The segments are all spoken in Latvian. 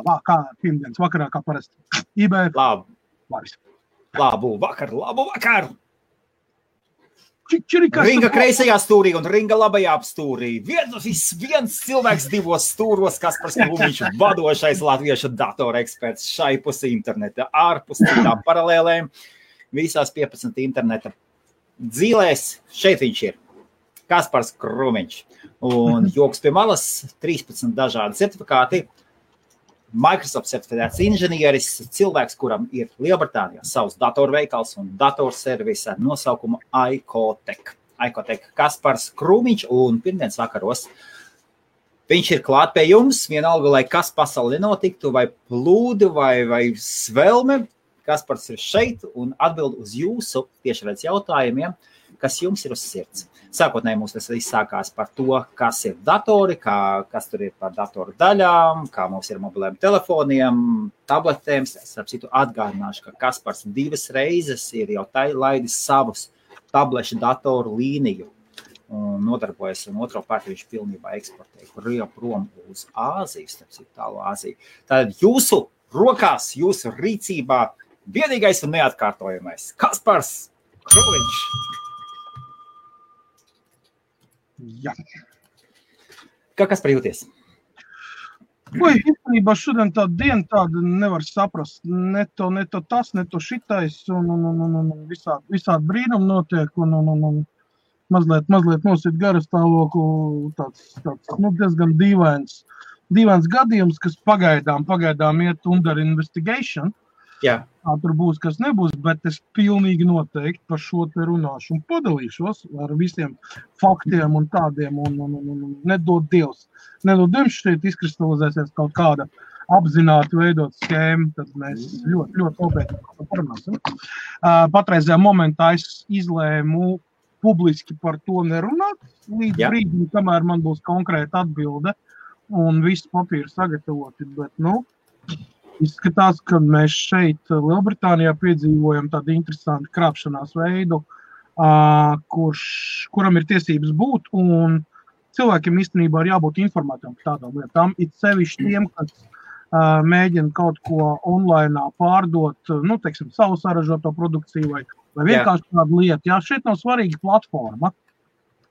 kā pirmdienas vakarā, kā parasti. eBay. Labu vakar! Ringa kreisajā stūrī un ringa labajā stūrī. Viens cilvēks divos stūros, Kaspars Krūmiņš, vadošais latviešu datora eksperts šai pusi interneta, ārpus citām paralēlēm, visās 15 interneta dzīlēs. Šeit viņš ir, Kaspars Krūmiņš. Un joks pie malas, 13 dažādi certifikāti. Microsoft certificēts inženieris, cilvēks, kuram ir Lielbritānijā savs datorveikals un datorservis ar nosaukumu iCotec. iCotec Kaspars Krūmiņš un pirmdienas vakaros viņš ir klāt pie jums, vienalga, lai kas pasauli nenotiktu, vai plūdi, vai svelme. Kaspars ir šeit un atbild uz jūsu tiešraidz jautājumiem, kas jums ir uz sirds. Sākotnēji mums tas viss sākās par to, kas ir datori, kas tur ir par datoru daļām, kā mums ir mobiliem telefoniem, tabletēm. Es atgādināšu, ka Kaspars 2 reizes ir jau laidis savus tablešu datoru līniju un nodarbojas, un otro pārti viņš pilnībā eksportē prom uz Āziju, tālu Āziju. Tātad jūsu rokās, jūsu rīcībā vienīgais un neatkārtojamais Kaspars Krūmiņš. Jā. Kas par jūties? Īstenībā šodien tāda diena tāda nevar saprast. Ne to tas, ne to šitais, un visādi brīnumi notiek, un mazliet nosit garu stāvokli, tāds diezgan dīvains gadījums, kas pagaidām iet under investigation. Jā. Tur būs, kas nebūs, bet es pilnīgi noteikti par šo te runāšu un padalīšos ar visiem faktiem un tādiem, un nedod Dievs šeit izkristalizēsies kaut kāda apzināti veidot schēma, tad mēs ļoti nopietni parunāsim. Patreizajā momentā es izlēmu publiski par to nerunāt, līdz brīdim, kamēr man būs konkrēta atbilde un viss papīri sagatavoti, bet, izskatās, ka mēs šeit Lielbritānijā piedzīvojam tādu interesantu krāpšanās veidu, kuram ir tiesības būt, un cilvēkiem īstenībā ir jābūt informētiem par tādām lietām. It sevišķi tiem, kas mēģina kaut ko online pārdot, savu saražoto produkciju vai vienkārši tādu lietu. Jā, šeit nav svarīga platforma.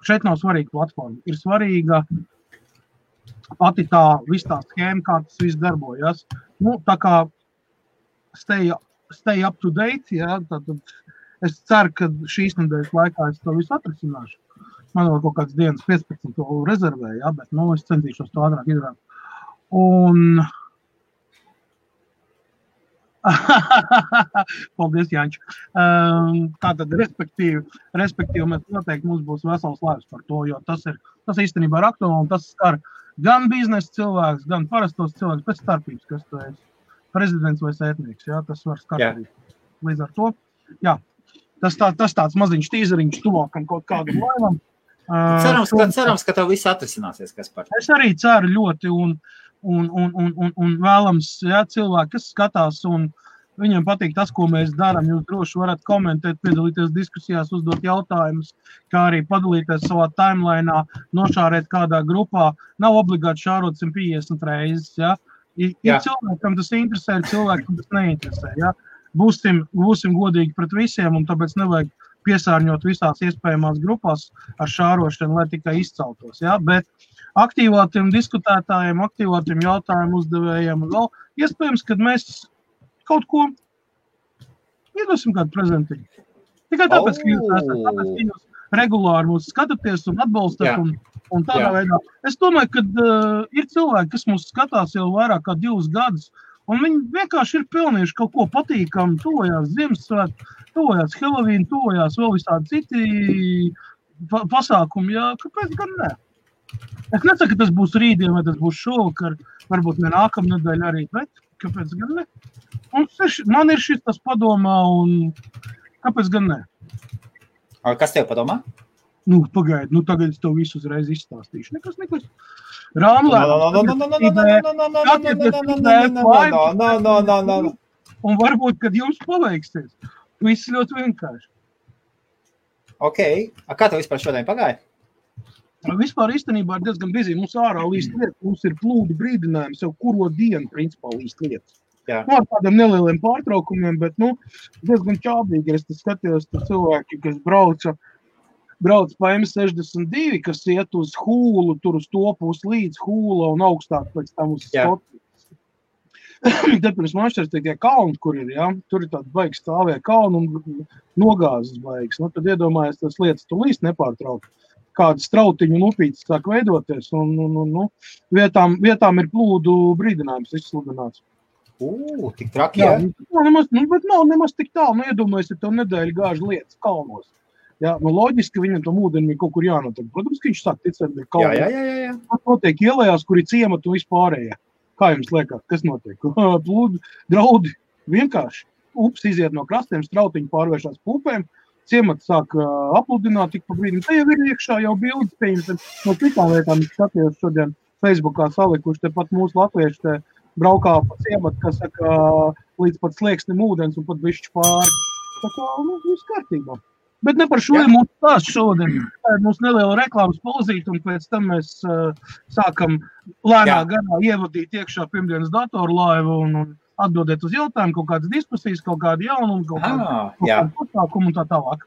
Ir svarīga pati viss tā schēma, kā tas viss darbojas. Tā kā stay up to date, jā, tad es ceru, ka šīs nedēļas laikā es to visu atrisināšu. Man vēl kaut kāds dienas 15 to rezervēju, jā, bet, es centīšos to ātrāk izdarīt. Un... Paldies, Jāņš. Tātad, respektīvi, mēs noteikti mums būs vesels laiks par to, jo tas īstenībā ir aktuāli, un tas skar gan biznesa cilvēks, gan parastos cilvēks, pēc starpības, kas tu esi prezidents vai sētnieks, jā, tas var skatīt. Līdz ar to, jā, tas tāds maziņš tīzeriņš tuvākam kaut kādam laivam. Cerams, ka tev viss atrisināsies, Kaspar. Es arī ceru ļoti, un vēlams, jā, cilvēki, kas skatās, un viņiem patīk tas, ko mēs darām, jūs droši varat komentēt, piedalīties diskusijās, uzdot jautājumus, kā arī padalīties savā timelainā, nošārēt kādā grupā. Nav obligāti šārot 150 reizes, jā. Ir cilvēkam tas interesē, ir cilvēkam tas neinteresē, jā. Būsim godīgi pret visiem, un tāpēc nevajag piesārņot visās iespējamās grupās ar šārošanu, lai tikai izceltos, jā. Bet aktīvātiem diskutētājiem, aktīvātiem jautājumu uzdevējiem, vēl iespējams, kad mēs kaut ko iedosim kādu prezentīju. Tikai tāpēc, ka jūs esat, tāpēc, ka jūs regulāri mūs skatāties un atbalstat un tādā veidā. Es domāju, ka ir cilvēki, kas mūs skatās jau vairāk kā 2 gadus, un viņi vienkārši ir pelnījuši kaut ko patīkamu, tojās Ziemassvētku, tojās Halloween, tojās vēl visādi citi pasākumi, jā, kāpēc gan ne? Es nesaku, ka tas būs rītdien vai tas būs šovakar, varbūt ne nākamnedēļ arī, bet kāpēc gan ne? Un man ir šis tas padomā, un kāpēc gan ne? Kas tev padomā? Pagaidi, tagad es tev visu uzreiz izstāstīšu. Nekas. Rāmlē. Un varbūt, kad jums paveiksies, viss ļoti vienkārši. Ok. Kā tev vispār šodien pagāja? Vispār īstenībā ir diezgan bizī. Mums ārā līst lietas, mums ir plūdu brīdinājums jau kuro dienu, principā, līst lietas. Jā. Ar tādiem nelieliem pārtraukumiem, bet, diezgan čābīgi. Es skatījos, tur cilvēki, kas brauc pa M62, kas iet uz Hūlu, tur uz to pusi līdz Hūla un augstāk pēc tam uz Skotu. Te pirms mašķers tie kalni, kur ir, ja? Tur ir tādi baigi stāvie kalni un nogāzes baigas. Tad iedomājies, tas lietas tu līst nepārtraukt. Kāda strautiņu un upītes sāk veidoties un vietām ir plūdu brīdinājums izsludināts. Tik traki, jā? Bet nav nemaz tik tālu. Iedomājies, ja tev nedēļu gāž lietas kalnos. Jā, loģiski viņam tam ūdenim kaut kur jānotiek. Protams, ka viņš sāk ticēt, bet kalnos. Jā. Tas notiek ielējās, kur ir ciemata un vispārējā. Kā jums liekas, kas notiek? Plūdi, draudi, vienkārši. Ups iziet no krastiem, strautiņi pārvēršās pupēm, ciemats sāk apludināt tik pa brīdim. Te jau ir iekšā jau bildes, pieņemsim, no citām lietām skatījos šodien Facebookā salikuši, te pat mūsu latvieši te braukā pa ciematu, kas saka, līdz pat slieksnim ūdens un pat bišķi pāri. Tā kā, viss kārtībā. Bet ne par šo ir mūsu stāsts šodien. Tā ir mūsu neliela reklāmas pauzīte, un pēc tam mēs sākam lēnā garā ievadīt iekšā pirmdienas datorlaivu un atbildēt uz jautājumu, kaut kādas diskusijas, kaut kādu jaunumu, kaut kādu pasākumu un tā tālāk.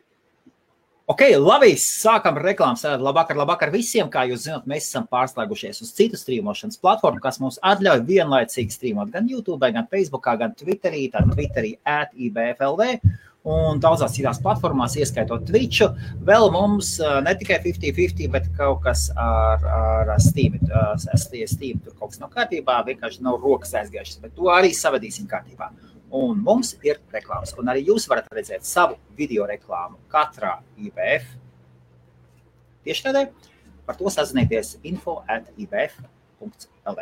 Ok, labi, sākam reklāmas. Labvakar visiem. Kā jūs zināt, mēs esam pārslēgušies uz citu strīmošanas platformu, kas mums atļauj vienlaicīgi strīmot gan YouTube, gan Facebookā, gan Twitterī, @IBFLV. Un daudzās citās platformās, ieskaitot Twitchu, vēl mums ne tikai 50-50, bet kaut kas ar Steam. Steam tur kaut kas nav kārtībā, vienkārši nav rokas aizgājušas, bet to arī savadīsim kārtībā. Un mums ir reklāmas, un arī jūs varat redzēt savu video reklāmu katrā IBF tiešraidē. Par to sazinieties info@ibf.lv.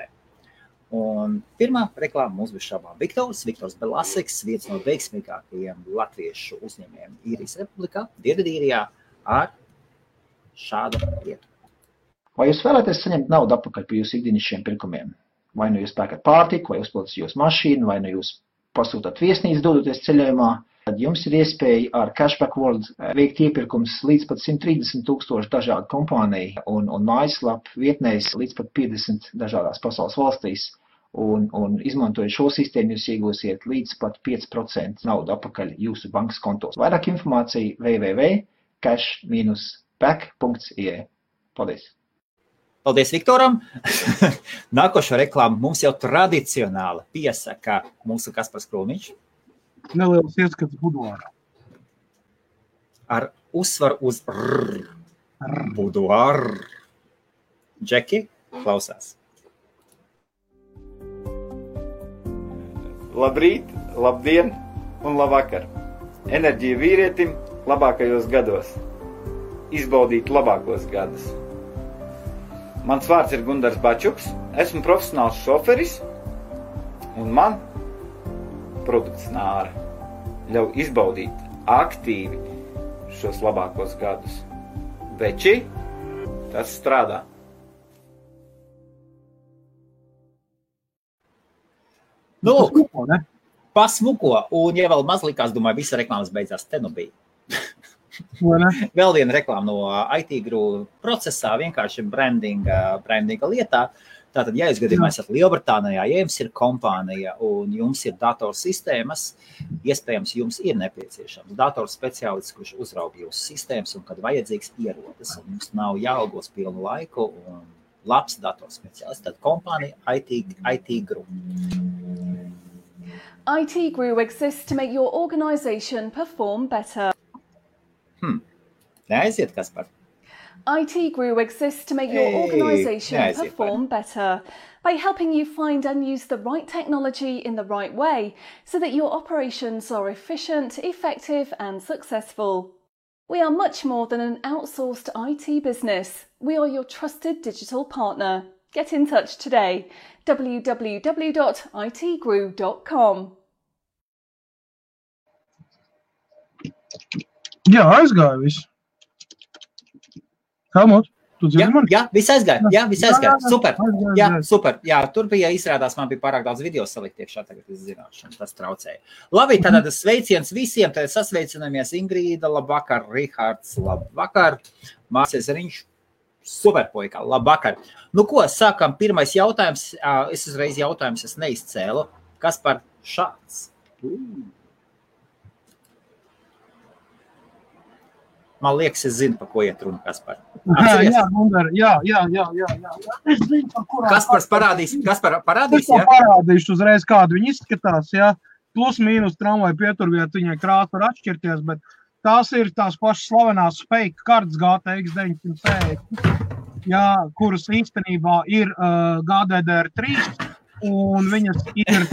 Un pirmā reklāma mums bija šābām Viktors Belasiks, viens no veiksmīgākajiem latviešu uzņēmējiem Īrijas Republikā, Dienvidīrijā, ar šādu lietu. Vai jūs vēlaties saņemt naudu atpakaļ par jūsu ikdienišķiem pirkumiem? Vai nu jūs pērkat pārtiku, vai uzpildat jūsu mašīnu, vai nu jūs pasūtāt viesnīcu dodoties ceļojumā, tad jums ir iespēja ar Cashback World veikt iepirkums līdz pat 130,000 dažādu kompāniju un mājaslapu vietnēs līdz pat 50 dažādās pasaules valstīs. Un izmantojot šo sistēmu, jūs iegūsiet līdz pat 5% naudu atpakaļ jūsu bankas kontos. Vairāk informācija www.cash-back.ie. Paldies! Paldies Viktoram! Nākošo reklāmu mums jau tradicionāli piesaka mūsu Kaspars Krūmiņš. Neliels ieskats buduārā. Ar uzsvaru uz buduāru. Džeki, klausās. Labrīt, labdien un labvakar. Enerģija vīrietim labākajos gados. Izbaudīt labākos gadus. Mans vārds ir Gundars Bačuks, esmu profesionāls šoferis un man produkts Nāra ļauj izbaudīt aktīvi šos labākos gadus. Veči, tas strādā. Nu, pasmuko, un ja vēl maz likās, domāju, visa reklāmas beidzās, te nu bija. Vēl viena reklāma no IT Group procesā, vienkārši brandinga lietā. Tātad, ja jūs gadījumā esat Lielbritānijā, ja jums ir kompānija un jums ir datorsistēmas, iespējams, jums ir nepieciešams datorspeciālists, kurš uzraug jūsu sistēmas un, kad vajadzīgs, ierodas. Un jums nav jāalgos pilnu laiku un labs datorspeciālists. Tad kompānija IT Group. IT Group exists to make your organisation perform better. Neaiziet, Kaspar. IT Group exists to make your organisation perform better by helping you find and use the right technology in the right way so that your operations are efficient, effective and successful. We are much more than an outsourced IT business. We are your trusted digital partner. Get in touch today. www.itgrew.com. Jā, aizgāja viss. Helmut, tu dzirdi mani? Jā, viss aizgāja. Super. Jā, super. Jā, tur bija izrādās, man bija pārāk daudz video salikt iekšā, tagad es zināšu, tas traucēja. Labi, tad sveiciens visiem, tad sasveicinamies Ingrīda, labvakar, Rihards, labvakar, Mācies Riņš, Superpuika, labvakar. Nu ko, sākam pirmais jautājums. Es uzreiz jautājums, es neizcēlu. Kas par šāds? Man liekas, es zinu, pa ko iet runa, Kaspar. Jā, Gunter, jā. Es zinu, par kurām. Kaspars parādīs, Es jā? parādīšu uzreiz, kādu viņi izskatās, jā. Plus mīnus tramvaju pieturviet, viņai krāsa var atšķirties, bet tās ir tās pašas slavenās fake kartes GTX 960, jā, kuras īstenībā ir GDDR3, un viņas ir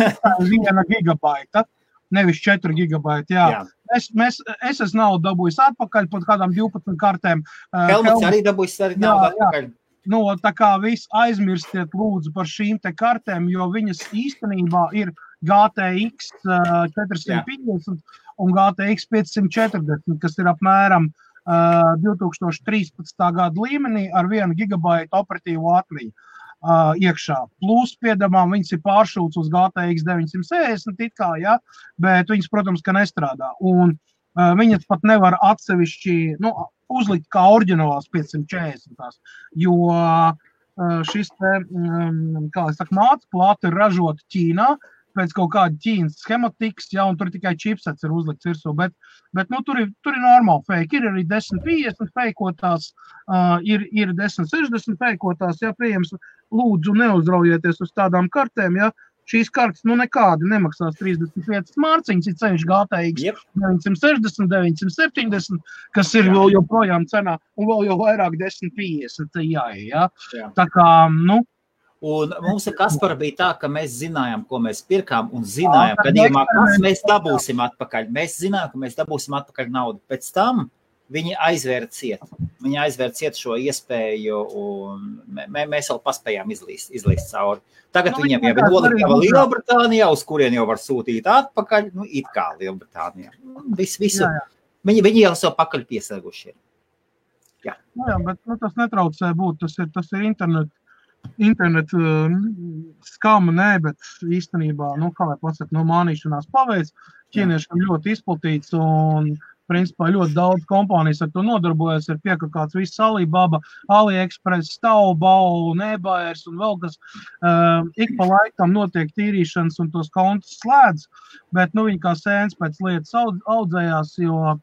1 gigabaita, nevis 4 gigabaiti, jā. Es esmu naudu dabūjis atpakaļ pat kādām 12 kartēm. Helmuts arī dabūjis naudu atpakaļ. Nu, tā kā viss aizmirstiet lūdzu par šīm te kartēm, jo viņas īstenībā ir GTX 450 un GTX 540, kas ir apmēram 2013. Gada līmenī ar 1 gigabaitu operatīvu atmiņu iekšā. Plus, piedamām, viņas ir pāršūts uz GTX 960, it kā, ja, bet viņas, protams, ka nestrādā. Un viņas pat nevar atsevišķi uzlikt kā oriģinālās 540, jo šis te, kā es saku, mācplāte ir ražota Ķīnā, pēc kaut kāda Ķīnas schematikas, ja, un tur tikai chipsets ir uzlikts virsū, bet tur ir normāli fake. Ir arī 1050 feikotās, ir 1060 feikotās, ja, pieejams, lūdzu neuzraujieties uz tādām kartēm, ja, šīs kartes, nekādi nemaksās 35 mārciņas, ir ceļš GTX 960, 970, kas ir vēl joprojām cenā, un vēl jau vairāk 1050, jā. Tā kā, Un mums ar Kasparu bija tā, ka mēs zinājām, ko mēs pirkām, un zinājām, gadījumā, kas mēs dabūsim atpakaļ. Mēs zinājām, ka mēs dabūsim atpakaļ naudu. Pēc tam viņi aizvēra ciet. Viņi aizvēra ciet šo iespēju, un mēs vēl paspējām izlīst cauri. Tagad viņiem jau ir noliktava Lielbritānijā, uz kurien jau var sūtīt atpakaļ, it kā Lielbritānijā. Visu. Viņi jau savu pakaļ piesēguši ir. Jā, bet tas netraucē būt, tas ir internet skama, bet īstenībā, kā lai pasaka, mānīšanās paveic, ķīniešiem ļoti izplatīts un, principā, ļoti daudz kompānijas ar to nodarbojas, ir piekakāts viss Alibaba, AliExpress, Taobao, eBayers un vēl kas, ik pa laikam notiek tīrīšanas un tos kontus slēdz, bet, viņi kā sēns pēc lietas audzējās, jo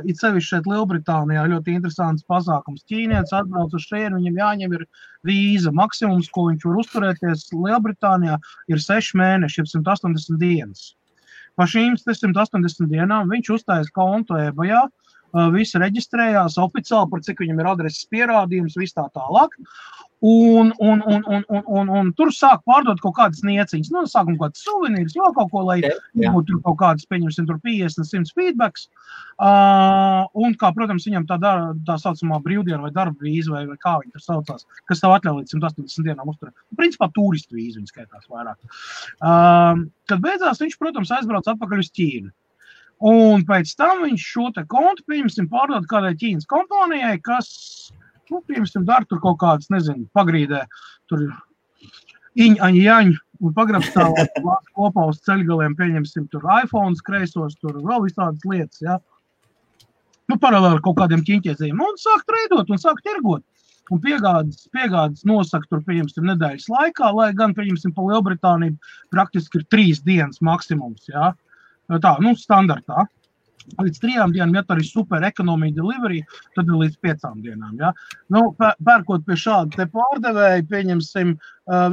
it sevišķi šeit Lielbritānijā ļoti interesants pasākums. Ķīnietis atbrauc uz šeit, viņam jāņem ir vīza. Maksimums, ko viņš var uzturēties Lielbritānijā, ir 6 mēneši, 180 dienas. Pa šīm 180 dienām viņš uzstājas kontu eBayā, visi reģistrējās oficiāli, par cik viņam ir adreses pierādījums, viss tā tālāk. Un tur sāk pārdot kaut kādas nieciņas. Sākam kādas suvenīras, vēl kaut ko, lai būtu tur kaut kādas, pieņemsim, tur 50-100 feedbacks. Un kā, protams, viņam tā saucamā brīvdiena vai darba vīza vai kā viņi tur saucās, kas tev atļauj līdz 180 dienām uzturēt. Principā turistu vīza viņi skaitās vairāk. Kad beidzās, viņš, protams, aizbrauc atpakaļ uz Ķīnu. Un pēc tam viņš šo te kontu, pieņemsim, pārdot kādai Ķīnas kompānijai, kas pieņemsim, dara tur kaut kādas, nezinu, pagrīdē, tur jaņu un pagrabstāvā kopā uz ceļgaliem, pieņemsim, tur iPhones kreisos, tur vēl visādas lietas, ja. Paralēli kaut kādiem ķiņķiezējiem. Un sāk treidot un sāk tirgot. Un piegādes nosaka tur, pieņemsim, nedēļas laikā, lai gan, pieņemsim, pa Lielbritāniju praktiski ir 3 dienas maksimums, ja. Tā, standartā. Līdz 3 dienām, ja tā ir super ekonomija delivery, tad ir līdz 5 dienām. Ja? Pērkot pie šāda te pārdevēja, pieņemsim,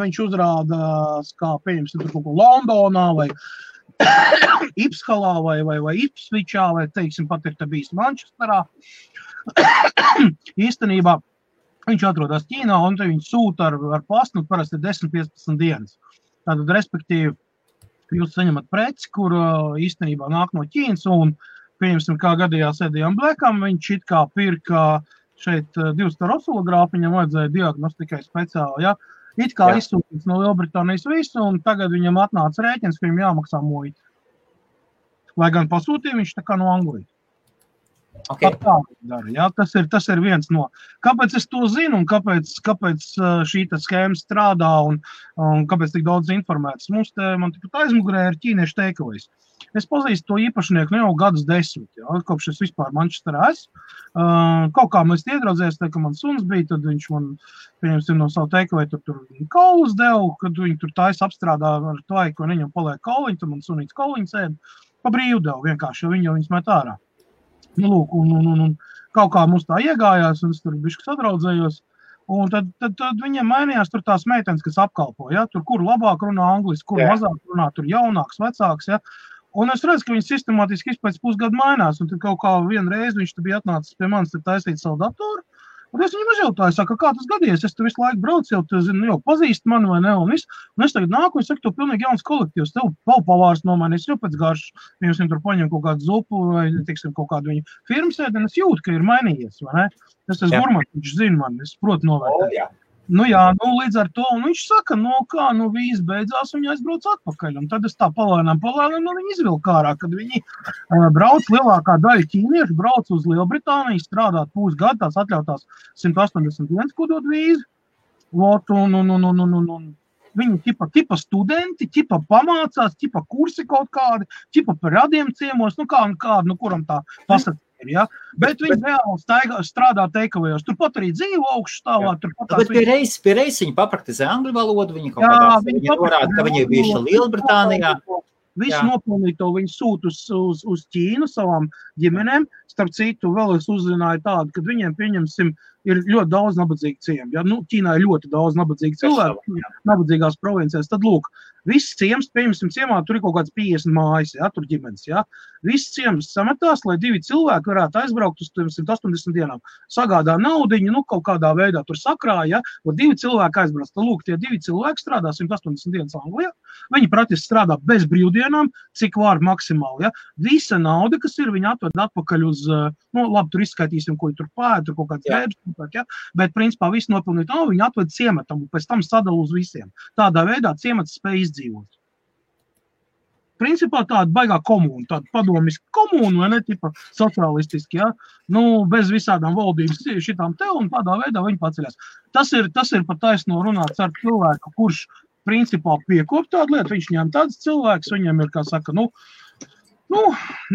viņš uzrādās, kā pieņemsim, tur kaut ko Londonā vai Ipshalā vai Ipsvičā, vai, teiksim, pat ir te bijis Manchesterā. Īstenībā viņš atrodas Ķīnā, un te viņš sūta ar pastu, parasti 10-15 dienas. Tātad, respektīvi, jūs saņemat preci, kur īstenībā nāk no Ķīnas, un pieņemsim, kā gadījās Edijam Blekam, viņš it kā pirka šeit 2 oscilogrāfu, viņam vajadzēja diagnostikai speciāli, ja? It kā izsūtīts no Lielbritānijas visu, un tagad viņam atnāca rēķins, ka viņam jāmaksā muita. Lai gan pasūtīja viņš tā kā no Anglijas. Okay. Ja? Tas ir viens no. Kāpēc es to zinu un kāpēc šī schēma strādā un kāpēc tik daudz informētas? Man tikpat aizmugurē ir ķīniešu takeaways. Es pazīstu to īpašnieku jau gadus 10, ja? Kopš es vispār Manchesterā esmu. Kaut kā mēs iedraudzēs, ka man suns bija, tad viņš man, pieņemsim, no savu takeaway tur kaulus devu, kad viņi tur taisa apstrādā ar tvaiku, un viņam paliek kauliņi, tad man sunīts kauliņi sēd, pa brīvu devu vienkārši, jo viņas met ārā. Nu, lūk, un kaut kā mums tā iegājās, un es tur bišķi sadraudzējos, un tad viņiem mainījās tur tās meitenes, kas apkalpo, ja, tur kur labāk runā angliski, kur mazāk runā, tur jaunāks, vecāks, ja, un es redzu, ka viņi sistemātiski pēc pusgadu mainās, un tad kaut kā vienreiz viņš bija atnācis pie manis taisīt savu datoru, un es viņam uzjautāju, saka, kā tas gadījies, es tu visu laiku braucu, jau pazīst mani vai ne, un es tagad nāku, es saku, tu pilnīgi jauns kolektīvs, tev pavārs nomainīs, jau pēc garšas, viņam tur paņem kaut kādu zupu vai, teiksim, kaut kādu viņu firmas ēdienu, es jūtu, ka ir mainījies, vai ne? Es gurmans, viņš zina man, es protu novērtēt. Nu jā, līdz ar to, un viņš saka, vīz beidzās, un viņi aizbrauc atpakaļ, un tad es tā palēnām, viņi izvilka ārā, kad viņi brauc lielākā daļa ķīniešu, brauc uz Lielbritāniju, strādāt pusgadu, tās atļautās 181, ko dod vīzi, un viņi ķipa studenti, ķipa pamācās, ķipa kursi kaut kādi, ķipa par radiem ciemos, kuram tā pasaka. Ja? Bet viņi reāli strādā takeawayos. Turpat arī dzīvo augšstāvā. Bet pie reizes viņi papraktizē angļu valodu, viņi kaut kādā viņi norāda, ka viņi ir bijuši Lielbritānijā. Visu nopelnīto viņi sūt uz Ķīnu savām ģimenēm. Starp citu, vēl es uzzināju tādu, ka viņiem, pieņemsim, ir ļoti daudz nabadzīgu ciemu. Ja? Ķīnā ir ļoti daudz nabadzīgu cilvēku, nabadzīgās provincēs. Tad, lūk, viss ciems, pieņemsim, ciemā, tur ir kaut kāds 50 mājas, ja? Tur ģimenes. Ja? Viss ciems sametās, lai 2 cilvēki varētu aizbraukt uz 180 dienām. Sagādā naudiņu, kaut kādā veidā tur sakrāja, ja? 2 cilvēki aizbrauc. Tad, lūk, tie 2 cilvēki strādā 180 dienas Anglijā. Viņi praktiski strādā bez brīvdienām, cik var maksimāli. Ja? Visa nauda, kas ir, viņi atved atpakaļ uz, labi, tur izskaitīsim, ko tur pēd, tur kaut kāds drēbs, ja? Bet, principā, visu nopelnīt naudu, viņi atved ciematam un pēc tam sadala uz visiem. Tādā veidā ciemats spēj izdzīvot. Principā tāda baigā komūna, tāda padomiska komūna, vai ne, tipa sociālistiski, ja? Bez visādām valdības šitām te, un tādā veidā viņi paceļās. Tas ir pat taisno runāts ar cilvēku, kurš principā piekop tādu lietu, viņš ņem tāds cilvēks, viņam ir, kā saka,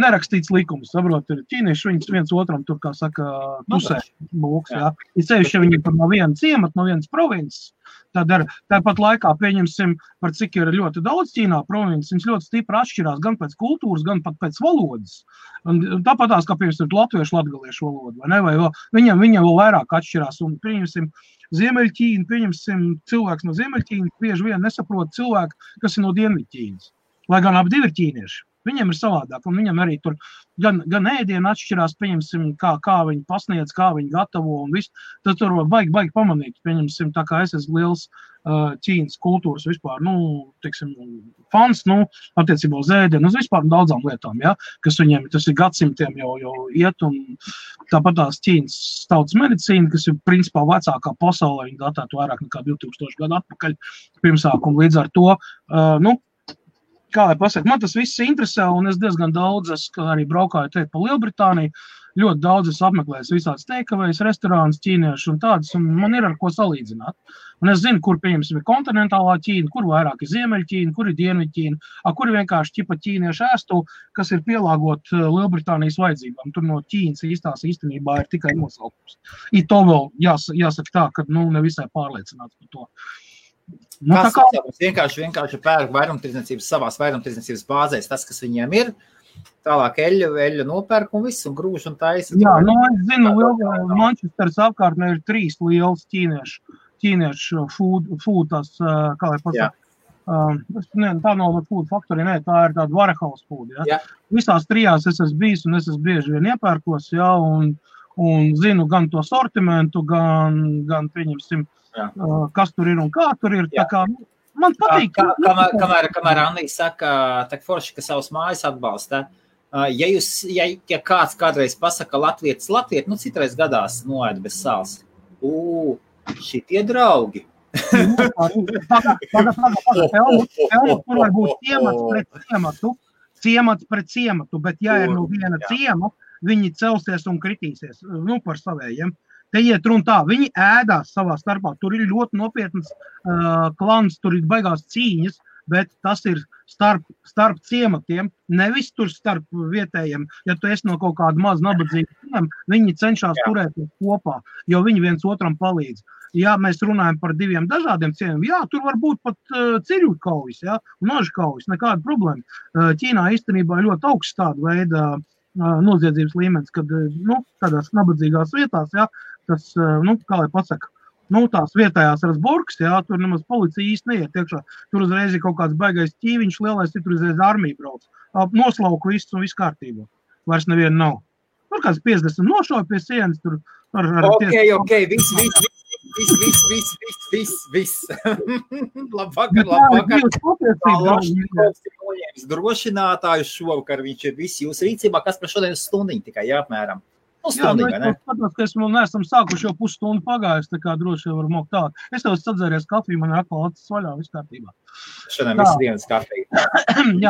nerakstīts likums, saprot, ir ķīnieši, viņas viens otram tur, kā saka, pusē būks, jā. Ir sevišķi, ja viņi tur no viena ciemata, no vienas provinces, tad tāpat laikā pieņemsim, par cik ir ļoti daudz Ķīnā provinces, viņas ļoti stipri atšķirās gan pēc kultūras, gan pat pēc valodas. Un tāpatās, kā piemēram, latviešu, latgaliešu valoda, vai ne, vai viņam vēl vairāk atšķirās, un pieņemsim, Ziemeļķīna, pieņemsim, cilvēks no Ziemeļķīnas bieži vien nesaprot cilvēku, kas ir no Dienvidķīnas, lai gan abi divi ir ķīnieši. Viņiem ir savādāk, un viņam arī tur gan ēdienu atšķirās, pieņemsim, kā viņi pasniedz, kā viņi gatavo un viss. Tad tur baigi pamanīt, pieņemsim, tā kā es esmu liels Ķīnas kultūras vispār, teiksim, fans, attiecībā uz ēdienu, uz vispār daudzām lietām, ja, kas viņiem, tas ir gadsimtiem jau iet, un tāpat tās Ķīnas tautas medicīna, kas ir principā vecākā pasaulē, viņi datētu vairāk nekā 2000 gadu atpakaļ pirmsākumu, līdz ar to, kā lai pasaka, man tas viss interesē, un es diezgan daudz, arī braukāju te pa Lielbritāniju, ļoti daudz es apmeklēju visādas takeaways, restorānus, ķīniešu un tādas, un man ir ar ko salīdzināt. Un es zinu, kur, pieņemsim, ir kontinentālā Ķīna, kur vairāk ir Ziemeļķīna, kur ir Dienvidķīna, kur ir vienkārši ķipa ķīniešu ēstu, kas ir pielāgot Lielbritānijas vajadzībām. Tur no Ķīnas īstenībā ir tikai nosaukums. To vēl jāsaka tā, ka nevisai pārliecināts par to. Vienkārši pērk vairumtirdzniecības savās vairumtirdzniecības bāzēs, tas, kas viņiem ir, tālāk eļļu nopērk un viss, un grūž un taisa. Jā, es zinu, Manchesteras apkārtnē ir 3 lielas ķīniešu food, tās, kā lai pasaka, tā nav food factory, tā ir tāda warehouse food, ja. Visās 3 es esmu bijis, un es esmu bieži vien iepērkos, ja, un zinu gan to sortimentu, gan pieņemsim, kas tur ir un kā tur ir. Tā kā, man patīk. Kamēr Annija saka, tak forši, ka savas mājas atbalsta, ja kāds kādreiz pasaka latvietis, citreiz gadās noēd bez sāls. Šitie draugi. Tur var būt ciemats pret ciematu, bet ja ir no viena ciema, viņi celsies un kritīsies, par savējiem. Te iet runa tā, viņi ēdās savā starpā, tur ir ļoti nopietnas klans, tur ir baigās cīņas, bet tas ir starp ciematiem, nevis tur starp vietējiem. Ja tu esi no kaut kāda maz nabadzīga ciem, viņi cenšas turēties kopā, jo viņi viens otram palīdz. Ja mēs runājam par diviem dažādiem ciemiem, tur var būt pat cirju kaujas, nožu kaujas, nekāda problēma. Ķīnā īstenībā ir ļoti augsts tāda veida noziedzības līmenis, kad tādās nabadzīgās vietās, tas, kā lai pasaka, tās vietējās rasburgas, tur nemaz policija īsti neiet iekšā. Tur uzreiz ir kaut kāds baigais ķīviņš, lielais, tur uzreiz armija brauc. Noslauku viss un viss kārtībā. Vairs neviena nav. Tur kāds 50 nošauja pie sienas, tur Ok, viss. Labvakar. Drošinātājs šovakar, viņš ir viss jūsu rīcībā, kas par šodien stundiņu tikai, apmēram. Stundiņu, vai ne? Skatās, ka esmu neesam sākuši jau pusstundu pagājis, tā kā droši var mokt tā. Es tev sadzēries kafiju, man ir atkal acis vaļā, viss kārtībā. Šodien visu dienas kafiju.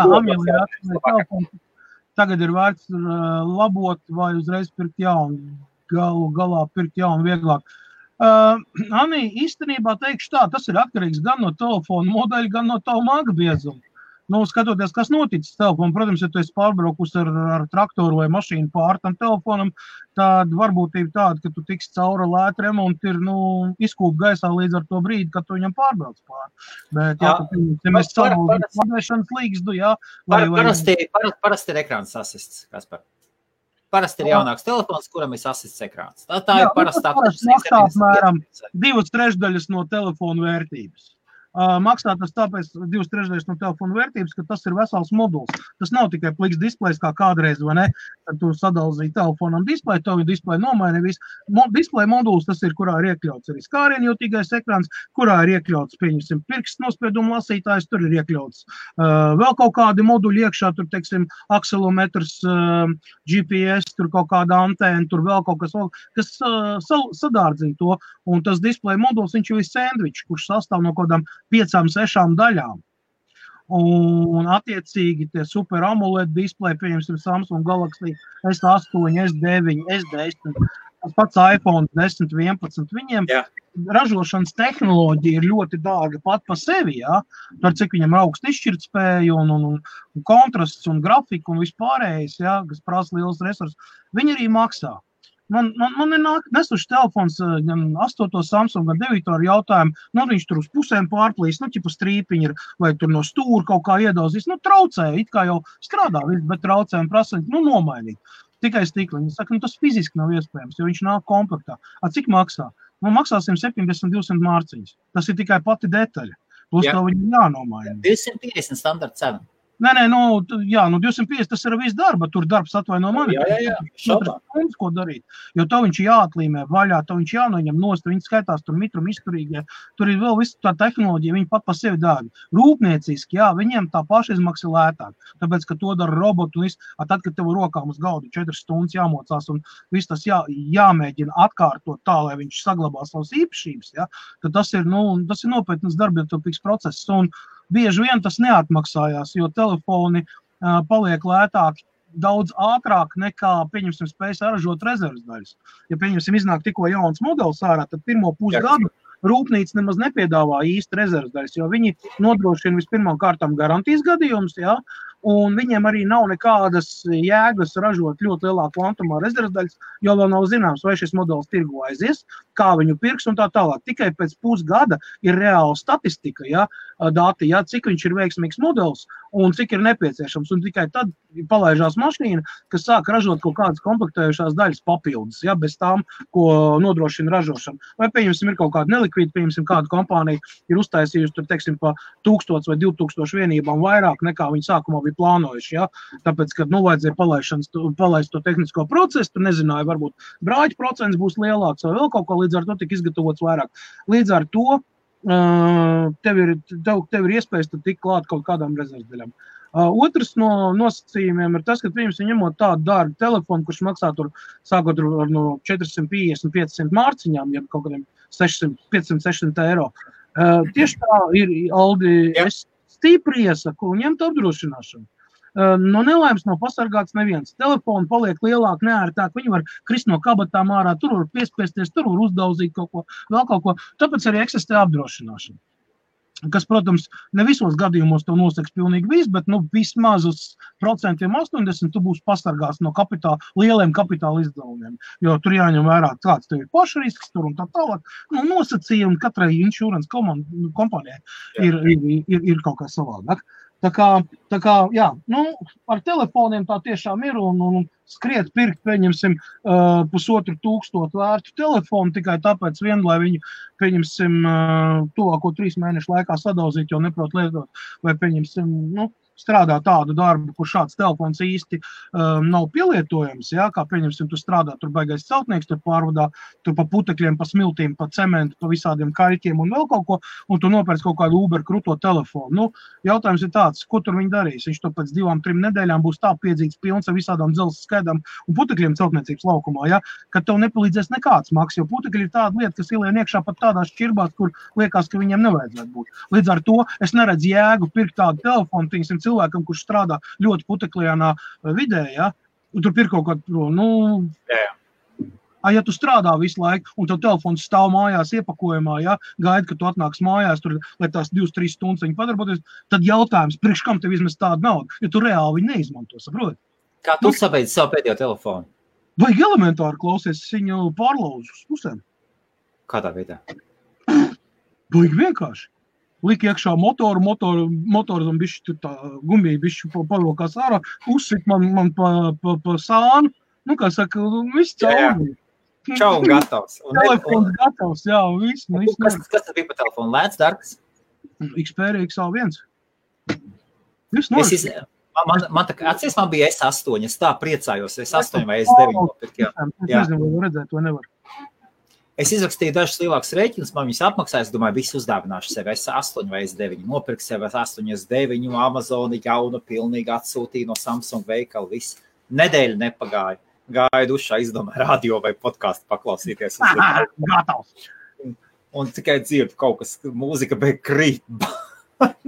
Amīlija atvēlēt telefonu. Tagad ir vērts labot vai uzreiz pirkt jaunu. Galā pirkt jaunu vieglāk. Anī, īstenībā teikšu tā, tas ir atkarīgs gan no telefona modeļa, gan no tavu maga biezuma. Skatoties, kas noticis telefonu, protams, ja tu esi pārbraukus ar traktoru vai mašīnu pār tam telefonam, tad varbūtība tāda, ka tu tiksi cauri lēta remonti ir, izkūp gaisā līdz ar to brīdi, kad tu viņam pārbrauc pār. Bet, ja mēs savaldīt pārvēšanas līgstu, Parasti ir ekrāns asists, Kaspar. Parasti ir jaunāks telefons, kuram ir asists ekrāns. Tā ir parastā. Maksā apmēram 2/3 no telefonu vērtības. Maksā tas tāpēc 2/3 no telefona vērtības, ka tas ir vesels moduls. Tas nav tikai pliks displejs kā kādreiz, vai ne? Tad tu sadalzīji telefonam displeju, to viņa displeju nomaini visu. Displeja moduls tas ir, kurā ir iekļauts arī skārienjūtīgais ekrāns, kurā ir iekļauts, pieņemsim, pirkstu nospiedumu lasītājs, tur ir iekļauts vēl kaut kādi moduļi iekšā, tur, teiksim, akselometrs, GPS, tur kaut kāda antēna, tur vēl kaut kas sadārdzina to. Un tas displeja moduls, viņš jau ir sandvičs, kurš sastāv no kādām 5-6 daļām. Un attiecīgi tie super AMOLED displeji, pieņemsim Samsung Galaxy S8, S9, S10, tas pats iPhone 10, 11, viņiem ražošanas tehnoloģija ir ļoti dārga pat pa sevi, par cik viņam augsta izšķirtspēja un kontrasts un grafika un vispārējais, kas prasa liels resursus, viņi arī maksā. Man ir nesuši telefons gan 8. Samsung, gan 9. ar jautājumu, viņš tur uz pusēm pārplīs, ķipa strīpiņi ir, vai tur no stūra kaut kā iedauzīs, traucē, it kā jau strādā, bet traucē un prasa, nomainīt. Tikai stikliņi. Saka, tas fiziski nav iespējams, jo viņš nāk komplektā. Cik maksā? Maksā 170-200 mārciņas. Tas ir tikai pati detaļa. Plus to viņi jānomaina. 250 standarta cena. Nē, 250 tas ir viss darba, tur darbs atvaino mani. Ko darīt, jo to viņš jāatlīmē vaļā, to viņš jānoņem nost, viņi skaitās tur mitrum izturīgie, tur ir vēl visu tā tehnoloģija, viņi pat pa sevi dārgi. Rūpnieciski, viņiem tā pašizmaksa lētāk, tāpēc, ka to dara robotu un tad, kad tev rokām uz galdu 4 stundas jāmocās un viss tas jāmēģina atkārtot tā, lai viņš saglabā savas īpašības, tad tas ir nopietnas darbietilpīgs process un bieži vien tas neatmaksājās, jo telefoni paliek lētāki daudz ātrāk nekā, pieņemsim, spēj saražot rezerves daļas. Ja, pieņemsim, iznāk tikko jauns modelis ārā, tad pirmo pusgadu rūpnīca nemaz nepiedāvā īsti rezerves daļas, jo viņi nodrošina vispirmām kārtām garantijas gadījumus, un viņiem arī nav nekādas jēgas ražot ļoti lielā kvantumā rezerves daļas, jo vēl nav zināms, vai šis modelis tirgu aizies, kā viņu pirks un tā tālāk. Tikai pēc pusgada ir reāla statistika, dati, cik viņš ir veiksmīgs modelis un cik ir nepieciešams. Un tikai tad palaižās mašīna, kas sāk ražot kaut kādas komplektējušās daļas papildus, bez tām, ko nodrošina ražošana. Vai, pieņemsim, ir kaut kāda nelikvīda, pieņemsim, kāda kompānija ir uztaisījusi, tur, teiksim, pa 1000 vai 2000 vienībām vairāk nekā viņi sākumā bija plānojuši, tāpēc, kad, vajadzēja palaist to tehnisko procesu, tur nezināja, varbūt brāļu procents būs lielāks vai vēl kaut ko, līdz ar to tika izgatavots vairāk. Līdz ar to tev ir iespējas tikt klāt kaut kādām rezervdaļām. Otrs no nosacījumiem ir tas, ka viņam ņemot tādu dārgu telefonu, kurš maksā tur sākot no 450-500 mārciņām, ja kaut kādiem 500-600 eiro. Tieši tā ir, Aldi, es stipri iesaku ņemt apdrošināšanu. no nelaimes nav pasargāts neviens. Telefoni paliek lielāk, neērtāk, viņi var krist no kabatām ārā, tur var piespiesties, tur var uzdauzīt kaut ko, vēl kaut ko. Tāpēc arī eksistē apdrošināšana. Kas, protams, ne visos gadījumos to noseks pilnīgi viss, bet vismaz uz 80% tu būsi pasargāts no lieliem kapitāla izdevumiem. Jo tur jāņem vērā, kāds tev ir pašrisks tur un tā tālāk. Nosacījumi katrai insurance kompānijai ir kaut kā savādāk. Tā kā, jā, ar telefoniem tā tiešām ir un skriet pirkt, pieņemsim, 1500 vērtu telefonu tikai tāpēc vien, lai viņu, pieņemsim, tuvāko 3 mēnešu laikā sadauzīt, jo neprot lietot, vai pieņemsim, strādā tādu darbu, kur šāds telefons īsti nav pielietojams, jā, kā pieņemsim, tu strādā, tur baigais celtnieks, tur pārvadā, tur pa putekļiem, pa smiltīm, pa cementu, pa visādiem kaļķiem un vēl kaut ko, un tu nopērc kaut kādu Uber kruto telefonu. Jautājums ir tāds, ko tur viņi darīs? Viņš to pēc 2-3 nedēļām būs tā piedzīts pilns ar visādām dzelzs skaidām un putekļiem celtniecības laukumā, ja, ka tev nepalīdzēs nekāds maks, jo putekļi ir tāda lieta, kas ielien iekšā pat tādās šķirbās, kur liekas, ka viņiem nevajadzētu būt. Līdz ar to es neredzu jēgu pirkt tādu telefonu, cilvēkam, kurš strādā ļoti puteklienā vidē, ja, un tur ir kaut kāda, ja tu strādā visu laiku, un tev telefons stāv mājās iepakojumā, ja, gaida, ka tu atnāks mājās, tur, lai tās 2-3 stundas viņi padarboties, tad jautājums, priekš kam tev izmest tādu naudu, jo tu reāli viņu neizmanto, saproti? Kā tu sabeidzi savu pēdējo telefonu? Vajag elementāri klausies, es viņu pārlauzu uz pusēm. Kādā veidā? Vajag vienkārši. Lika iekšā motoru un bišķi tur tā gumija bišķi pavilkās ārā, uzsit man pa sānu, kā saka, viss cauri. Čau, un gatavs. Telefons gatavs, jā, un viss. Kas tas bija pa telefonu? Lēts, dārgs? Xperia XA1. Viss Man tā, atcies, man bija S8, es tā priecājos, S8 vai S9. Es nezinu, vai redzēt, vai nevar. Es izrakstīju dažus lielākus rēķinus, man viņus apmaksāju, es domāju, visu uzdāvināšu sev S8 vai S9. Nopirku sev S8, S9, Amazoni jaunu pilnīgi atsūtīju no Samsung veikala, viss. Nedēļa nepagāja. Gāju dušā, izdomāju radio vai podcastu paklausīties. Gatavs. Un tikai dzirdu kaut kas, mūzika beig krīt.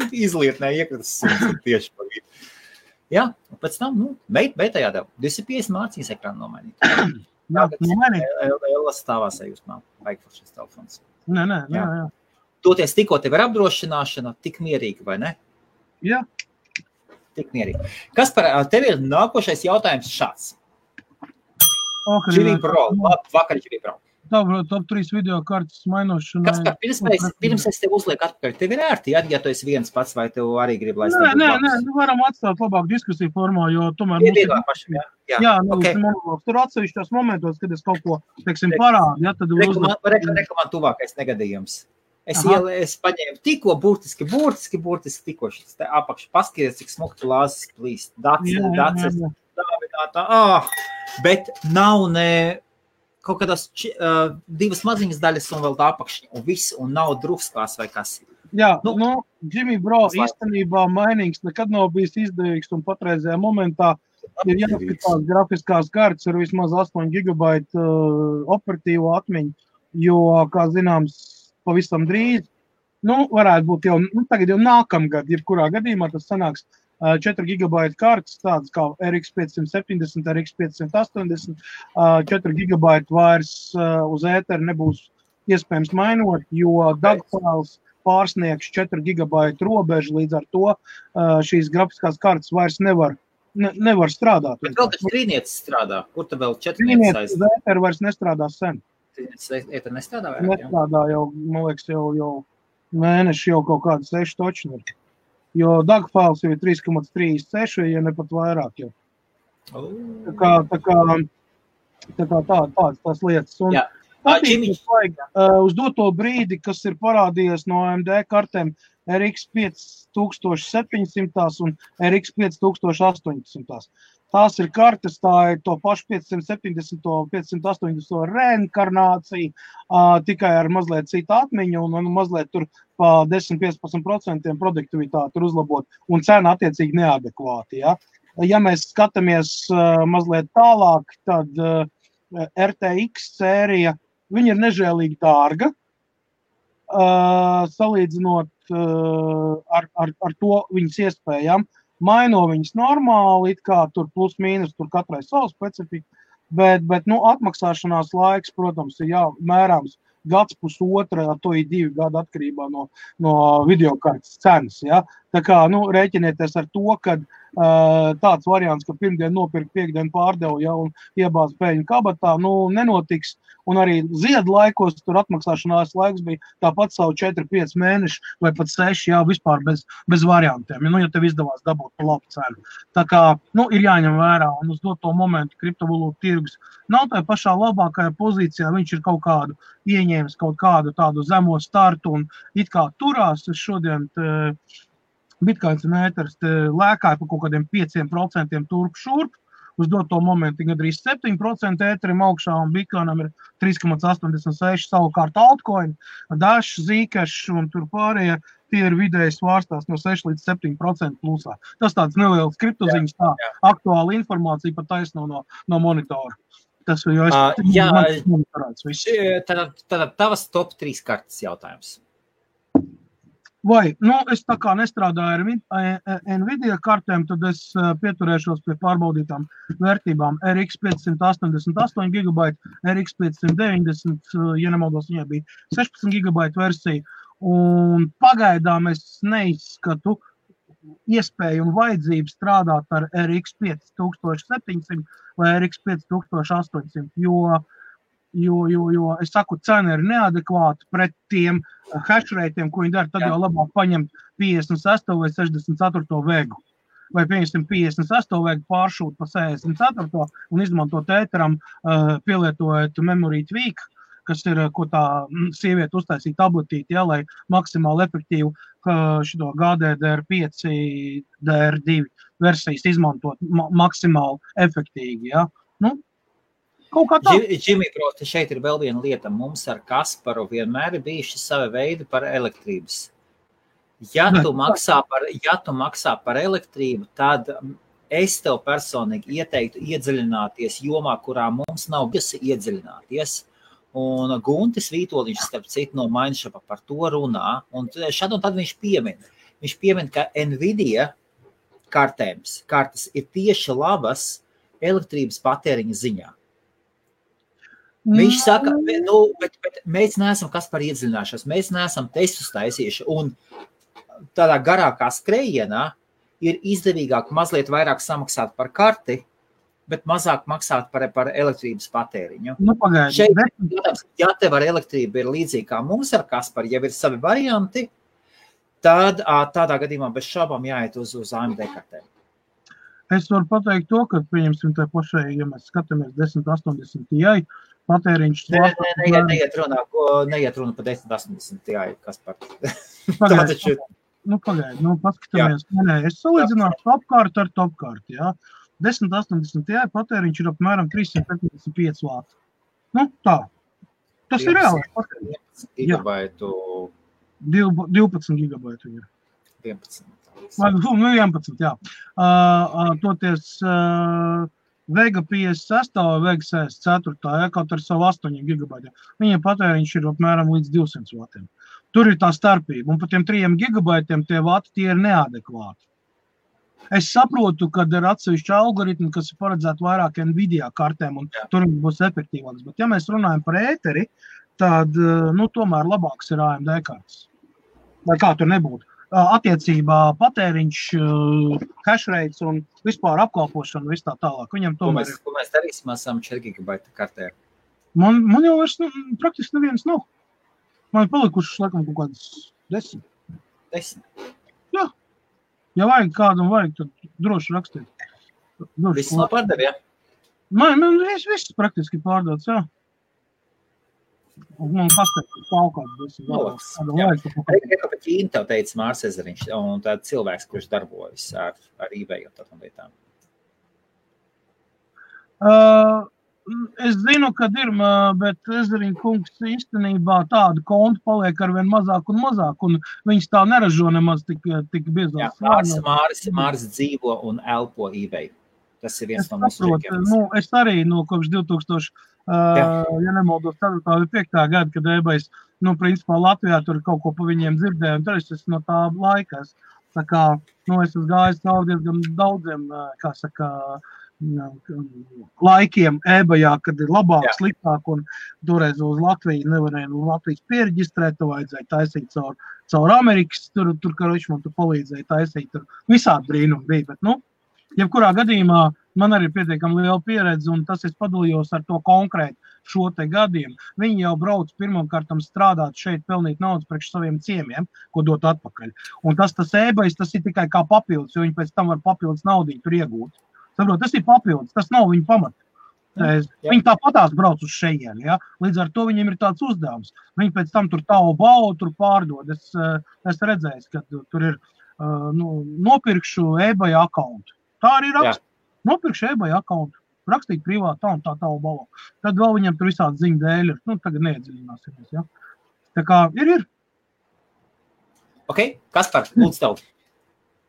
Izlietnē iekratas suns tieši pa vidu. Jā, un pēc tam, beitā jādēv. 250 mārciņas ekrānu nomainīt. Jā, Lielas stāvās ejūsmā, vajag šis telefons. Nē. Toties tikko tev ir apdrošināšana, tik mierīgi, vai ne? Jā. Tik mierīgi. Kas par tevi ir nākošais jautājums šāds? Jimmy Pro, vakar Jimmy Pro. Top 3 video kartas mainošanai. Kas par pirms es tev uzlieku atpakaļ? Tev ir ērti, ja tu esi viens pats, vai tev arī grib, lai es tev Nē, varam atstāt labāk diskusiju formā, jo tomēr tur atsevišķos momentos, kad es kaut ko, teiksim, parādu, ja, tad Reklamā tuvākais negadījums. Es paņēmu tikko burtiski tikko šis te apakšu paskaties, cik smukti lāzes plīst. Dacis, bet nav ne kaut kādās 2 maziņas daļas un vēl tā apakšņa, un viss, un nav drufskās vai kas. Jā, Jimmy Bro īstenībā mainīgs nekad nav bijis izdevīgs, un patreizajā momentā ir jāskatās grafiskās kartes ar vismaz 8 GB operatīvo atmiņu, jo, kā zināms, pavisam drīz, varētu būt jau, tagad jau nākamgad, jebkurā gadījumā tas sanāks 4 GB kartes, tādas kā RX 570, RX 580, 4 GB vairs uz ēteru nebūs iespējams mainot, jo dagfiles pārsniegs 4 GB robežu, līdz ar to šīs grafiskās kartes vairs nevar strādāt. Bet vēl tas trīnietis strādā, kur tu vēl 4 trīnietis uz ēteru vairs nestrādā sen. Ēteru nestrādā vairāk, nestrādā jau, man liekas, jau mēneši jau kaut kāda 6 točni ir. Jo dagfiles jau ir 3,36, ja ne pat vairāk jau. Tā kā tās lietas. Un uz doto brīdi, kas ir parādījies no AMD kartēm RX 5700 un RX 5800. Tās ir kartes, tā ir to pašu 570, 580 reinkarnācija, tikai ar mazliet citu atmiņu un mazliet tur pa 10-15% produktivitāti ir uzlabot un cena attiecīgi neadekvāti. Ja mēs skatāmies mazliet tālāk, tad RTX sērija, viņa ir nežēlīgi dārga, salīdzinot ar to viņas iespējām. maino viņas normāli, it kā tur plus mīnus, tur katrai savu specifiku, bet atmaksāšanās laiks, protams, ir mērāms gads pusotra, to ir 2 gadi atkarībā no videokartes cenas, ja? Tā kā, rēķinieties ar to, ka tāds variants, ka pirmdien nopirkt, piekdien pārdevu, ja, un iebāz pēļņu kabatā, nenotiks, un arī ziedu laikos tur atmaksāšanās laiks bija tāpat savu 4-5 mēneši vai pat 6, jā, vispār bez variantiem, ja tev izdevās dabūt pa labu cenu. Tā kā, ir jāņem vērā, un uz doto momentu kriptovalūtu tirgus nav tajā pašā labākajā pozīcijā, viņš ir kaut kādu ieņēmis kaut kādu tādu zemo startu, un it kā turās, es šodien Bitcoins un ēters lēkāja pa kaut kādiem 5% turp šurp, uz doto momentu gandrīz 7% ēterim augšā, un Bitcoinam ir 3,86, savukārt altcoin, Dash, Zcash un tur pārējie, tie ir vidēji svārstās no 6 līdz 7% plusā. Tas tāds neliels kriptoziņas, tā aktuāla informācija pat taisno no monitora. Tas ir jau monitorāts viss. Tad tavas top 3 kartes jautājums. Vai, es tā kā nestrādāju ar Nvidia kartēm, tad es pieturēšos pie pārbaudītām vērtībām. RX 588 GB, RX 590, ja nemaldos, viņai bija 16 GB versija, un pagaidām es neizskatu iespēju un vajadzību strādāt ar RX 5700 vai RX 5800, jo es saku, cena ir neadekvāta pret tiem hashrateiem, ko viņi dara, tad jau labāk paņemt 56 vai 64 vegu. Vai, pieņemsim, 56 vegu pāršūt pa 64 un izmantot ēteram, pielietojot memory tweak, kas ir, ko tā sieviete uztaisīja tabletīti, ja, lai maksimāli efektīvu šito GDDR5, DR2 versijas izmantot maksimāli efektīgi, ja. Kaut kā tā. Džimī, proti, šeit ir vēl viena lieta. Mums ar Kasparu vienmēr ir bijuši savi veidi par elektrības. Ja tu maksā par elektrību, tad es tev personīgi ieteiktu iedziļināties jomā, kurā mums nav bijusi iedziļināties. Un Guntis Vītoliņš, starp citu, no Mindshop'a par to runā. Un šad un tad viņš piemin, ka Nvidia kartes ir tieši labas elektrības patēriņa ziņā. Viņš saka, bet mēs neesam kas par iedziļināšanos, mēs neesam testus taisījuši, un tādā garākā skrējienā ir izdevīgāk mazliet vairāk samaksāt par karti, bet mazāk maksāt par elektrības patēriņu. Šeit, ja tev ar elektrību ir līdzīgi kā mums ar Kasparu, ja ir savi varianti, tad tādā gadījumā bez šaubām jāiet uz AMD kartēm. Es varu pateikt to, ka, pieņemsim, tā pašai, ja mēs skatāmies 1080 Ti, patēriņš... Neiet runa pa 1080 Ti, Kaspar. Pagaid, paskatāmies. Es salīdzināšu topkārtu ar topkārtu, jā. 1080 Ti patēriņš ir apmēram 375 vāti. Tā. Tas ir reāli. 12 gigabaitu ir. 11. 11, jā. Toties Vega 56 vai Vega 64, kaut ar savu 8 gigabaitiem. Viņiem patēriņš ir apmēram līdz 200 vatiem. Tur ir tā starpība, un par tiem 3 gigabaitiem tie vati tie ir neadekvāti. Es saprotu, ka ir atsevišķi algoritmi, kas ir paredzēti vairāk Nvidia kartēm, un tur būs efektīvāks. Bet ja mēs runājam par ēteri, tad, tomēr labāks ir AMD kartes. Vai kā tur nebūtu. Attiecībā patēriņš, hashrates un vispār apkalpošana, viss tā tālāk. Viņam tomēr ko mēs darīsim, esam 4 gigabaita kartē? Man jau vairs praktiski nevienas nav. Man ir palikušas, laikam, kaut kādas 10. 10? Jā. Ja vajag kādam vajag, tad droši rakstīt. Viss nav pārdev, ja? Man viss praktiski pārdots, jā. Man pastāv kaut kāds. Reka pa Ķīnu tev teica Mārs Ezeriņš, un tāda cilvēks, kurš darbojas ar eBay un tādām lietām. Es zinu, kad ir, bet Ezeriņ kungs īstenībā tādu kontu paliek arvien mazāk un mazāk, un viņas tā neražo nemaz tik biezās. Jā, Mārs dzīvo un elpo eBay. Tas ir viens no mūsu rīkiem. Es arī kopš 2000, ja nemaldos 4. vai 5. gada, kad eBays, principā Latvijā tur kaut ko pa viņiem dzirdēju, un tad es no tā laika Tā kā, es esmu gājis cauri diezgan daudziem, kā saka, laikiem eBayā, kad ir labāk, sliktāk, un toreiz uz Latviju nevarēja Latvijas piereģistrēt, to vajadzēja taisīt caur Amerikas, tur karoči man tu palīdzēja taisīt, tur visādi brīnumi bija, bet, jebkurā gadījumā man arī ir pietiekami liela pieredze, un tas es padalījos ar to konkrēti šo te gadiem. Viņi jau brauc pirmkārtam strādāt šeit, pelnīt naudas priekš saviem ciemiem, ko dot atpakaļ. Un tas eBay, tas ir tikai kā papildus, jo viņi pēc tam var papildus naudiņu tur iegūt. Saprot, tas ir papildus, tas nav viņa pamats. Viņi tāpatās brauc uz šejieni, ja? Līdz ar to viņiem ir tāds uzdevums. Viņi pēc tam tur Taobao tur pārdod. Es redzēju, ka tur ir nopirkšu eBay akkauntu. Tā arī raksta. Nopirkšu eBay akkauntu. Rakstīt privāti tā un tā Taobao. Tad vēl viņam tur visādi ziņu dēļ ir. Tagad neiedziļināsimies, ja? Tā kā ir. Ok, Kaspar, lūdzu tev.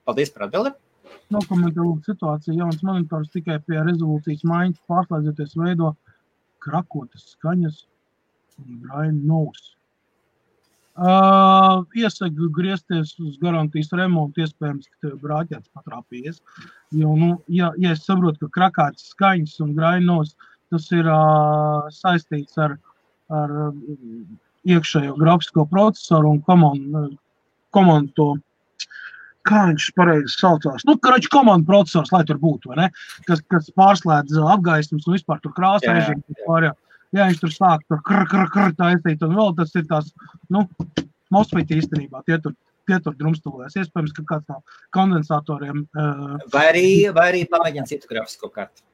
Paldies par atbildi. Nokomentē situāciju, jauns monitors tikai pie rezolūcijas maiņas pārslēdzoties veido krakotas skaņas un brainu nos. Iesaku griezties uz garantijas remontu, iespējams, ka tev brāķēts patrāpījies. Jo, ja es saprotu, ka krakātas skaņas un brainu nos, tas ir saistīts ar iekšējo grafisko procesoru un komandu to, kā viņš pareizi saucās. Komandu procesors, lai tur būtu, vai ne? Kas pārslēdz apgaismas un vispār tur krāsa režīmu. Ja viņš tur sāk tur taisīt, un vēl tas ir tās, MOSFET īstenībā, tie tur drumstalojas. Iespējams, ka kāds no kondensatoriem... Vai arī pamēģina citu grafisko karti?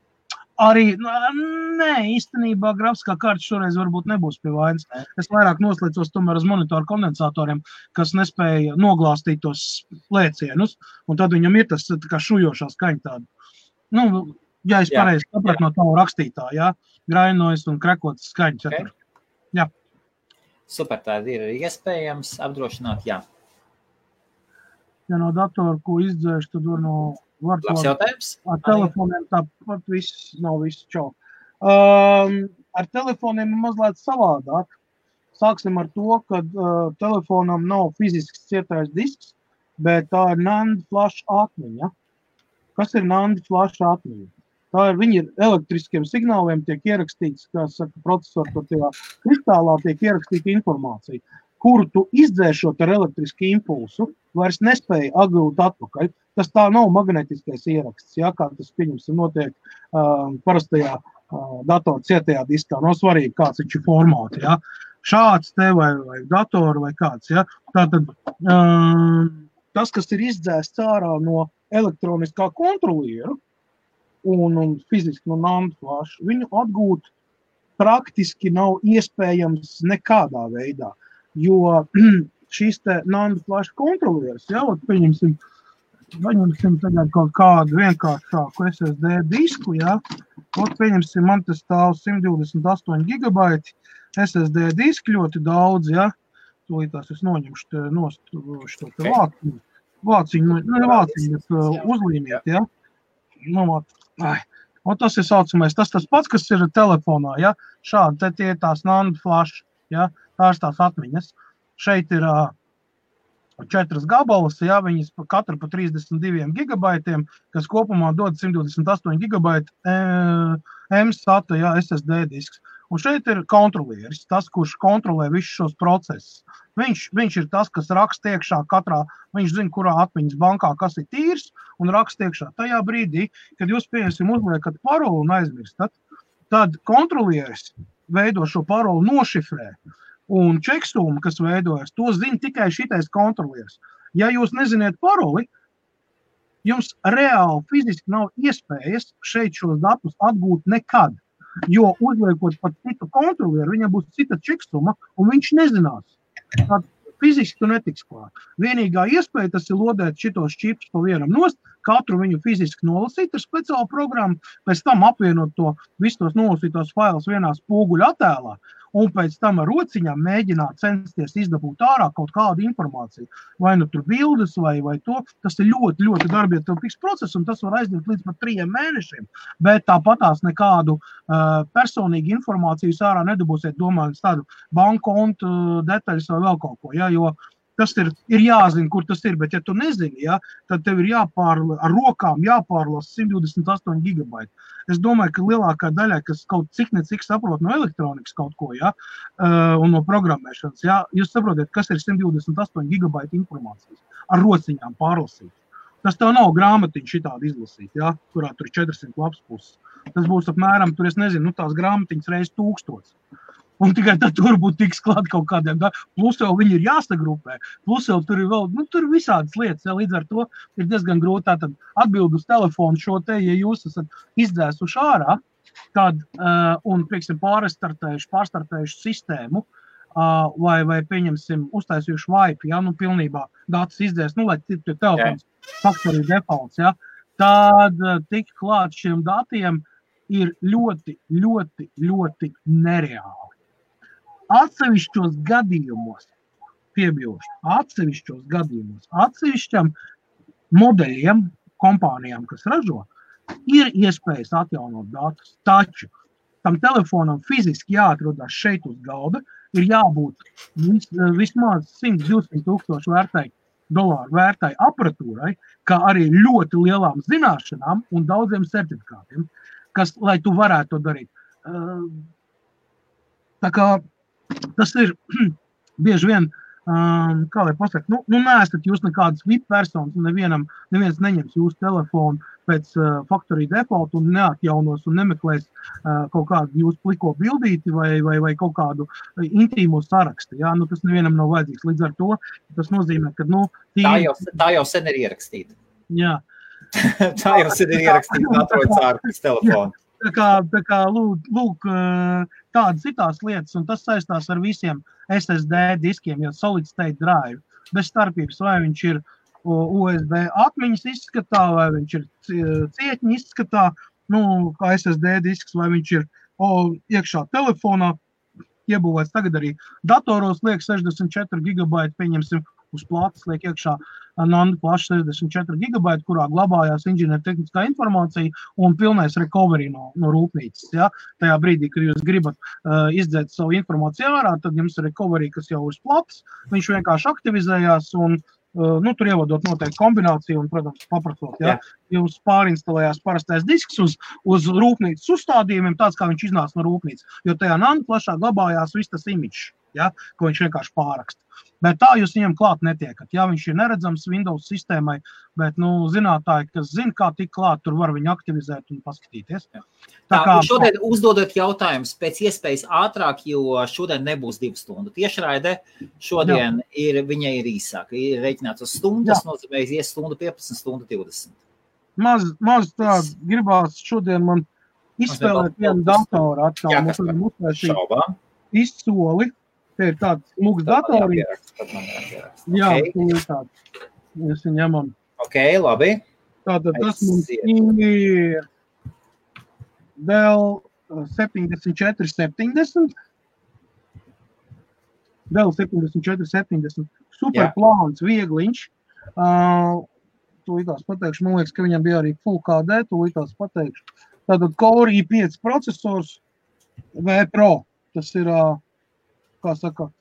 Arī, nē, īstenībā grafiskā karta šoreiz varbūt nebūs pie vainas. Es vairāk noslēdzos tomēr uz monitoru kondensatoriem, kas nespēja noglāstīt tos lēcienus, un tad viņam ir tas tā kā šujošā skaņa tāda. Ja es pareizi sapratu no tavu rakstītā, jā, grainojas un krakotas skaņas. Okay. Jā. Super, tā ir iespējams apdrošināt, jā. Ja no datora, ko izdzēš, tad var Labs jautājums. Ar telefoniem tāpat nav viss čau. Ar telefoniem ir mazliet savādāk. Sāksim ar to, ka telefonam nav fizisks cietais disks, bet tā ir NAND flash atmiņa. Kas ir NAND flash atmiņa? Viņi ir elektriskiem signāliem, tiek ierakstīts, kā saka, procesoru tajā kristālā tiek ierakstīta informācija, kuru tu izdzēšot ar elektrisku impulsu, vairs nespēja atgūt atpakaļ. Tas tā nav magnetiskais ieraksts, ja, kā tas, pieņemsim, notiek parastajā datora cietajā diskā. Nav svarīgi, kāds viņš ir formāts, ja. Šāds te vai datoru vai kāds, ja. Tātad tas, kas ir izdzēsts ārā no elektroniskā kontrolieru un fiziski no NAND flash, viņu atgūt praktiski nav iespējams nekādā veidā, jo šīs te NAND flash kontrolieris, ja, pieņemsim tagad kaut kādu vienkāršāku SSD disku, ja, pieņemsim, man tas stāv 128 gigabaiti SSD diski ļoti daudz, ja, tūlītās es noņemšu šo te vāciņu, bet uzlīmiet, ja, un tas ir saucamais, tas pats, kas ir telefonā, ja, šādi, tie ir tās NAND flash, ja, tās atmiņas, šeit ir 4 gabalas, ja, viņas katru pa 32 gigabaitiem, kas kopumā dod 128 gigabaiti M-SATA, ja, SSD disks. Un šeit ir kontrolieris, tas, kurš kontrolē visus šos procesus. Viņš ir tas, kas raksta iekšā katrā, viņš zina, kurā atmiņas bankā, kas ir tīrs, un raksta iekšā. Tajā brīdī, kad jūs, pieņemsim, uzliekat paroli un aizmirstat, tad kontrolieris veido šo paroli nošifrē. Un čeksuma, kas veidojas, to zina tikai šitais kontrolieris. Ja jūs neziniet paroli, jums reāli fiziski nav iespējas šeit šos datus atgūt nekad. Jo uzliekot pat citu kontrolieru, viņam būs cita čeksuma, un viņš nezinās. Tad fiziski tu netiks klāt. Vienīgā iespēja tas ir lodēt šitos čipus pa vienam nost, katru viņu fiziski nolasīt ar speciālu programmu, pēc tam apvienot to visus tos nolasītos failus vienā spoguļa attēlā, un pēc tam ar rociņām mēģināt censties izdabūt ārā kaut kādu informāciju. Vai nu tur bildes vai to. Tas ir ļoti, ļoti darbietilpīgs process, un tas var aizņemt līdz pat 3 mēnešiem. Bet tāpatās nekādu personīgu informāciju ārā nedabūsiet, domājot tādu banku kontu detaļas vai vēl kaut ko. Ja? Jo tas ir jāzina, kur tas ir, bet ja tu nezini, ja, tad tev ir ar rokām jāpārlasa 128 gigabaiti. Es domāju, ka lielākā daļā, kas kaut cik saprot no elektronikas kaut ko, ja, un no programmēšanas, ja, jūs saprotiet, kas ir 128 gigabaiti informācijas ar rociņām pārlasīt. Tas tev nav grāmatiņa šitādi izlasīt, ja, kurā tur 400 lapas puses. Tas būs apmēram, tur es nezinu, tās grāmatiņas reiz 1000. Un tikai tad tur būtu tiks klāt kaut kādiem, plus jau viņi ir jāsagrupē, plus jau tur ir vēl, tur ir visādas lietas, ja, līdz ar to ir diezgan grūti tātad atbild uz telefonu šo te, ja jūs esat izdzēsuši ārā, tad, un, prieksim, pārstartējuši sistēmu, vai pieņemsim, uztaisījuši Wi-Fi, ja, pilnībā datus izdzēs, lai telefons factory defaults, ja, tad tik klāt šiem datiem ir ļoti, ļoti, ļoti nereāli. Atsevišķos gadījumos, atsevišķam modeļiem, kompānijām, kas ražo, ir iespējas atjaunot datus, taču tam telefonam fiziski jāatrodās šeit uz galda, ir jābūt vismaz 100-200 tūkstoši dolāru vērtai aparatūrai, kā arī ļoti lielām zināšanām un daudziem certifikātiem, kas, lai tu varētu to darīt. Tā kā tas ir bieži vien, kā lai pasaka, neesat jūs nekādas VIP personas, neviens neņems jūsu telefonu pēc factory default un neatjaunos un nemeklēs kaut kādu jūsu pliko bildīti vai kaut kādu intīmo sarakstu. Ja? Tas nevienam nav vajadzīgs. Līdz ar to tas nozīmē, ka, tā jau sen ir ierakstīta. Jā. Tā jau sen ir ierakstīta un atrodas ārpus telefona. Tā kā lūk, tādas citās lietas, un tas saistās ar visiem SSD diskiem, jo solid state drive, bez starpības, vai viņš ir USB atmiņas izskatā, vai viņš ir cietņa izskatā, kā SSD disks, vai viņš ir iekšā telefonā, iebūvēts tagad arī datoros liek 64 gigabaiti, pieņemsim, uz plātas liek iekšā Nanda plašs 64 gigabaiti, kurā glabājās inženiertehniskā informācija un pilnais recovery no rūpnīcas. Ja? Tajā brīdī, kad jūs gribat izdzēt savu informāciju ārā, tad jums ir recovery, kas jau uz plātas, viņš vienkārši aktivizējās un tur ievadot noteikti kombināciju un, protams, paprasot, ja, jums pārinstalējās parastais disks uz rūpnīcas uzstādījumiem, tāds, kā viņš iznāca no rūpnīcas, jo tajā Nanda plašā glabājās viss tas imidžs, ja, ko viņš vienkārši pāraksta. Bet tā jūs viņam klāt netiekat. Jā, viņš ir neredzams Windows sistēmai, bet, zinātāji, kas zina, kā tik klāt, tur var viņu aktivizēt un paskatīties. Šodien uzdodot jautājumus pēc iespējas ātrāk, jo šodien nebūs 2 stundu. Tiešraide šodien viņai ir īsāka. Ir reiķināts uz stundu, tas nozīmē ies stundu 15, stundu 20. Maz tā gribās šodien man izspēlēt vienu datoru atkal. Mums varam uztaisīt izsoli. Te ir tāds mūks datorīgs. Jā, tāds. Mēs viņu ņemam. Ok, labi. Tātad tas mums ir Dell 7470. Dell 7470. Super plāns, viegliņš. Tūlītās pateikšu, man liekas, ka viņam bija arī Full HD, tūlītās pateikšu. Tātad Core i5 procesors V Pro. Tas ir kā saka,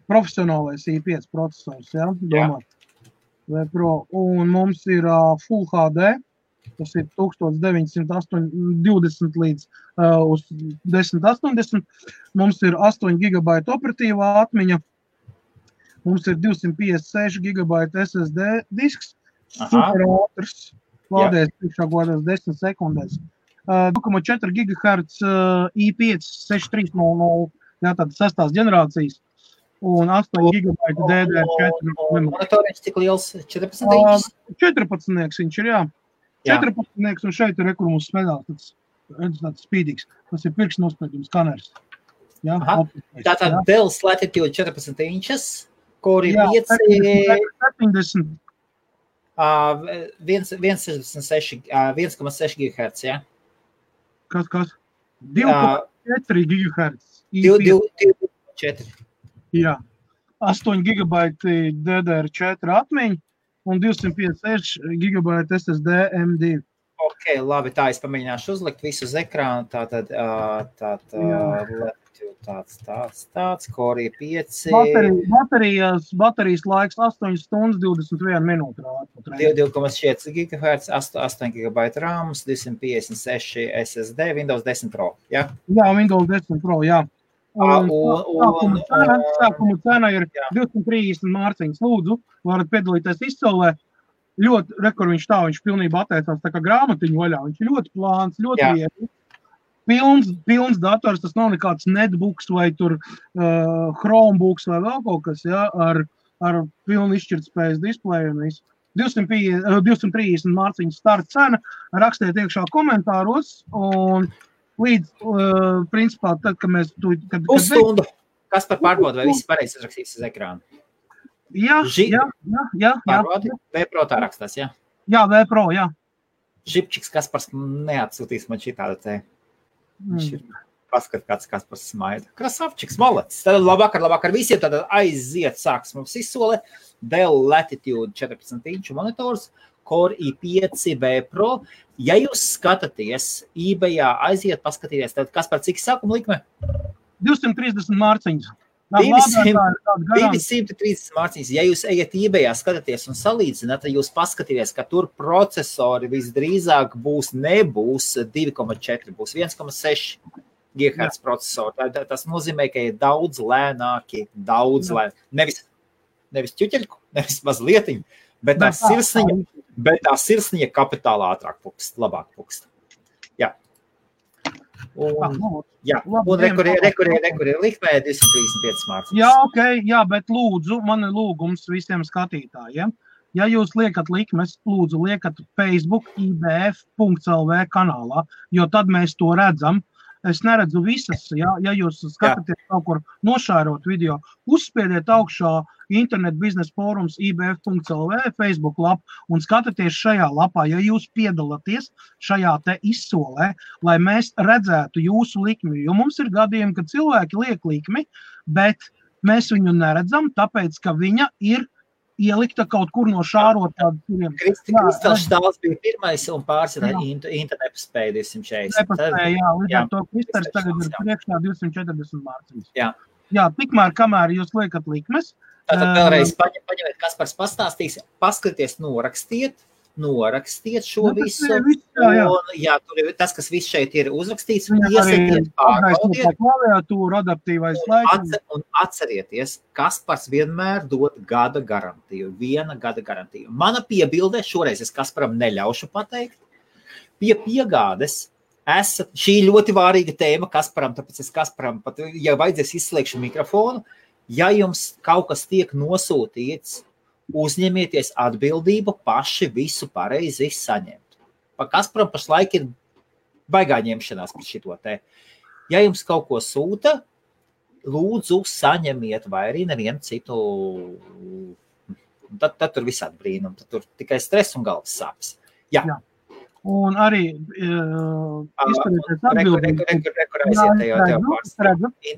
profesionālais i5 procesors, ja, domāt, V Pro, un mums ir Full HD, tas ir 1920 līdz uz 1080, mums ir 8 GB operatīvā atmiņa, mums ir 256 GB SSD disks, super ātrs, lādēs priekšā godās 10 sekundēs, 2,4 GHz i5 6300, jā, tāda 6. ģenerācijas, un 8 GB DDR4. Monitoriņš cik liels? 14 inčs? 14 viņš ir, jā. 14 un šeit ir, kur mums smedās, tāds spīdīgs. Tas ir pirkstnospēdījums skaners. Jā, tātad Dell's Latitude 14 inčs, Core i5 70. 1,6 GHz, jā? Kas? 2,4 GHz. 2,4. Jā. 8 GB DDR4 atmiņa un 256 GB SSD M2. Ok, Ok, labi, tā es pamēģināšu uzlikt visu uz ekrānu. Tātad, tāds, Korija 5. Baterijas laiks 8 stundas 21 minūte. 2,4 GHz, 8 GB RAM, 256 SSD, Windows 10 Pro, ja? Jā, Windows 10 Pro, jā. Sākuma cena ir 230 mārciņas. Lūdzu, varat piedalīties izsolē. Ļoti, viņš pilnībā atteicās tā kā grāmatiņu vaļā. Viņš ir ļoti plāns, ļoti viegli. Pilns dators, tas nav nekāds netbooks vai tur Chromebooks vai vēl kaut kas, ja, ar pilnu izšķirtspējas displeju un visu. 230 mārciņas starta cena, rakstiet iekšā komentāros un līdz, principā, tad, kad mēs... Pusstundu. Kas par pārbaudu, vai viss pareizi izrakstīts uz ekrānu? Jā. Pārbaudi, V-Pro tā rakstās, jā? Jā, V-Pro, jā. Žipčiks Kaspars neatsūtīs man šitāda te. Paskat, kāds Kaspars smaida. Krasavčiks, malacis. Tad labāk ar visiem, tad aiziet sāks mums izsole. Dell Latitude 14 inču monitors, Core i5 V-Pro. Ja jūs skatāties eBayā, aiziet paskatīties, tad Kaspar, cik sākuma likme? 230 mārciņas. 230 mārciņas. Ja jūs ejat eBayā, skatāties un salīdzināt, tad jūs paskatīties, ka tur procesori visdrīzāk nebūs 2,4, būs 1,6 GHz procesori. Tas nozīmē, ka ir daudz lēnāki, nevis ķuķeļku, nevis mazlietiņu, bet tā sirsniņa kapitāli ātrāk pukst, labāk pukst. Jā. Un rekurē likmē 235 mārciņas. Jā, ok, jā, bet lūdzu, man ir lūgums visiem skatītājiem. Ja jūs liekat likmes, lūdzu, liekat Facebook ibf.lv kanālā, jo tad mēs to redzam. Es neredzu visas, ja jūs skatāties kaut kur nošērot video, uzspiediet augšā Internet biznesa fórums ibf.lv Facebook lapu un skatāties šajā lapā, ja jūs piedalāties šajā te izsolē, lai mēs redzētu jūsu likmi, jo mums ir gadījumi, kad cilvēki liek likmi, bet mēs viņu neredzam, tāpēc, ka viņa ir ielikta kaut kur no šārotā. Kristals Štāls bija pirmais un pārsvarā internetu spēja 240. Jā, līdz ar to Kristals tagad ir priekšā 240 mārciņas. Jā, tikmēr, kamēr jūs liekat likmes. Tātad vēlreiz paņemiet, Kaspars pastāstīs, paskaties, norakstiet šo visu. Un, tur ir tas, kas viss šeit ir uzrakstīts, iesaietiet, pārbaudiet. Un atcerieties, Kaspars vienmēr dod gada garantiju, 1 gada garantiju. Mana piebilde, šoreiz es Kasparam neļaušu pateikt, pie piegādes šī ļoti vārīga tēma Kasparam, tāpēc es Kasparam pat, ja vajadzēs izslēgšu mikrofonu, ja jums kaut kas tiek nosūtīts, uzņemieties atbildību paši visu pareizi saņemt. Pa Kasparam pašlaik ir baigā ņemšanās par šito te. Ja jums kaut ko sūta, lūdzu saņemiet vai arī nevienu citu. Tad tur visādi brīnumi, tad tur tikai stress un galvas sāpes. Jā. Un arī izturieties atbildīgi.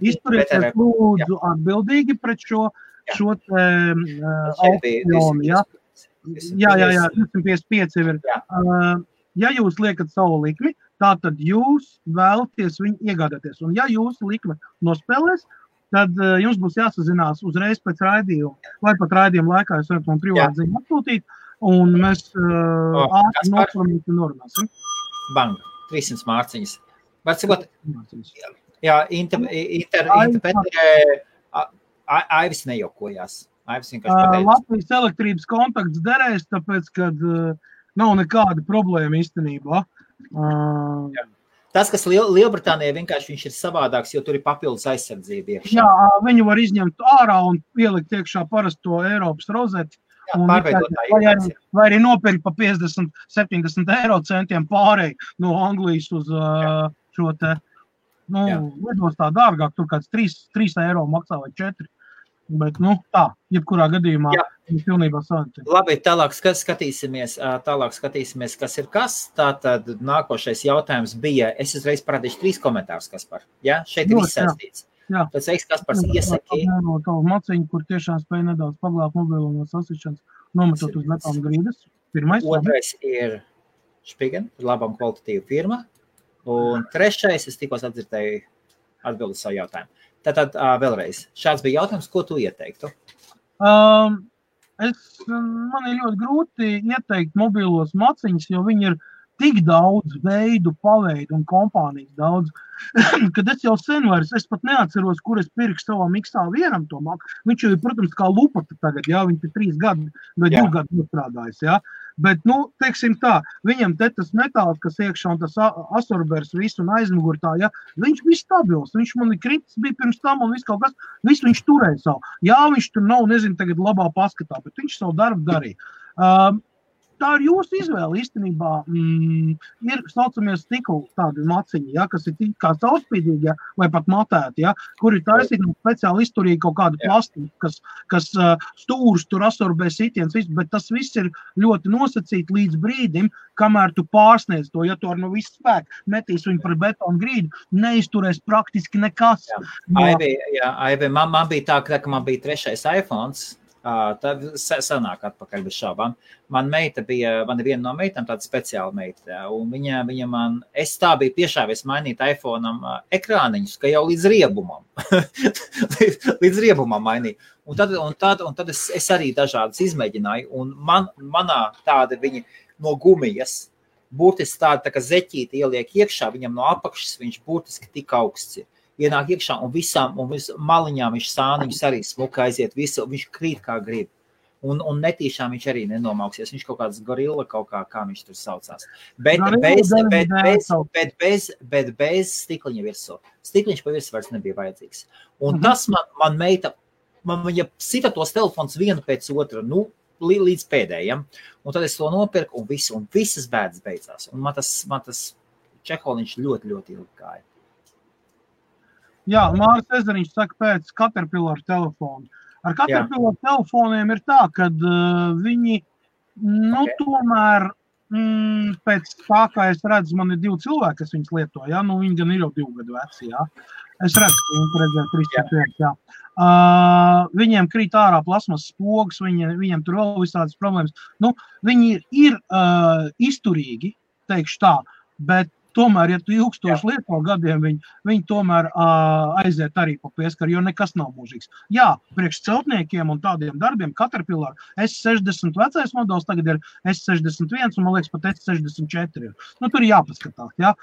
Izturieties lūdzu atbildīgi pret šo aukcionu. Jā, 255 ir. Ja jūs liekat savu likmi, tātad jūs vēlaties viņu iegādāties. Un ja jūsu likme nospēlēs, tad jums būs jāsazinās uzreiz pēc raidījuma. Vai pat raidījuma laikā jūs varat man privāti ziņu atsūtīt, un mēs ātri noformīti norunāsim. Bang, 300 mārciņas. Var cikot? Jā, Aivis nejokojās. Aivis vienkārši pateica. Latvijas elektrības kontakts derēs, tāpēc, kad nav nekāda problēma īstenībā. Tas, kas Lielbritānijā vienkārši viņš ir savādāks, jo tur ir papildus aizsardzība iekšā. Jā, viņu var izņemt ārā un pielikt iekšā parasto Eiropas rozeti. Vai arī nopirkt pa 50-70 eiro centiem pārēj no Anglijas uz šo te, lidostā dārgāk, tur kāds 3 eiro maksā vai 4. Bet, tā, jebkurā gadījumā pilnībā savantiem. Labi, tālāk skatīsimies, kas ir kas. Tātad nākošais jautājums bija, es uzreiz parādīšu 3 komentārus, Kaspar. Jā, šeit ir viss saistīts. Pēc veiks, Kaspars iesaki. Tavu maciņu, kur tiešām spēja nedaudz paglābt mobilo no sasišanas, nometot uz lepām grīdas. Pirmais. Otrais ir Špigen, labam kvalitatīva firma. Un trešais, es tikos atdzirdēju atbildi savu jautājumu. Tātad vēlreiz, šāds bija jautājums, ko tu ieteiktu? Man ir ļoti grūti ieteikt mobilos maciņus, jo viņi ir tik daudz veidu, paveidu un kompānijas daudz, kad es jau sen vairs, es pat neatceros, kur es pirkšu savam X1 to maku. Viņš jau ir, protams, kā lupata tagad, jā, viņš ir 3 gadi vai 2 gadi nostrādājis, jā. Bet, teiksim tā, viņam te tas metāls, kas iekšā un tas asorbers visu un aizmugur tā, jā, viņš bija stabils, viņš man kritis bija pirms tam un viss kaut kas, visu viņš turēja savu. Jā, viņš tur nav, nezinu, tagad labā paskatā, bet viņš savu darbu darīja. Tā ir jūsu izvēle īstenībā. Ir saucamies stikla tādi maciņi, ja, kas ir kā caurspīdīgi, ja, vai pat matēti, ja, kur ir taisīgi speciāli izturīgi kaut kādu plastiku, kas stūrus tur asorbē sitiens, bet tas viss ir ļoti nosacīti līdz brīdim, kamēr tu pārsniedz to, ja tu ar no visu spēku metīs viņu par betonu grīdu, neizturēs praktiski nekas. Aivi, man bija tā, ka man bija 3. iPhones, tad sanāk atpakaļ bez šaubām. Man ir viena no meitām, tāda speciāla meita, un viņa man, es tā biju piešāvies mainīt iPhone'am ekrāniņus, ka jau līdz riebumam, līdz riebumam mainīju. Un tad es arī dažādas izmēģināju, un manā tāda viņa no gumijas, burtiski tāda tā kā zeķīti ieliek iekšā, viņam no apakšas viņš burtiski tik augsts ir. Ienāk iekšā un visām maliņām viņš sāniņus arī smuka aiziet, visu, viņš krīt kā grib. Un netīšām viņš arī nenomauksies. Viņš kaut kāds gorilla, kā viņš tur saucās. Bet bez stikliņa virsū. Stikliņš pa virsū vairs nebija vajadzīgs. Un tas man meita, viņa sita tos telefons vienu pēc otra, līdz pēdējiem. Un tad es to nopirku un visas bēdas beidzās. Un man tas čeholiņš ļoti, ļoti ilgi gāja. Jā, Māris Ezeriņš saka pēc Caterpillar telefonu. Ar Caterpillar telefoniem ir tā, kad viņi, tomēr, pēc tā, kā es redzu, man ir 2 cilvēki, kas viņas lieto, jā, viņi gan ir jau 2 gadu veci, jā. Es redzu, ka viņi redzēja 3-4, jā. Viņiem krīt ārā plasmas spogas, viņiem tur vēl visādas problēmas. Viņi ir izturīgi, teikšu tā, bet tomēr, ja tu ilgstoši lieto gadiem, viņi tomēr aiziet arī pa pieskaru, jo nekas nav mūžīgs. Jā, priekš celtniekiem un tādiem darbiem Caterpillar S60 vecais modelis tagad ir S61 un, man liekas, pat S64 ir. Tur ir jāpaskatās, jā.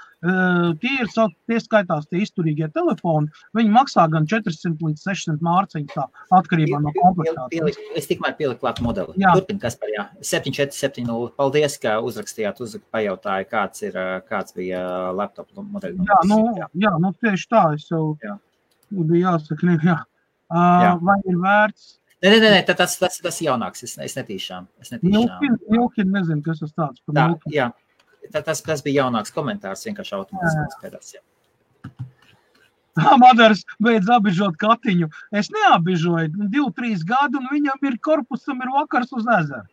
Tie skaitās tie izturīgie telefoni, viņi maksā gan 400 līdz 600 mārciņu tā, atkarībā no komplektācijas. Es tikmēr pieliku klāt modeli. Turpin, Kaspar, jā. 7470. Paldies, ka uzrakstījāt, pajautāja, kāds bija laptop modeļi. Jā, tieši tā, es jau bija jāsaka, jā. Vai ir vērts? Nē, tas jaunāks, es netīšām. Milkin, nezinu, kas tas tāds par Milkin. Jā, tas bija jaunāks komentārs, vienkārši automātiskās pēdās, jā. Madars beidz abižot Katiņu. Es neabižoju, 2-3 gadu, un viņam ir korpusam ir vakars uz ezeru.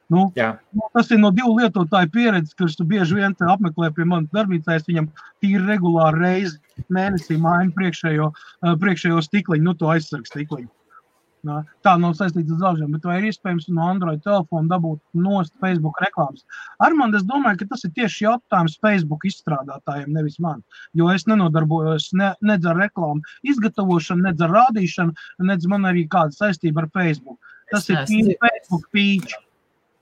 Tas ir no 2 lietotāju pieredzes, kurš tu bieži vien apmeklē pie manas darbnīcā, es viņam tīri regulāri reizi mēnesī mainu priekšējo stikliņu, to aizsargu stikliņu. Tā nav saistīts ar zāžiem, bet vai ir iespējams no Android telefona dabūt nost Facebook reklāmas? Armand, es domāju, ka tas ir tieši jautājums Facebook izstrādātājiem, nevis man, jo es nenodarbojos nedz ar reklāmu izgatavošanu, nedz ar rādīšanu, nedz man arī kāda saistība ar Facebook. Tas ir Facebook pīč.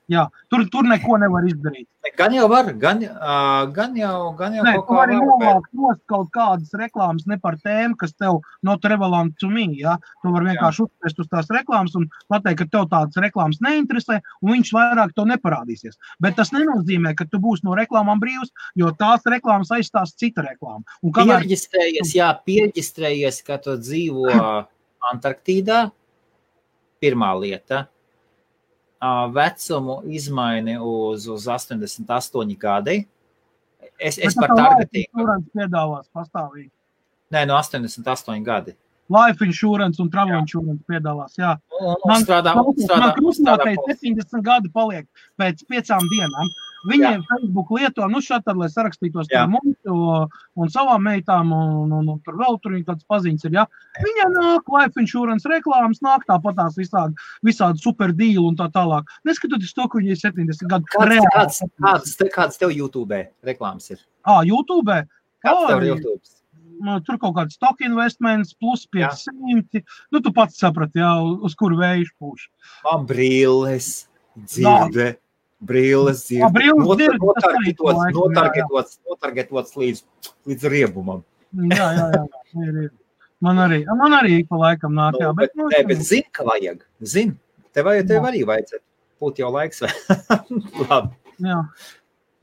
Jā, tur neko nevar izdarīt. Gan jau var, gan jau kaut kā var. Novākt nost kaut kādas reklāmas ne par tēmu, kas tev not relevant to me, jā. Tu var vienkārši uzspēst uz tās reklāmas un pateikt, ka tev tādas reklāmas neinteresē, un viņš vairāk to neparādīsies. Bet tas nenozīmē, ka tu būsi no reklāmām brīvs, jo tās reklāmas aizstās cita reklāma. Pierģistrējies, ka tu dzīvo Antarktīdā, pirmā lieta. Vecumu izmaini uz 88 gadi. Es par targetingu. Life insurance piedāvās pastāvīgi. Nē, no 88 gadi. Life insurance un travel insurance piedāvās, jā. Man krustmātei 70 gadi paliek pēc 5 dienām. Viņiem Facebook lieto, šādi, lai sarakstītos par mums un savām meitām, un tur vēl tur viņi kāds paziņas ir, ja. Viņiem nāk life insurance reklāmas, nāk tāpatās visādi super deal un tā tālāk. Neskatoties to, ka viņi ir 70 gadu. Kāds tev YouTube reklāmas ir? YouTube? Kāds tev ir YouTube? Tur kaut kāds stock investments, plus 500. Tu pats saprati, uz kuru vējuši pūš. Man brīles, dzirde. Brilles ir notargetots līdz riebumam. Jā, ir. Man arī pa laikam nāk, jā. Bet zini, ka vajag. Zini, tev arī vajadzētu. Būt jau laiks vai? Labi. Jā.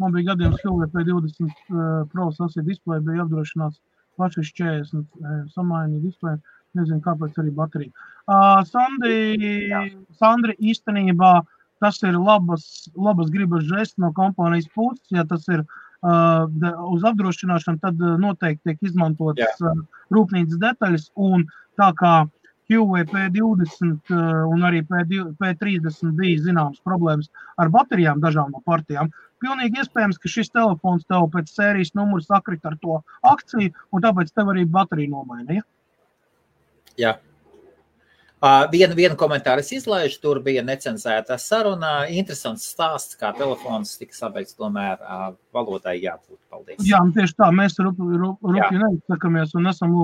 Man bija gadiem P 20 Pro sasīja displeja, bija apdrošināts plašais 40 samainīja displeja. Nezinu, kāpēc arī baterija. Sandri īstenībā tas ir labas gribas žests no kompānijas puses. Ja tas ir uz apdrošināšanu, tad noteikti tiek izmantotas rūpnīcas detaļas. Un tā kā QV P20 un arī P30 bija zināmas problēmas ar baterijām dažām no partijām, pilnīgi iespējams, ka šis telefons tev pēc sērijas numuru sakrit ar to akciju, un tāpēc tev arī baterija nomaina, ja? Jā. Vienu komentāru es izlaižu, tur bija necenzēta saruna. Interesants stāsts, kā telefons tika sabeigts, tomēr valodai jābūt. Paldies. Jā, tieši tā, mēs rupji neizsakamies un esam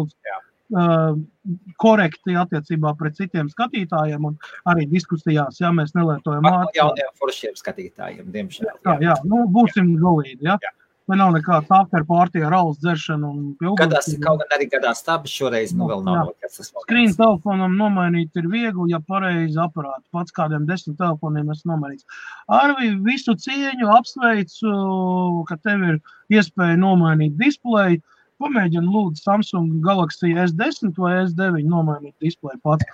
korekti attiecībā pret citiem skatītājiem un arī diskusijās, ja mēs nelietojam vārdu. Jauniem foršiem skatītājiem, diemžēl. Jā, būsim galīgi, ja? Vai nav nekāds after party ar alus dzeršanu un pilgums. Kaut gan arī gadās tāpēc šoreiz, vēl nav nokas. Screen telefonam nomainīt ir viegli, ja pareizi aparāti. Pats kādiem 10 telefoniem es nomainīts. Arvi, visu cieņu apsveicu, ka tev ir iespēja nomainīt displeju. Pamēģini lūdzu Samsung Galaxy S10 vai S9 nomainīt displeju pats.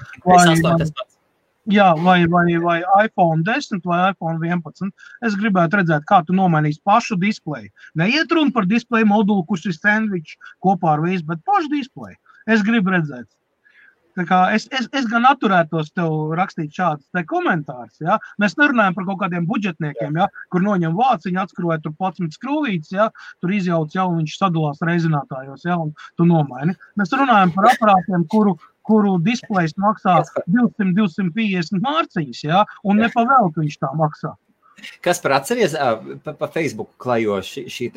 Jā, vai iPhone 10 vai iPhone 11. Es gribētu redzēt, kā tu nomainīsi pašu displeju. Neiet runa par displeju modulu, kurš ir sandvičs kopā ar visu, bet pašu displeju. Es gribu redzēt. Tā kā es gan atturētos tev rakstīt šādas te komentārus, ja? Mēs nerunājam par kaut kādiem budžetniekiem, ja? Kur noņem vāciņu, atskrūvē tur 11 skrūvītes, ja? Tur izjauc jau un viņš sadalās reizinātājos, ja? Un tu nomaini. Mēs runājam par aparātiem, kuru displejs maksā 200-250 mārciņas, ja? Un nepavēltu viņš tā maksā. Kas par atceries pa Facebook klajo šī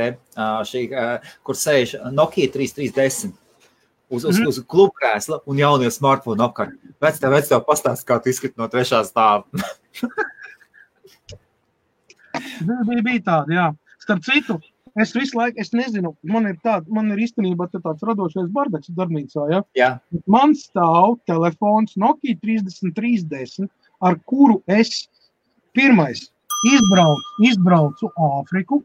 kur sēž Nokia 3310 uz klubkrēsla un jaunie smartphone apkārt. Vec tev pastāst, kā tu izskati no 3. stāva. Bija tāda, jā. Starp citu, es visu laiku, es nezinu, man ir īstenībā tāds radošais bardaks darbnīcā, ja? Jā. Man stāv telefons Nokia 3310, ar kuru es pirmais izbraucu Āfriku.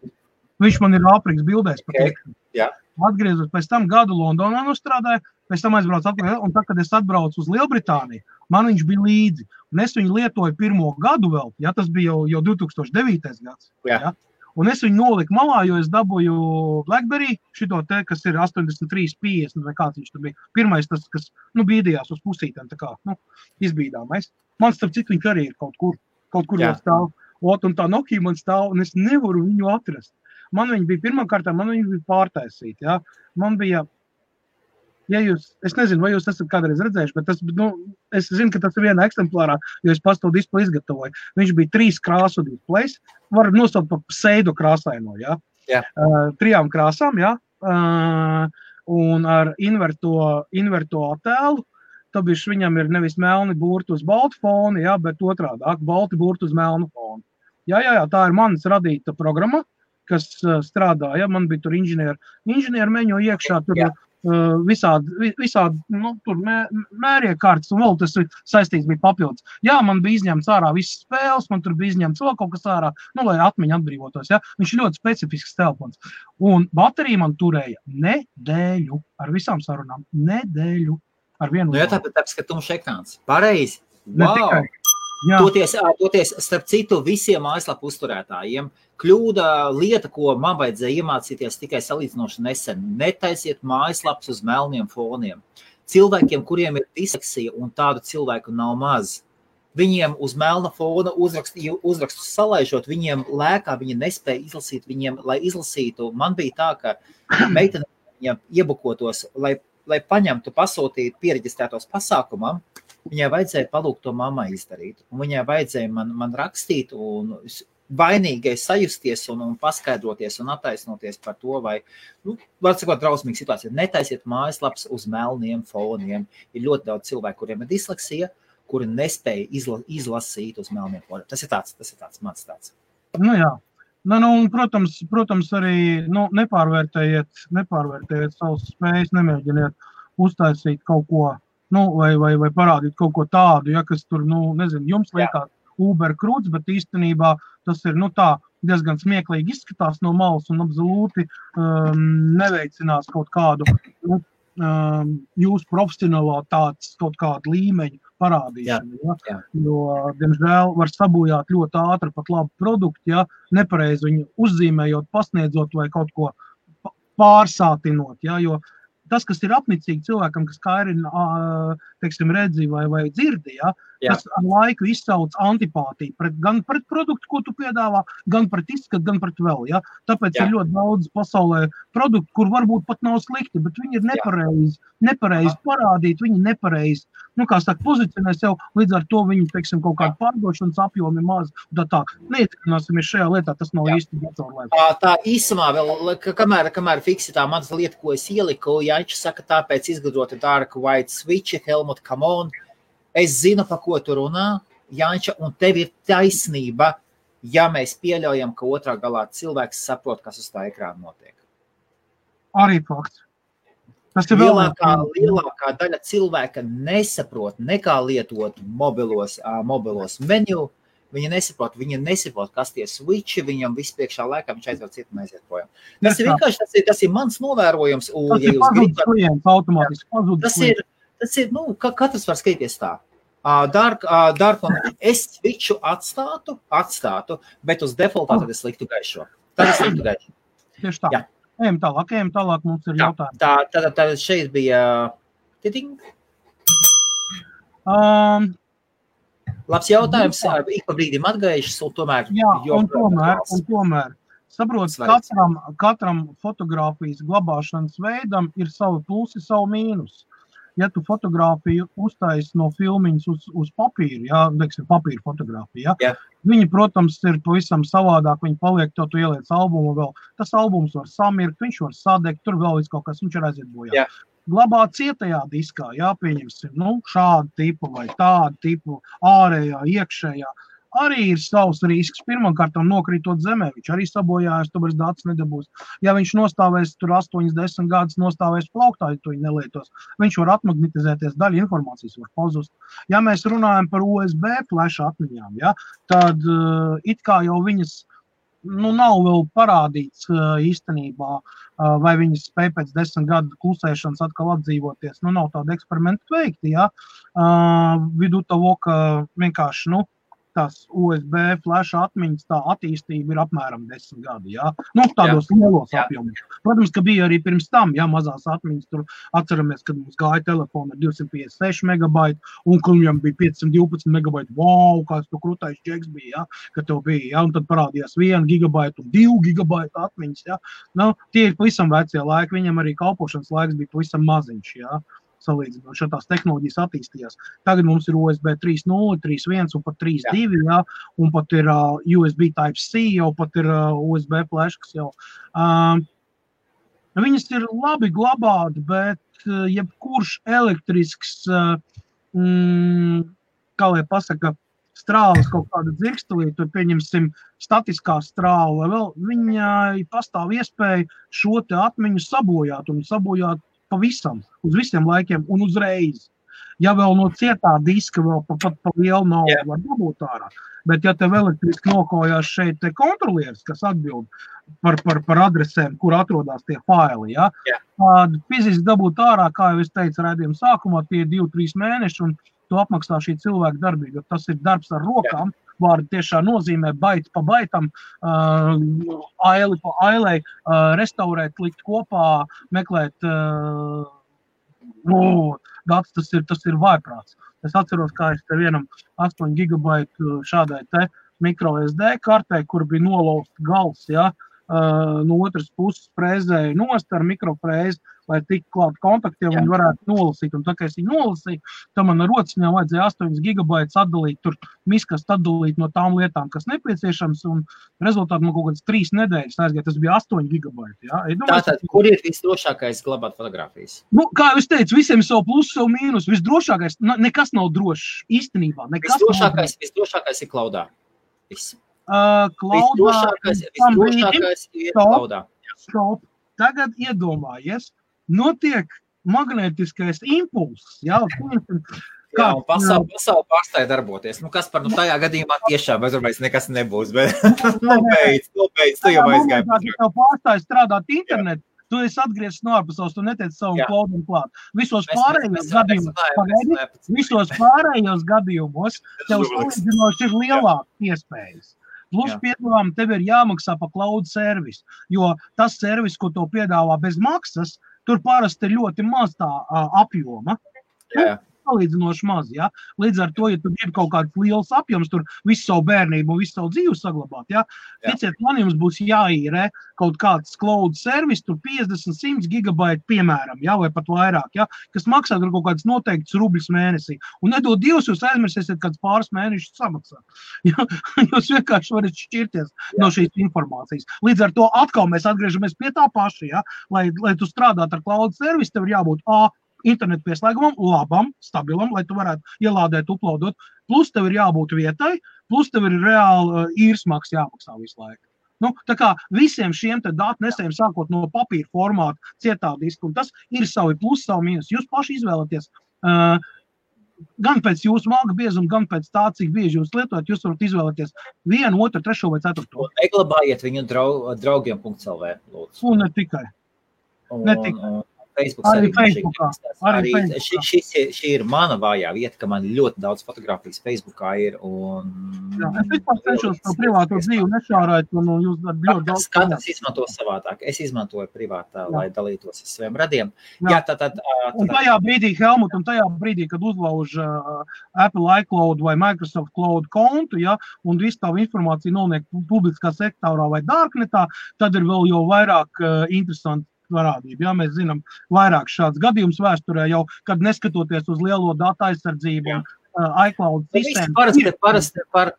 Viņš man ir Āfrikas bildēs patiekami. Jā. Atgriezos, pēc tam gadu Londonā nostrādāju, pēc tam aizbraucu atpakaļ, un tad, kad es atbraucu uz Lielbritāniju, man viņš bija līdzi. Un es viņu lietoju pirmo gadu vēl, ja tas bija jau 2009. gads. Ja? Un es viņu noliku malā, jo es dabūju BlackBerry, šito te, kas ir 8350, vai kāds viņš tur bija. Pirmais tas, kas, bīdījās uz pusītēm, tā kā, izbīdāmais. Man starp citu viņš arī ir kaut kur jau stāv. Un tā Nokia man stāv, un es nevaru viņu atrast. Man viņa bija pirmkārtā, man viņa bija pārtaisīta, ja. Man bija, es nezinu, vai jūs esat kādreiz redzējuši, bet es zinu, ka tas ir vienā eksemplārā, jo es pats to displeju izgatavoju. Viņš bija 3 krāsu displejs, var nosaukt par pseido krāsaino, ja. 3 krāsām, ja. Un ar inverto attēlu. Tāpēc viņam ir nevis melni burti uz baltu fonu, ja, bet otrādāk, balti burti uz melnu fonu. Jā, tā ir manas radīta programma, kas strādā, ja, man bija tur inženieru meņo iekšā, tur visādi, tur mēriekārtas, un vēl tas saistīts bija papildus. Jā, man bija izņemts ārā visas spēles, man tur bija izņemts vēl kaut kas ārā, lai atmiņa atbrīvotos, ja. Viņš ir ļoti specifisks telefons. Un baterija man turēja nedēļu, ar visām sarunām, nedēļu. Jā, tāpēc, ka tumšs ekrāns. Pareizi. Wow. Toties, starp citu, visiem mājaslapu uzturētājiem kļūda lieta, ko man vajadzēja iemācīties tikai salīdzinoši nesen. Netaisiet mājaslapas uz melniem foniem. Cilvēkiem, kuriem ir disleksija, un tādu cilvēku nav maz, Viņiem uz melna fona uzrakstu salaižot, viņiem lēkā, viņi nespēja izlasīt, viņiem, lai izlasītu, man bija tā, ka meitene viņiem iebukotos, lai paņemtu, pasūtītu piereģistrētos pasākumam, viņai vajadzēja palūgt to mammai izdarīt. Un viņai vajadzēja man rakstīt un vainīgai sajusties un paskaidroties un attaisnoties par to, vai, var sakot, drausmīga situācija. Netaisiet mājaslaps uz melniem foniem. Ir ļoti daudz cilvēku, kuriem ir disleksija, kuri nespēja izlasīt uz melniem foniem. Tas ir tāds mans tāds. Nu jā. Un, protams, arī nepārvērtējiet savas spējas, nemēģiniet uztaisīt kaut ko, vai parādīt kaut ko tādu, ja, kas tur, jums liekas Uber krūts, bet īstenībā tas ir, tā diezgan smieklīgi izskatās no malas un absolūti neveicinās kaut kādu jūsu profesionalitātes kaut kādu līmeņu parādīšanu. Ja? Jo, diemžēl, var sabojāt ļoti ātri pat labu produktu, ja nepareizi viņu uzzīmējot, pasniedzot vai kaut ko pārsātinot. Ja? Jo tas, kas ir apnicīgi cilvēkam, kas kairina, teiksim, redzi vai dzirdi, ja? Tas ar laiku izsauc antipātiju gan pret produktu, ko tu piedāvā, gan pret izskatu, gan pret vēl. Ja? Tāpēc ir ļoti daudz pasaulē produktu, kur varbūt pat nav slikti, bet viņi ir nepareizi parādīti, viņi nepareizi, pozicionē sev, līdz ar to viņi, teiksim, kaut kādu pārdošanas apjomi maz. Tā. Neietekmināsimies šajā lietā, tas nav īsti datorlēks. Tā īsumā vēl, kamēr fiksi tā manas lieta, ko es ieliku, Janča saka, tāpēc izgudrota Dark White Switch, Helmut, come on. Es zinu, pa ko tu runā, Janča, un tev ir taisnība, ja mēs pieļaujam, ka otrā galā cilvēks saprot, kas uz tā ekrāna notiek. Arī fakts. Tas ir lielākā daļa cilvēka nesaprot nekā lietot mobilos menu. Viņi nesaprot, kas tie switchi, viņam viss priekšā laikā, viņš aizver citu un aiziet projām. Tas ir vienkārši, tas ir mans novērojums. Tas ir pazudis klients, automātiski pazudis klients. Tas ir, katrs var skatīties tā. Dark, es switchu atstātu, bet uz defaultā tad es liktu gaišo. Tieši tā. Jā. Ejam tālāk, mums ir jautājumi. Tad šeit bija titing. Labs jautājums, ik pa brīdim atgaišas, un tomēr... Jā, un tomēr. Saprot, katram fotogrāfijas glabāšanas veidam ir savi plusi, savu mīnus. Ja tu fotogrāfiju uztaisi no filmiņas uz papīru, papīra fotogrāfija, viņi, protams, ir pavisam savādāk, viņi paliek, tu ieliec albumu vēl, tas albums var samirkt, viņš var sadegt, tur vēl kaut kas, viņš ir aiziet bojā. Glabā cietajā diskā, pieņemsim, šādu tipu vai tādu tipu, ārējā, iekšējā. Arī ir savs risks. Pirmkārt, nokrītot zemē, viņš arī sabojājas, tu vairs datus nedabūs. Ja viņš nostāvēs tur 8-10 gadus, nostāvēs plauktā, ja tu viņu nelietos, viņš var atmagnetizēties, daļa informācijas var pazust. Ja mēs runājam par USB flash atmiņām, tad it kā jau viņas nav vēl parādīts īstenībā, vai viņas spēj pēc 10 gadu klusēšanas atkal atdzīvoties. Nav tāda eksperimenta veikti, Vidu toho, ka vienkārši, tās USB flash atmiņas, tā attīstība ir apmēram 10 gadi, tādos lielos apjomos. Protams, ka bija arī pirms tam, mazās atmiņas, tur atceramies, kad mums gāja telefona ar 256 megabaiti, un kad viņam bija 512 megabaiti, kāds tu krūtais džeks bija, ka tev bija, un tad parādījās 1 gigabaita un 2 gigabaita atmiņas, tie ir pavisam vecie laiki, viņam arī kalpošanas laiks bija pavisam maziņš, salīdzinot, šādās tehnoloģijas attīstījās. Tagad mums ir USB 3.0, 3.1 un pat 3.2, un pat ir USB Type-C, jau pat ir USB flash, kas jau. Viņas ir labi glabāt, bet jebkurš elektrisks, kā lai pasaka, strāles kaut kāda dzirkstelī, tur pieņemsim statiskā strāle, vai vēl viņai pastāv iespēja šo te atmiņu sabojāt un sabojāt pavisam, uz visiem laikiem un uzreiz. Ja vēl no cietā diska vēl pat pa lielu naudu var dabūt ārā, bet ja tev elektriski nokojās šeit te kontrolieris, kas atbild par adresēm, kur atrodas tie faili, tad fiziski dabūt ārā, kā jau es teicu raidījuma sākumā, tie 2-3 mēneši, un to apmaksā šī cilvēka darbība, jo tas ir darbs ar rokām, vārdi tiešām nozīmē baiti pa baitam, aili pa ailei, restaurēt, likt kopā, meklēt, tas ir vājprāts. Es atceros, kā es te vienam 8 gigabaitu šādai te micro SD kartē, kur bija nolausta gals, ja, no otras puses frēzēja nost ar mikrofrēzi, lai tik klāt kontaktiem un varētu nolasīt. Un tā, kā es viņu nolasīju, tad man ar rociņām vajadzēja 8 gigabaitus atdalīt, tur miskast atdalīt no tām lietām, kas nepieciešams, un rezultāti man kaut kādas 3 nedēļas aizgāja. Tas bija 8 gigabaiti. Ja? Tātad, kur ir visdrošākais glabāt fotogrāfijas? Nu, kā jau es teicu, visiem ir savu plusu, savu mīnus. Visdrošākais, nekas nav drošs īstenībā. Visdrošākais ir klaudā. Visdrošākais ir klaudā. Stop. Tagad iedomājies, notiek magnētiskais impulss. Jā, un pasauli pārstāja darboties. Nu, kas par tajā gadījumā tiešām aizvarmais nekas nebūs, bet nobeidz, tu jau aizgāji. Tev pārstāja strādāt internetu, tu esi atgriezis no ārpasaules, tu netiec savu klaudam klāt. Visos pārējos gadījumos tev salīdzinoši ir lielākas iespējas. Plus piedāvām tev ir jāmaksā pa cloud servisu, jo tas servis, ko tev piedāvā bez maksas, tur parasti ir ļoti maz tā apjoma. Salīdzinoši maz, ja? Līdz ar to, ja tu gribi kaut kāds liels apjoms, tur visu savu bērnību un visu savu dzīvi saglabāt, ja? Ticiet, man jums būs jāīrē kaut kāds cloud servis, tur 50-100 gigabaiti, piemēram, ja? Vai pat vairāk, ja? Kas maksā tur kaut kāds noteikts rubļus mēnesī. Un nedod Dievs, jūs aizmirsiet kāds pāris mēnešus samaksāt. Ja? Jūs vienkārši varat šķirties no šīs informācijas. Līdz ar to atkal mēs atgriežamies pie tā paša, ja? Lai tu strādāt ar cloud servisu, tev ir jābūt internetu pieslēgumam, labam, stabilam, lai tu varētu ielādēt, uploadot. Plus tev ir jābūt vietai, plus tev ir reāli īres maksa jāmaksā visu laiku. Nu, tā kā visiem šiem te datnesējiem sākot no papīra formāta, cietā diska, un tas ir savi plus, savi mīnus. Jūs paši izvēlaties gan pēc jūsu malka biezuma, gan pēc tā, cik bieži jūs lietojat, jūs varat izvēlēties 1, 2, 3 vai 4. Un neglabājiet viņu draugiem.lv, lūdzu. Un ne tikai. Ne tikai. Facebook arī šī ir mana vājā vieta, ka man ļoti daudz fotogrāfijas Facebookā ir. Jā, es vispār cenšos to privāto dzīvi nešārēt, un jūs ļoti daudz. Katrs izmanto savādāk. Es izmantoju privātā, lai dalītos ar saviem radiem. Jā, un tajā brīdī, Helmut, kad uzlauž Apple iCloud vai Microsoft Cloud kontu, ja, un visu tavu informāciju noliek publiskā sektorā vai darknetā, tad ir vēl jau vairāk interesanti parādība. Jā, mēs zinām vairāk šāds gadījums vēsturē jau, kad neskatoties uz lielo datu aizsardzību un iCloud sistēmu.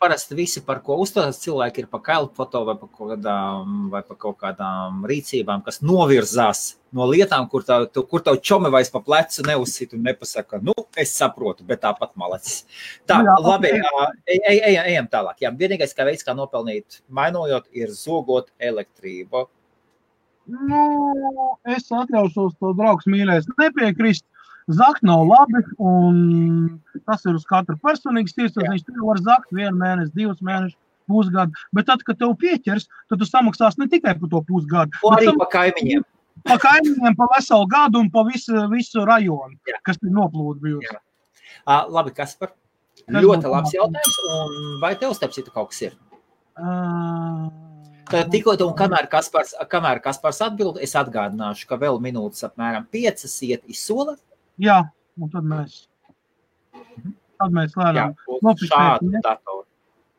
Parasti visi, par ko uzstājas cilvēki, ir pa kailfoto vai pa kaut kādām rīcībām, kas novirzās no lietām, kur tavu čomi vairs pa plecu neuzsit un nepasaka, es saprotu, bet tāpat malacis. Tā, labi, ejam tālāk. Jā, vienīgais, kā veids, kā nopelnīt mainojot, ir zogot elektrību. Es atļaušos to draugs mīļais nepiekrist. Zakt nav labi, un tas ir uz katru personīgas tiesas. Viņš tev var zakt 1 mēnesi, 2 mēnešus, pusgadu. Bet tad, kad tev pieķers, tad tu samaksās ne tikai par to pusgadu. Arī pa kaimiņiem. Pa kaimiņiem, pa veselu gadu un pa visu rajonu, kas ir noplūda bijusi. Labi, Kaspar, ļoti labs jautājums. Un vai tev starp citu kaut kas ir? Tikko un kamēr Kaspars atbild, es atgādināšu, ka vēl minūtes apmēram 5 iet izsola. Jā, un tad mēs lēnām šādu datoru.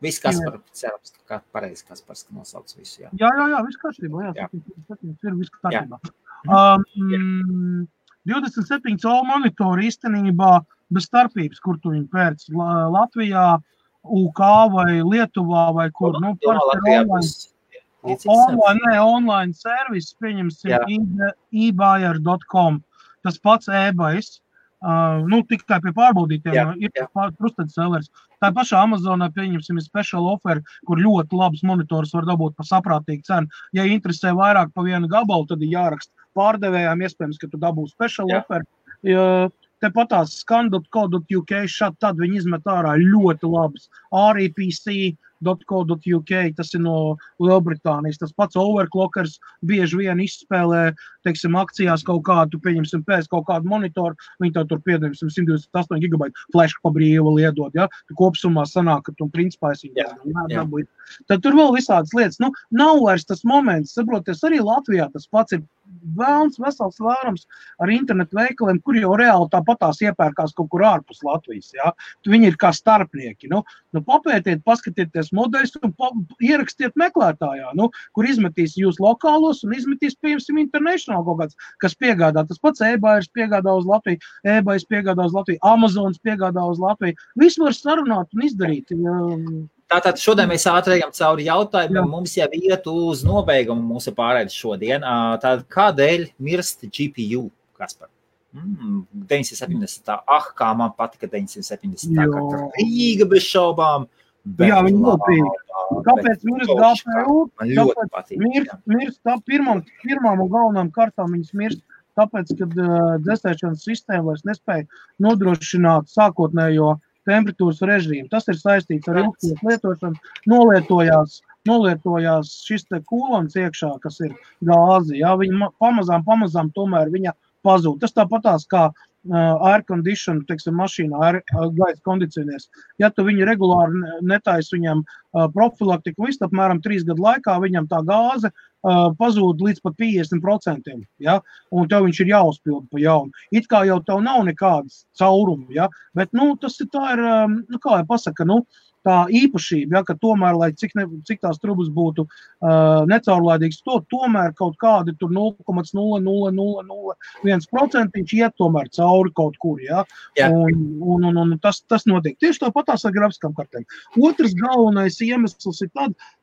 Viss Kaspar, cerams, ka pareizi Kaspars nosauc visu. Jā, viss kārtībā. Jā, ir viss kārtībā. 27 colu monitori īstenībā bez starpības, kur tu viņu pērc Latvijā, UK vai Lietuvā vai kur. Online servis, pieņemsim ebuyer.com. Tas pats eBayers, tikai pie pārbaudītiem ir trusted sellers. Tā pašā Amazonā, pieņemsim, ir special offer, kur ļoti labs monitors var dabūt par saprātīgu cenu. Ja interesē vairāk pa vienu gabalu, tad ir jāraksta pārdevējām, iespējams, ka tu dabūsi special offer. Tepatās scan.co.uk, tad viņi izmet ārā ļoti labas REPC.co.uk, tas ir no Lielbritānijas. Tas pats overclockers bieži vien izspēlē, teiksim, akcijās kaut kādu, pieņemsim, pēc kaut kādu monitoru, viņi tev tur piedēmsim 128 gigabaitu flash pa brīvu liedot, ja? Tu kopsumā sanāk, ka tu principā esi dabūji. Tad tur vēl visādas lietas. Nav vairs tas moments, saproties, arī Latvijā tas pats ir vēlns vesels vērums ar internetu veikaliem, kur jau reāli tāpatās iepērkās kaut kur ārpus Latvijas, jā. Viņi ir kā starpnieki, papētiet, paskatieties modeļus un ierakstiet meklētājā, kur izmetīs jūs lokālos un izmetīs, piemēram, international kaut kāds, kas piegādā. Tas pats eBayers piegādā uz Latviju, eBayers piegādā uz Latviju, Amazons piegādā uz Latviju. Visu var sarunāt un izdarīt. Tātad šodien mēs ātrējam cauri jautājumiem, mums jau iet uz nobeigumu mūsu pārēdes šodien. Tātad kādēļ mirst GPU, Kaspar? 970. Kā man patika 970. Kā Rīga bez šaubām. Jā, viņi ļoti patīk. Kāpēc mirst GPU? Man ļoti patīk. Mirst pirmām un galvenām kārtām viņas mirst, tāpēc, kad dzēsēšanas sistēma vairs nespēja nodrošināt sākotnējo temperatūras režīmu. Tas ir saistīts ar ilgstošu lietošanu. Nolietojās šis te kūlons iekšā, kas ir gāzi. Jā, viņa pamazām tomēr viņa pazūd. Tas tāpatās kā air condition, teiksim, mašīnā, gaisa kondicionieris. Ja tu viņu regulāri netaisi viņam profilaktiku, visu apmēram 3 gadu laikā viņam tā gāze pazūd līdz pat 50%, ja? Un tev viņš ir jāuzpilda pa jaunu. It kā jau tev nav nekādas caurumi, ja? Bet, tas ir tā ir, kā jau pasaka, tā īpašība, ja, ka tomēr, lai cik tās trubas būtu necaurlaidīgas, tomēr kaut kādi tur 0,00001% iet tomēr cauri kaut kur, ja. Un tas notiek. Tieši tāpatās ar grafiskām kartēm. Otrs galvenais iemesls ir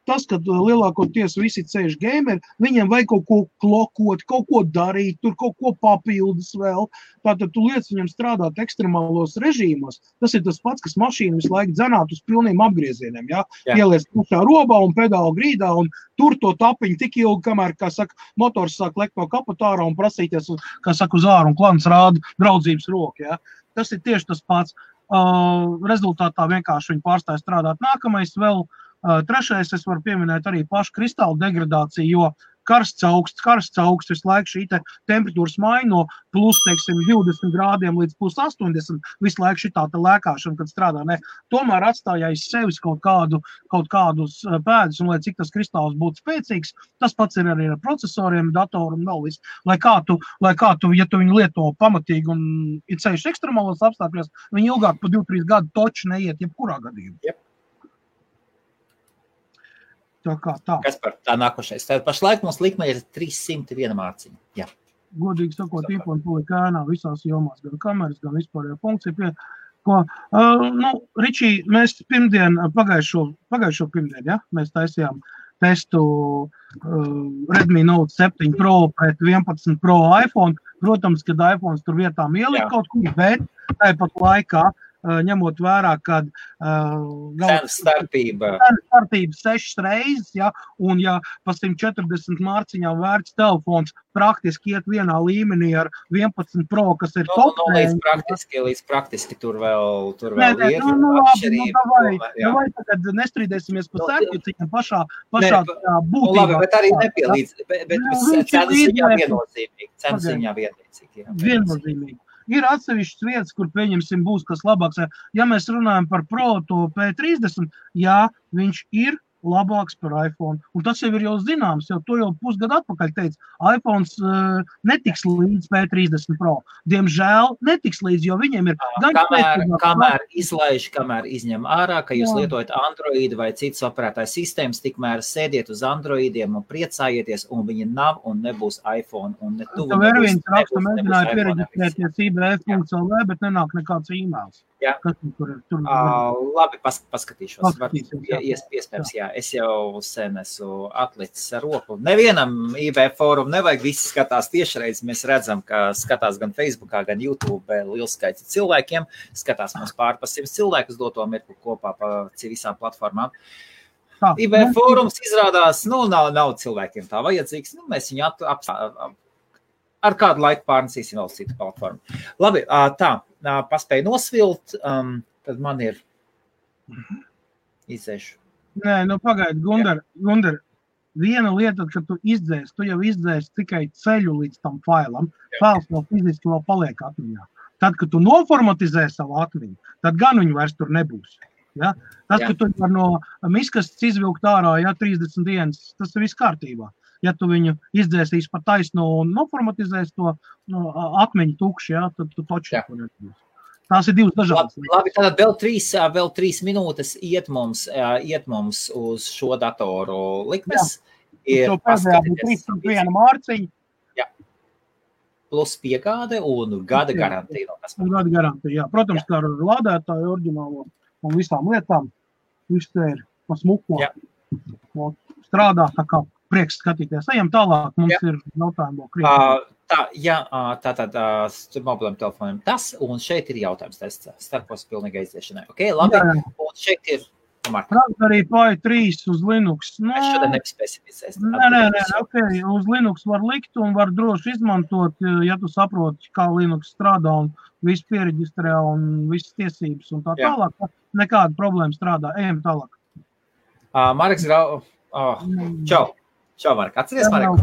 tas, kad lielākoties visi ceļš gameri, viņiem vajag kaut ko klokot, kaut ko darīt, tur kaut ko papildus vēl. Tātad tu liec viņam strādāt ekstremālos režīmos. Tas ir tas pats, kas mašīnu visu laiku dzenāt uz pilniem apgriezieniem, ja? Ieliec pušā robā un pedālu grīdā un tur to tapiņu tik ilgi, kamēr, kā saka, motors sāk lekt no kapotāra un prasīties, kā saka, uz āru un klans rāda draudzības roku, ja? Tas ir tieši tas pats. Rezultātā vienkārši viņi pārstāja strādāt. Nākamais vēl, trešais, es varu pieminēt arī pašu kristālu degradāciju, jo karsts augsts, visu laiku šī temperatūras maiņa no plus, teiksim, 20 grādiem līdz plus 80, visu laiku šitā lēkāšana, kad strādā, ne. Tomēr atstāja aiz sevis kaut kādus pēdus, un lai cik tas kristāls būtu spēcīgs, tas pats ir arī ar procesoriem, datoru un vēl viss. Lai kā tu, ja tu viņu lieto pamatīgi un ir ceļš ekstremālos apstākļos, viņi ilgāk pa 2-3 gadu toči neiet jebkurā gadījumā. Yep. Tā. Kas par tā nākošais? Tad pašlaik mums likme ir 301 mārciņa. Jā. Godīgi sakot, īponi palika ēnā visās jomās, gan kameras, gan vispārējā funkcija. Ričī, mēs pagājušo pirmdien, ja? Mēs taisījām testu Redmi Note 7 Pro pret 11 Pro iPhone. Protams, kad iPhones tur vietām ielika kaut kur, bet tāpat laikā ņemot vērā, kad cenas starpība 6 reizes, ja, un ja pa 140 mārciņām vērts telefons praktiski iet vienā līmenī ar 11 Pro, kas ir top. Līdz praktiski tur vēl ir. Vai tagad nestrīdēsimies pa sēkļuciņam pašā būtībā. Labi, bet arī nepielīdz, bet cenas ziņā vienlīdzīgi. Viennozīmīgi. Ir atsevišķas vietas, kur pieņemsim būs kas labāks. Ja mēs runājam par Pro to P30, jā, viņš ir labāks par iPhone. Un tas jau ir jau zināms, jo to jau pusgadu atpakaļ teica. iPhones netiks līdz P30 Pro. Diemžēl netiks līdz, jo viņiem ir... Kamēr izlaiž, kamēr izņem ārā, ka jūs lietojat Android vai citas operētājas sistēmas, tikmēr sēdiet uz Androidiem un priecājieties, un viņi nav un nebūs iPhone. Un ne tuvu nebūs. Tev viens raksta, mēģināja piereģistrēties IBF.LV, bet nenāk nekāds e-mails. Jā. Labi, paskatīšos. Iespējams, jā. Es jau sen esmu atlicis ar roku. Nevienam IBF fórumu nevajag, visi skatās tiešreiz. Mēs redzam, ka skatās gan Facebookā, gan YouTube liels skaits cilvēkiem. Skatās mums pār pa 100 cilvēkus doto mirkli kopā pa visām platformām. IBF fórums izrādās, nav cilvēkiem tā vajadzīgs. Mēs viņu ar kādu laiku pārnesīsim vēl citu platformu. Labi, paspēju nosvilt, tad man ir izdzēšu. Nē, pagaidi, Gundar, viena lieta, kad tu jau izdzēsi tikai ceļu līdz tam failam, fails vēl fiziski vēl paliek atmiņā. Tad, kad tu noformatizē savu atmiņu, tad gan viņu vairs tur nebūs. Ja? Tas, ka tu var no miskastes izvilkt ārā, 30 dienas, tas ir viss kārtībā. ja tu viņu izdzēsīs pa taisno un noformatizēs to atmiņu tukši, ja, tad tu toči to nedabūsi. Tās ir divas dažādas. Labi, tātad vēl 3 minūtes iet mums uz šo datoru likmes. To pēdējā būtu 301 mārciņa. Jā. Plus piegāde un gada garantija. Gada garantija, jā. Protams, kā ar lādētāju oriģinālo un visām lietām. Viss te ir pa smuko. Strādā, tā kā prieks skatīties. Ejam tālāk, mums ir jautājumi. Tātad mobiliem telefoniem tas, un šeit ir jautājums tests starpos pilnīgai izdiešanai. Ok, labi, un šeit ir Raspberry Pi 3 uz Linux. Mēs šodien nepaspēsim. Nē, ok, uz Linux var likt un var droši izmantot, ja tu saproti, kā Linux strādā un viss piereģistrē un visas tiesības un tā tālāk. Nekāda problēma strādā. Ejam tālāk. Marks Grau. Čau, Mark. Atceries, Mark?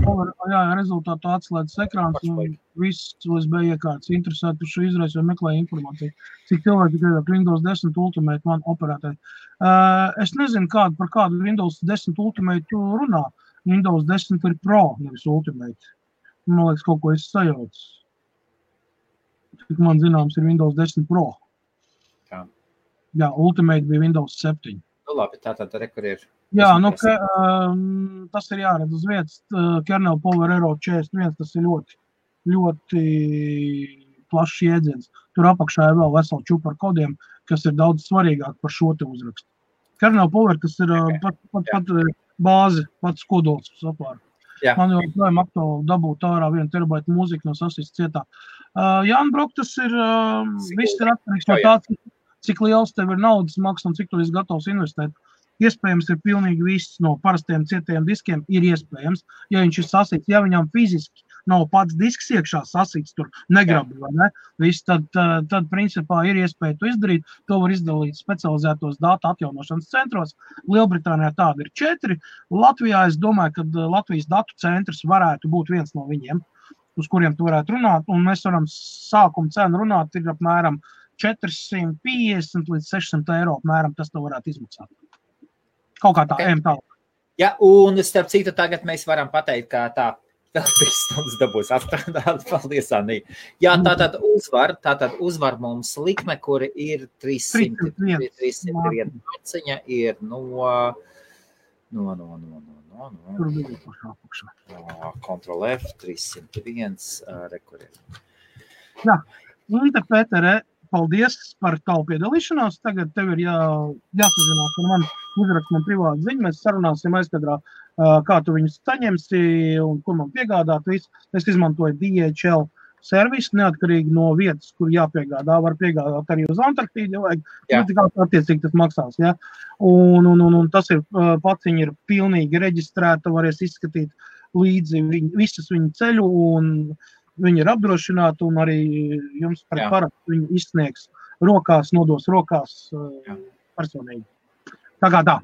Jā, rezultātu atslēdzas ekrāns un viss USB iekārtas interesētu šo izraisu vai meklēja informāciju. Cik cilvēki tikai Windows 10 Ultimate man operētāji. Es nezinu, par kādu Windows 10 Ultimate tu runā. Windows 10 ir Pro, nevis Ultimate. Man liekas, kaut ko es sajaucu. Cik man zināms ir Windows 10 Pro. Jā, Ultimate bija Windows 7. Nu labi, tātad rekur ir. Jā, tas ir jāredz uz vietas. Kernel Power Aero 41, tas ir ļoti plašs jēdziens. Tur apakšā ir vēl vesela čupa ar kodiem, kas ir daudz svarīgāk par šo te uzrakstu. Kernel Power, tas ir pat bāzi, pats kodols saplāra. Man jau projām aktuāli dabūt ārā 1 terabaitu mūziku no sasīs cietā. Jāni Brok, tas ir viss ir atkarīgs no tā, cik liels tev ir naudas maks un cik tu esi gatavs investēt. Iespējams ir pilnīgi viss no parastiem cietiem diskiem ir iespējams, ja viņš ir sasīts, ja viņam fiziski nav pats disks iekšā sasīts, tur negrabi, vai ne? Viss, tad principā ir iespēja to izdarīt, to var izdalīt specializētos datu atjaunošanas centros. Lielbritānijā tāda ir 4, Latvijā es domāju, ka Latvijas datu centrs varētu būt viens no viņiem, uz kuriem tu varētu runāt, un mēs varam sākuma cenu runāt, ir apmēram 450 līdz 600 eiro apmēram, tas to varētu izmaksāt. Kaut kā tā, ejam tālāk. Jā, un starp citu tagad mēs varam pateikt, kā tā vēl 3 stundas dabūs atstrādāt. Paldies, Anī. Jā, tātad uzvar mums likme, kuri ir 301 marciņa, ir no Ctrl F, 301, rekurē. Jā, Līta Pētere, paldies par tavu piedalīšanos. Tagad tev ir jāsazinās ar mani, uzrakst man privātu ziņu. Mēs sarunāsim aizkadrā, kā tu viņus saņemsi un kur man piegādāt visu. Es izmantoju DHL servisu, neatkarīgi no vietas, kur jāpiegādā. Var piegādāt arī uz Antarktīdu, ja vajag. Attiecīgi tas maksās. Ja? Un tas ir, paciņa ir pilnīgi reģistrēta, varēs izskatīt līdzi visas viņu ceļu un viņi ir apdrošināti un arī jums par parakstu viņi izsniegs rokās, nodos rokās personīgi. Tā kā tā.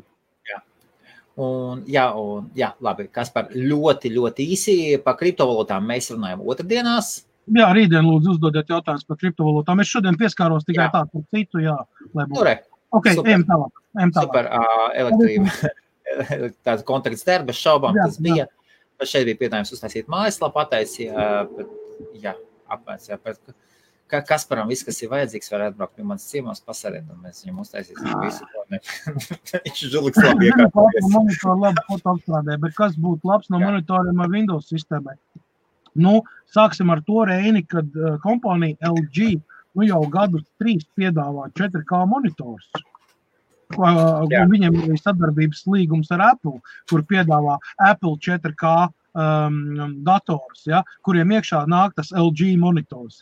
Labi, Kaspar, ļoti īsi par kriptovalūtām mēs runājam otrdienās. Jā, rītdien lūdzu uzdodiet jautājumus par kriptovalūtām. Es šodien pieskāros tikai tā par citu, lai būtu. Ok, ejam tālāk. Super, elektrība. Tāds kontakts der, bez šaubām tas bija. Šeit bija piedāvājums uztaisīt mājaslapu, apmērs, Kasparam viss, kas ir vajadzīgs, var atbraukt pie manas ciemos pasarēt, un mēs viņam uztaisīsim visu, ko viņš žuliks labi iekārtoties. Monitoru labi foto apstrādē, bet kas būtu labs no monitoriem ar Windows sistēmai? Sāksim ar to, Reini, kad kompānija LG jau gadus 3 piedāvā 4K monitors. Viņam ir sadarbības līgums ar Apple, kur piedāvā Apple 4K dators, kuriem iekšā nāk tas LG monitors.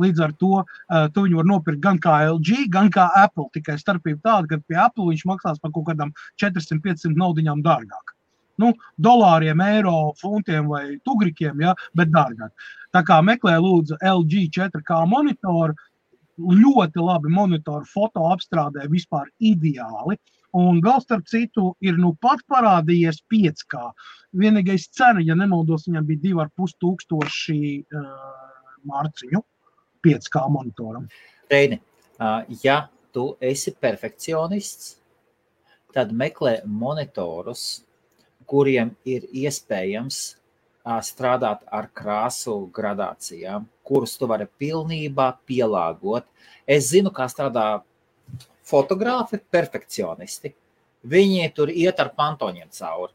Līdz ar to tu viņu var nopirkt gan kā LG, gan kā Apple, tikai starpība tāda, ka pie Apple viņš maksās par kaut kādām 400-500 naudiņām dārgāk. Dolāriem, eiro, funtiem vai tugrikiem, bet dārgāk. Tā kā meklē lūdzu LG 4K monitoru, ļoti labi monitoru foto apstrādē vispār ideāli. Un vēl starp citu ir pat parādījies 5K. Vienīgais cena, ja nemaldos, viņam bija 2500 mārciņu 5K monitoram. Reini, ja tu esi perfekcionists, tad meklē monitorus, kuriem ir iespējams strādāt ar krāsu gradācijām, kurus tu vari pilnībā pielāgot. Es zinu, kā strādā fotogrāfi, perfekcionisti. Viņi tur iet ar pantoņiem cauri.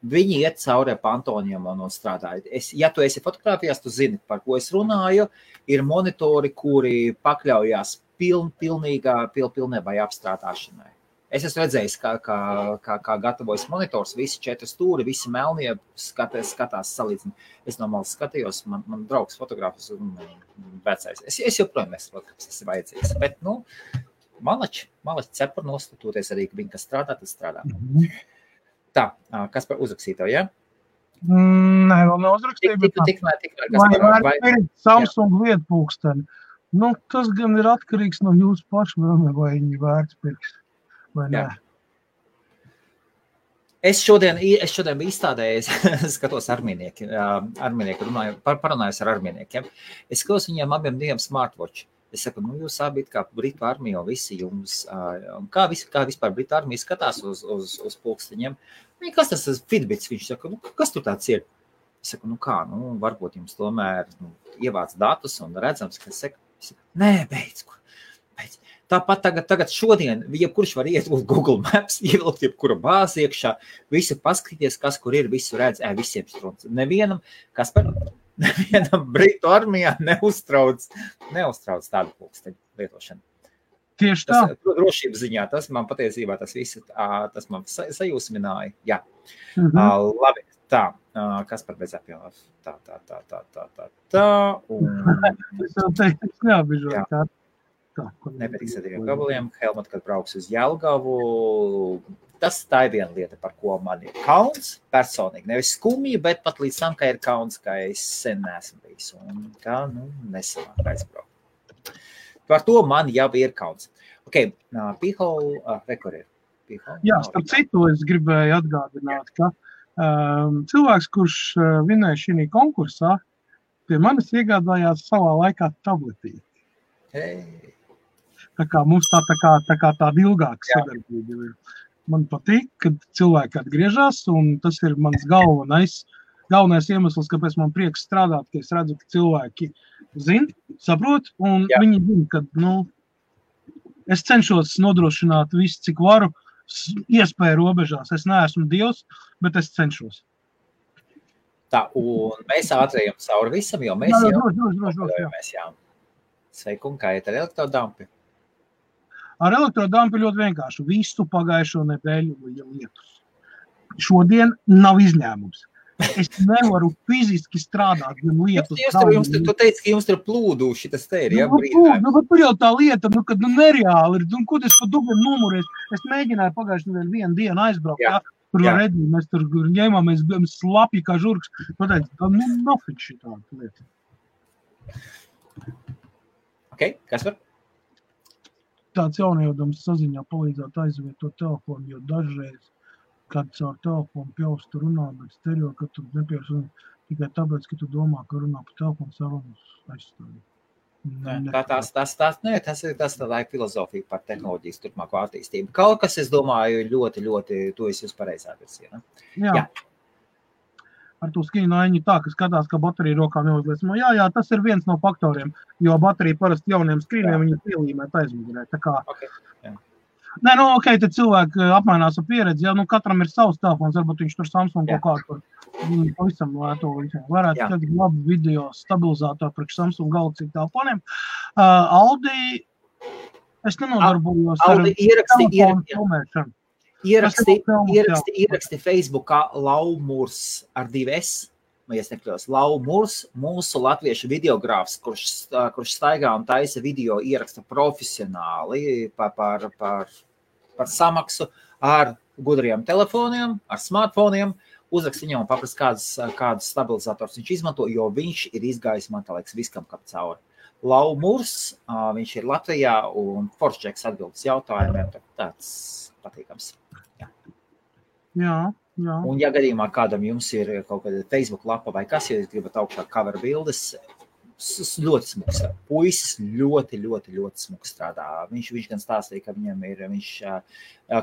Viņi iet cauri ar pantoņiem un strādā. Ja tu esi fotogrāfijās, tu zini, par ko es runāju. Ir monitori, kuri pakļaujās pilnībai apstrādāšanai. Es esmu redzējis, kā gatavojas monitors, visi 4 stūri, visi melnie skatās salīdzini. Es no malas skatījos, man draugs fotogrāfis un vecais. Es joprojām nesaprotu, kas tas ir vajadzīgs. Bet, malači cepar nostatūties arī, ka viņi, kas strādā, tas strādā. Tā, kas par uzrakstīto, ja? Nē, vēl neuzrakstīju. Vai Samsung lietpulksteni. Tas gan ir atkarīgs no jūsu pašvēlme, vai viņi vērts pirks. Jā. Es šodien biju izstādējis, skatos armijnieki parunājos ar armijniekiem. Es skatos viņiem abiem diviem smartwatch. Es saku, jūs abi kā Britu armija, visi jums, kā vispār Britu armija skatās uz pulksteņiem. Kas tas ir Fitbits? Viņš saka, kas tur tāds ir? Es saku, varbūt jums tomēr ievāc datus un redzams, ka es saku, nē, beidz. Tāpat tagad šodien, jebkurš var iet uz Google Maps, ievilkt jebkura bāzi iekšā, visu paskatīties, kas kur ir, visu redz, visiem strūns. Nevienam Britu armijā neuztrauc tādu pulksteņu lietošanu. Tieši tā. Drošības ziņā, tas man patiesībā tas man sajūsmināja. Jā. Labi, tā. Kas par bezapjomā? Tā. Es neapbižoju tā. Nepatiks ar diviem gabaliem. Helmut, kad brauks uz Jelgavu, tā ir viena lieta, par ko man ir kauns personīgi. Nevis skumji, bet pat līdz tam, ka ir kauns, ka es sen neesmu bijis. Un kā, nesanāk aizbraukt. Par to man jau ir kauns. Ok, Pihol, rekur ir. Jā, starp citu, es gribēju atgādināt, ka cilvēks, kurš vinēja šī konkursā, pie manis iegādājās savā laikā tabletīti. Tā kā mums tāda ilgāka sadarbība ir. Man patīk, kad cilvēki atgriežas, un tas ir mans galvenais iemesls, kāpēc man prieks strādāt, ka es redzu, ka cilvēki zina, saprot, un viņi zina, ka, es cenšos nodrošināt visu, cik varu, iespēju robežās. Es neesmu Dievs, bet es cenšos. Tā, un mēs ātrējam cauri visam, jo mēs jau. Sveiku, un kā iet ar elektrodampi? Ar elektrodampi ļoti vienkārši. Visu pagājušo nedēļu lietus. Šodien nav izņēmums. Es nevaru fiziski strādāt, gan lietus. Tu teici, ka jums tur plūdu šitas te ir, ja? Bet tur jau tā lieta, kad nereāli ir. Ko es pa dubiem numurēs? Es mēģināju pagājušo nedēļu vienu dienu aizbraukt. Tur redzēju, mēs tur ņēmāmies slapji kā žurks. Pateicu, tā nofik šitā lieta. Ok, kas var? Tāds jauniedams saziņā palīdzētu aizvietot telefonu, jo dažreiz, kad caur telefonu pjaustu runā, bet stereo, ka tu nepieši tikai tāpēc, ka tu domā, ka runā pa telefonu sarunas aizstāvīt. Tas tā ir filozofija par tehnoloģijas turpmāko attīstību. Kaut kas, es domāju, ļoti, tu esi uz pareizā virzienā. Jā. Ar to skīnaiņu tā, ka skatās, ka baterija rokā neuzliesmo. Jā, tas ir viens no faktoriem, jo baterija parasti jauniem skrīniem viņi pielīmēt aizmugurē. Tā kā... Okay. Tad cilvēki apmainās ar pieredzi. Katram ir savs telefons, varbūt viņš tur Samsung kaut kā tur pavisam lēto. Varētu tad labi video stabilizātoru priekš Samsung Galaxy telefoniem. Aldi, es nenodarbojos ar telefonu filmēšanu. Ieraksti Facebookā Laumurs ar 2S, vai es nekļos, Laumurs, mūsu latviešu videogrāfs, kurš staigā un taisa video ieraksta profesionāli par samaksu ar gudriem telefoniem, ar smartfoniem, uzrakst viņam un paprast, kādus stabilizators viņš izmanto, jo viņš ir izgājis, man tā liekas, viskam kap cauri. Laumurs, viņš ir Latvijā un foršķeks atbildes jautājumiem, tāds patīkams. Jā. Un ja gadījumā kādam jums ir kaut kāda Facebook lapa vai kas, ja jūs gribat augšā cover bildes, ļoti smuks. Puisis ļoti smuks strādā. Viņš gan stāstīja, ka viņam viņš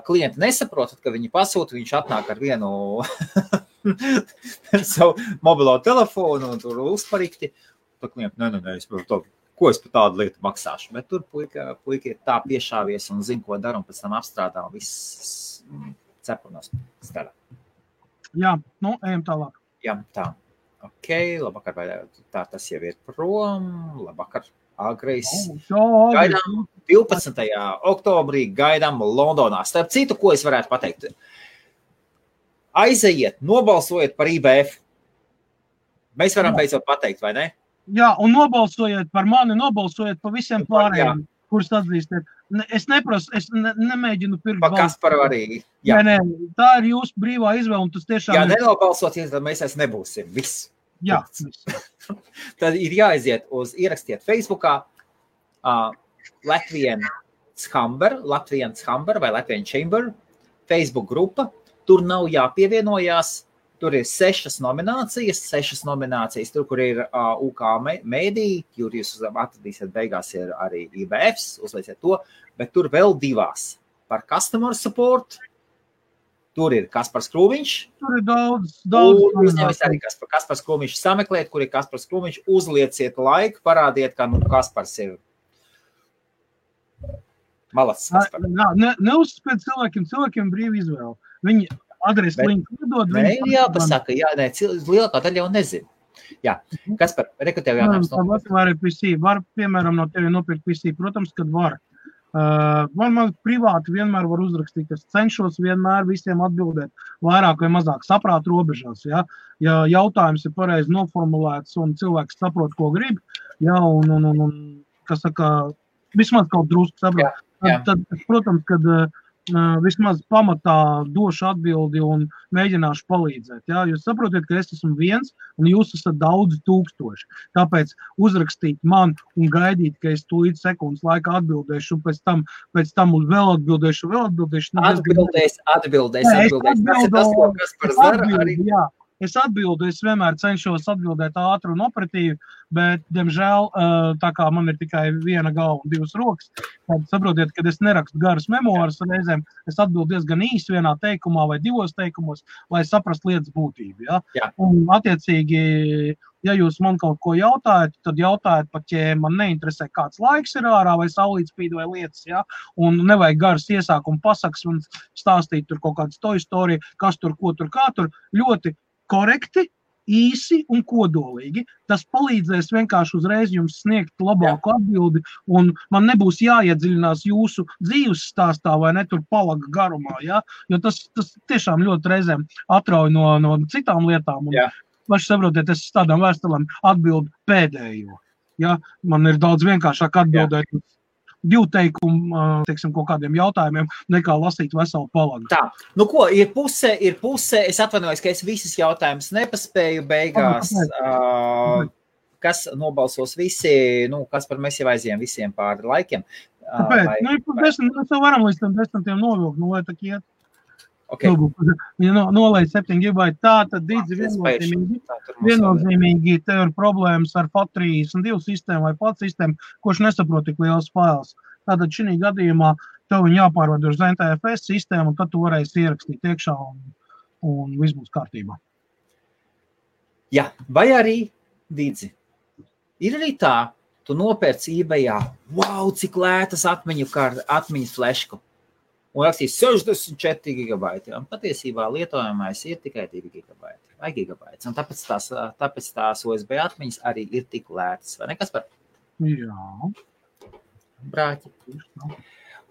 klienti nesaprotat, ka viņi pasūta, viņš atnāk ar vienu savu mobilo telefonu un tur uzparikti. Tā klienti, nē, ko es par tādu lietu maksāšu. Bet tur puika ir tā piešāvies un zina, ko dara un pēc tam apstrādā un viss cepurnos strādā. Jā, ejam tālāk. Jā, tā. Ok, labvakar, vai tā tas jau ir prom, labvakar, agrais. Gaidām 12. oktobrī, gaidām Londonā. Starp citu, ko es varētu pateikt? Aizejiet, nobalsojiet par IBF. Mēs varam beidzot pateikt, vai ne? Jā, un nobalsojiet par mani, nobalsojiet par visiem pārējiem, kurus atzīstiet. Es neprasu, es nemēģinu pirkt balstu. Pa Kasparu arī. Jā. Nē, tā ir jūsu brīvā izvēle, un tas tiešām jā, nenobalsoties, tad mēs nebūsim. Viss. Jā. Tad ir jāaiziet ierakstiet Facebookā Latvian Chamber vai Latvian Chamber Facebook grupa. Tur nav jāpievienojās. Tur ir 6 nominācijas, tur, kur ir UK mēdī, kur jūs atradīsiet beigās ir arī IBFs, uzlieciet to, bet tur vēl 2 par customer support. Tur ir Kaspars Krūmiņš. Tur ir daudz. Un uzņemies arī Kaspars Krūmiņš sameklēt, kur ir Kaspars Krūmiņš, uzlieciet laiku, parādiet, ka Kaspars ir malacis Kaspars. Neuzspēc cilvēkiem brīvi izvēle. Viņi adresi linku iedod. Jāpasaka, lielākā daļa jau nezinu. Jā, Kaspar, rekrutēju jautājums. Var, piemēram, no tevi nopirkt PC, protams, kad var. Man privāti vienmēr var uzrakstīt, es cenšos vienmēr visiem atbildēt vairāk vai mazāk saprāt robežās, ja jautājums ir pareizi noformulēts un cilvēks saprot, ko grib, ja, un kas saka, vismaz kaut drusku saprot, tad, protams, kad vismaz pamatā došu atbildi un mēģināšu palīdzēt. Ja? Jūs saprotiet, ka es esmu viens un jūs esat daudz tūkstoši. Tāpēc uzrakstīt man un gaidīt, ka es tūlīt sekundes laikā atbildēšu un pēc tam vēl atbildēšu. Atbildēs. Tas ir tas, ko Kaspars dara arī. Jā. Es atbildu, es vienmēr cenšos atbildēt ātri un operatīvi, bet, diemžēl, tā kā man ir tikai viena galva un 2 rokas, tad saprotiet, kad es nerakstu garas memoāras reizēm, es atbildu diezgan īsi vienā teikumā vai 2 teikumos, lai saprastu lietas būtību. Ja? Jā. Un, attiecīgi, ja jūs man kaut ko jautājat, tad jautājat pat, ja man neinteresē, kāds laiks ir ārā vai saulīt spīd vai lietas, ja? Un nevajag garas iesākumu pasakas un stāstīt tur kaut kādas to istoriju, kas tur, ko tur, kā tur, ļoti korekti, īsi un kodolīgi. Tas palīdzēs vienkārši uzreiz jums sniegt labāku atbildi, un man nebūs jāiedziļinās jūsu dzīves stāstā vai ne tur palaga garumā, ja? Jo tas tiešām ļoti reizēm atrauj no citām lietām. Un paši saprotiet, es tādām vēstulēm atbildu pēdējo. Ja? Man ir daudz vienkāršāk atbildēt 2 teikumu, teiksim, kaut kādiem jautājumiem, nekā lasīt veselu palagu. Tā, nu ko, ir puse, es atvainojos, ka es visas jautājumus nepaspēju beigās, kas nobalsos visi, kas par mēs jau aizējām visiem pāri laikiem. Kāpēc? Mēs jau varam līdz tam 10 novilkt, lai tā iet. Okay. Ja nolaiž 7 GB, tā tad viennozīmīgi tev ir problēmas ar FAT32 sistēmu vai FAT sistēmu, kurš nesaprot tik liels fails. Tātad šī gadījumā tev viņi jāpārvada uz NTFS sistēmu, un tad tu varēsi ierakstīt iekšā un viss būs kārtībā. Jā, vai arī, Dīdzi, ir arī tā, tu nopērc eBayā, wow, cik lētas atmiņas flešku. Un rakstīs 64 GB. Un patiesībā lietojamais ir tikai 2 GB vai gigabaits. Un tāpēc tās USB atmiņas arī ir tik lētas. Vai ne, Kaspar? Jā. Brāķi.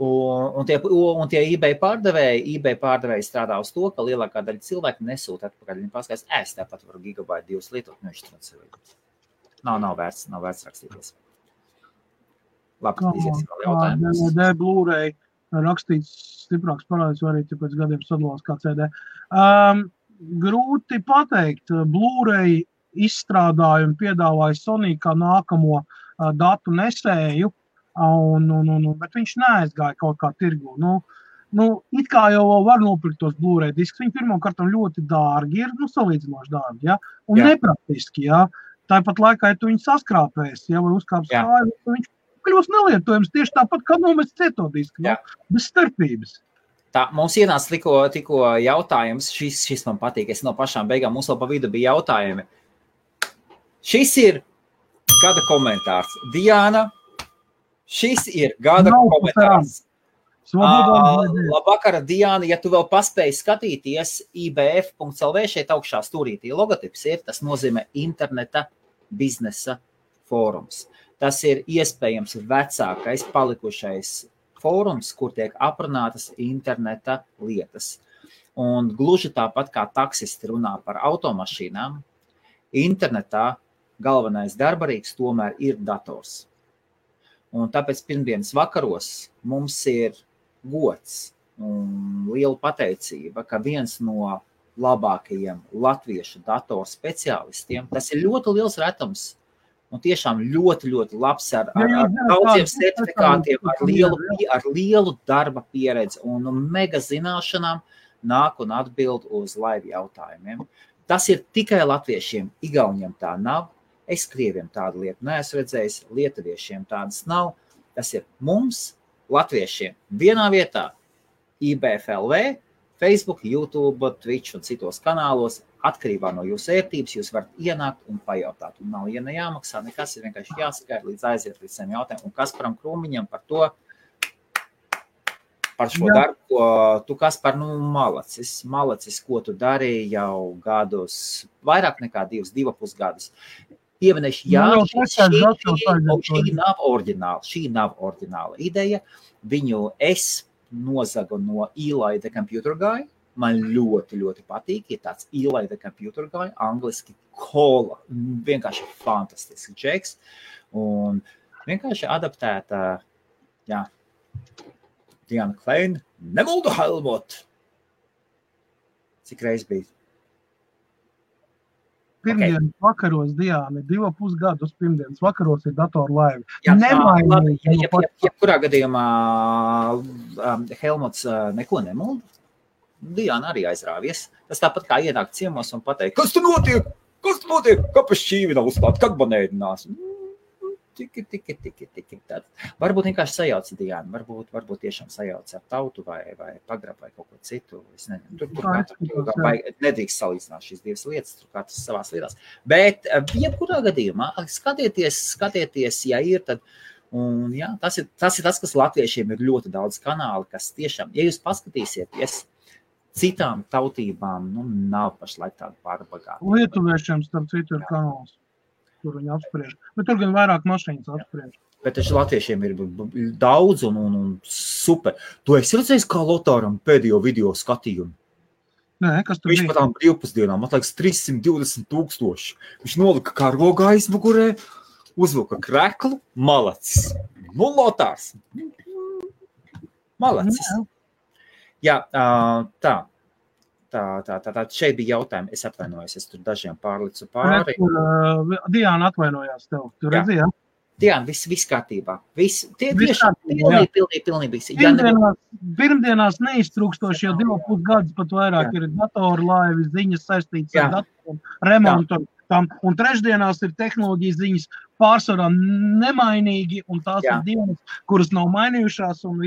Un tie eBay pārdevēji strādā uz to, ka lielākā daļa cilvēku nesūta atpakaļ. Viņi paskatās, es tāpat varu gigabaitu 2 lietot. Nav vērts rakstīties. Labi, iziesim vēl jautājumus. DVD, Blu-ray. Rakstīts stiprāks parādis, vai arī pēc gadiem sadalās kā CD. Grūti pateikt, Blu-ray izstrādājumu piedāvāja Sony kā nākamo datu nesēju, bet viņš neaizgāja kaut kā tirgu. It kā jau var nopirkt tos Blu-ray diskus, viņi pirmkārt ļoti dārgi ir, salīdzinoši dārgi, ja? Un nepraktiski, ja? tāpat laikā, ja tu viņu saskrāpēsi, ja, vai uzkāps kāju, viņš kļūs nelietojams tieši tāpat, kā nomest cietodisku, bez starpības. Tā, mums ienāca tikko jautājums, šis man patīk, es no pašām beigām, mums vēl pa vidu bija jautājumi. Šis ir gada komentārs. Diana, šis ir gada komentārs. Labvakara, Diana, ja tu vēl paspēji skatīties ibf.lv, šeit augšā stūrītī logotips ir, tas nozīmē interneta biznesa fórums. Tas ir iespējams vecākais palikušais fórums, kur tiek aprunātas interneta lietas. Un gluži tāpat kā taksisti runā par automašīnām, internetā galvenais darbarīgs tomēr ir dators. Un tāpēc pirmdienas vakaros mums ir gods un liela pateicība, ka viens no labākajiem latviešu datoru speciālistiem, tas ir ļoti liels retums un tiešām ļoti, ļoti labs ar daudziem certifikātiem, ar lielu darba pieredzi un mega zināšanām nāk un atbild uz live jautājumiem. Tas ir tikai latviešiem, igauņiem tā nav, es krieviem tādu lietu neesmu redzējis, lietuviešiem tādas nav, tas ir mums, latviešiem, vienā vietā, IBF.LV, Facebook, YouTube, Twitch un citos kanālos, atkarībā no jūsu ērtības, jūs varat ienākt un pajautāt. Un nav, ja nejāmaksā, nekas ir vienkārši jāsakaita līdz aiziet līdz saviem jautājumiem. Un Kasparam Krūmiņam par to, par šo darbu, ko tu, Kaspar, malacis, ko tu darīji jau gadus, vairāk nekā 2,5 gadus. Pieminēšu, šī nav oriģināla ideja. Viņu es nozagu no Eli the Computer Guy. Man ļoti, ļoti patīk. Ir tāds Eli the Computer Guy, angliski kola. Vienkārši fantastisks džeks. Un vienkārši adaptēta, Diana Kleina, Nemuldu Helmut. Cik reiz bija? Pirmdienas vakaros, Diana, 2,5 gadus pirmdienas vakaros ir datoru laivi. Jebkurā gadījumā Helmuts neko nemulda. Diana arī aizrāvies. Tas tāpat kā ienāk ciemos un pateikt, kas tu notiek? Kāpēc šķīvi nav uzklāt? Kad man ēdinās? Tiki. Varbūt vienkārši sajauca Diana, varbūt tiešām sajauca ar tautu vai pagrab vai kaut ko citu. Es nezinu, tur nedrīkst salīdzināt šīs divas lietas, tur katrs savās lietās. Bet, jebkurā gadījumā, skatieties, ja ir, tad, un jā, tas ir tas, kas latviešiem ir ļoti daudz kanāli, kas tiešām, ja jūs paskatīsieties, citām tautībām, nav pašlaik tāda pārbagāta. Lietuviešiem, starp citu, ir kanāls. Tur viņi apspriež. Bet tur gan vairāk mašīnas apspriež. Bet taču latviešiem ir daudz un super. Tu esi redzējis, kā Lotāram pēdējo video skatījumu? Nē, kas tur Viņš pa tām brīvpusdienām, atlaiks 320,000. Viņš nolika karogu aizmugurē, uzvilka kreklu, malacis. Lotārs. Malacis. Jā, tā. Šeit bija jautājumi, es atvainojos, es tur dažiem pārlicu pāri. Diana atvainojās tev, tu redzi, jā? Diana, viss kārtībā. Pilnīgi. Pirmdienās neiztrūkstoši jau 2,5 gadus pat vairāk ir datoru laivi, ziņas saistītas ar datoru, remontu. Un trešdienās ir tehnoloģijas ziņas pārsvarā nemainīgi, un tās ir dienas, kuras nav mainījušās. Un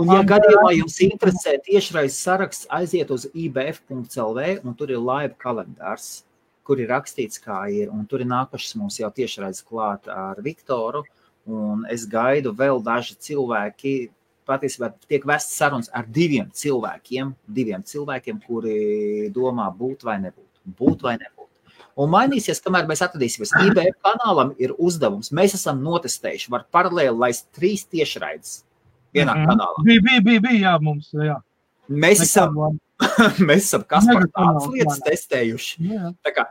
ja gadījumā jums interesē tiešraizes saraksts, aiziet uz ibf.lv, un tur ir live kalendārs, kur ir rakstīts, kā ir, un tur ir nākušas mums jau tiešraizes klāt ar Viktoru, un es gaidu vēl daži cilvēki, patiesībā tiek vests sarunas ar diviem cilvēkiem, kuri domā būt vai nebūt. Un mainīsies, kamēr mēs atradīsimies. IBF kanālam ir uzdevums. Mēs esam notestējuši, var paralēli laist 3 tiešraides vienā kanālā. Bija, mums, jā. Mēs esam Kaspar tādas lietas testējuši. Tā kā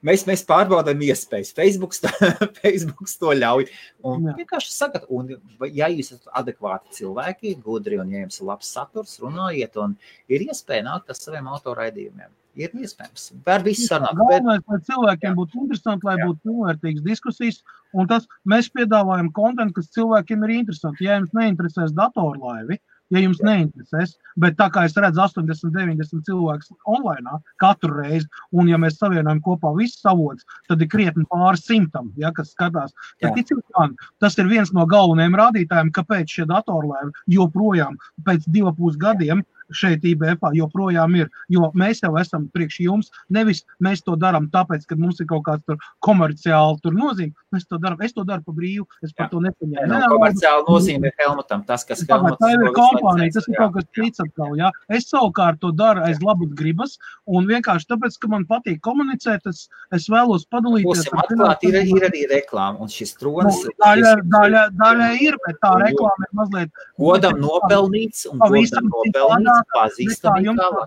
mēs pārbaudām iespējas. Facebooks to ļauj. Un vienkārši sakat, un ja jūs esat adekvāti cilvēki, gudri, un ja jums ir labs saturs, runājiet, un ir iespēja nākt ar saviem autoraidījumiem. Ir iespējams. Var viss sarunāt. Galvenais, lai cilvēkiem būtu interesanti, lai būtu pilnvērtīgas diskusijas, un tas mēs piedāvājam kontentu, kas cilvēkiem ir interesanti. Ja jums neinteresēs datorlaivi, ja jums neinteresēs. Bet tā kā es redzu 80-90 cilvēkus online katru reizi, un ja mēs savienojam kopā visus avotus, tad ir krietni pāri 100, ja, kas skatās. Tad, man, tas ir viens no galvenajiem rādītājiem, kāpēc šie datorlēvi joprojām pēc 2,5 gadiem šeit IBF joprojām ir, jo mēs jau esam priekš jums, nevis mēs to darām tāpēc, ka mums ir kaut kāds tur komerciāli tur nozīme, es to daru pa brīvu, es par to nepaņēmu. No komerciāli nozīme ir Helmutam, tas, kas Helmuts... Tā ir kompānija, tas ir kaut kas cits atkal, jā. Es savukārt to daru aiz labas gribas, un vienkārši tāpēc, ka man patīk komunicēt, es vēlos padalīties. Būsim atklāti, ir arī reklāma, un šis tronis... Daļa ir, bet tā reklāma ir mazliet... Godam nopelnīts, un godam nopelnīts. Jums tā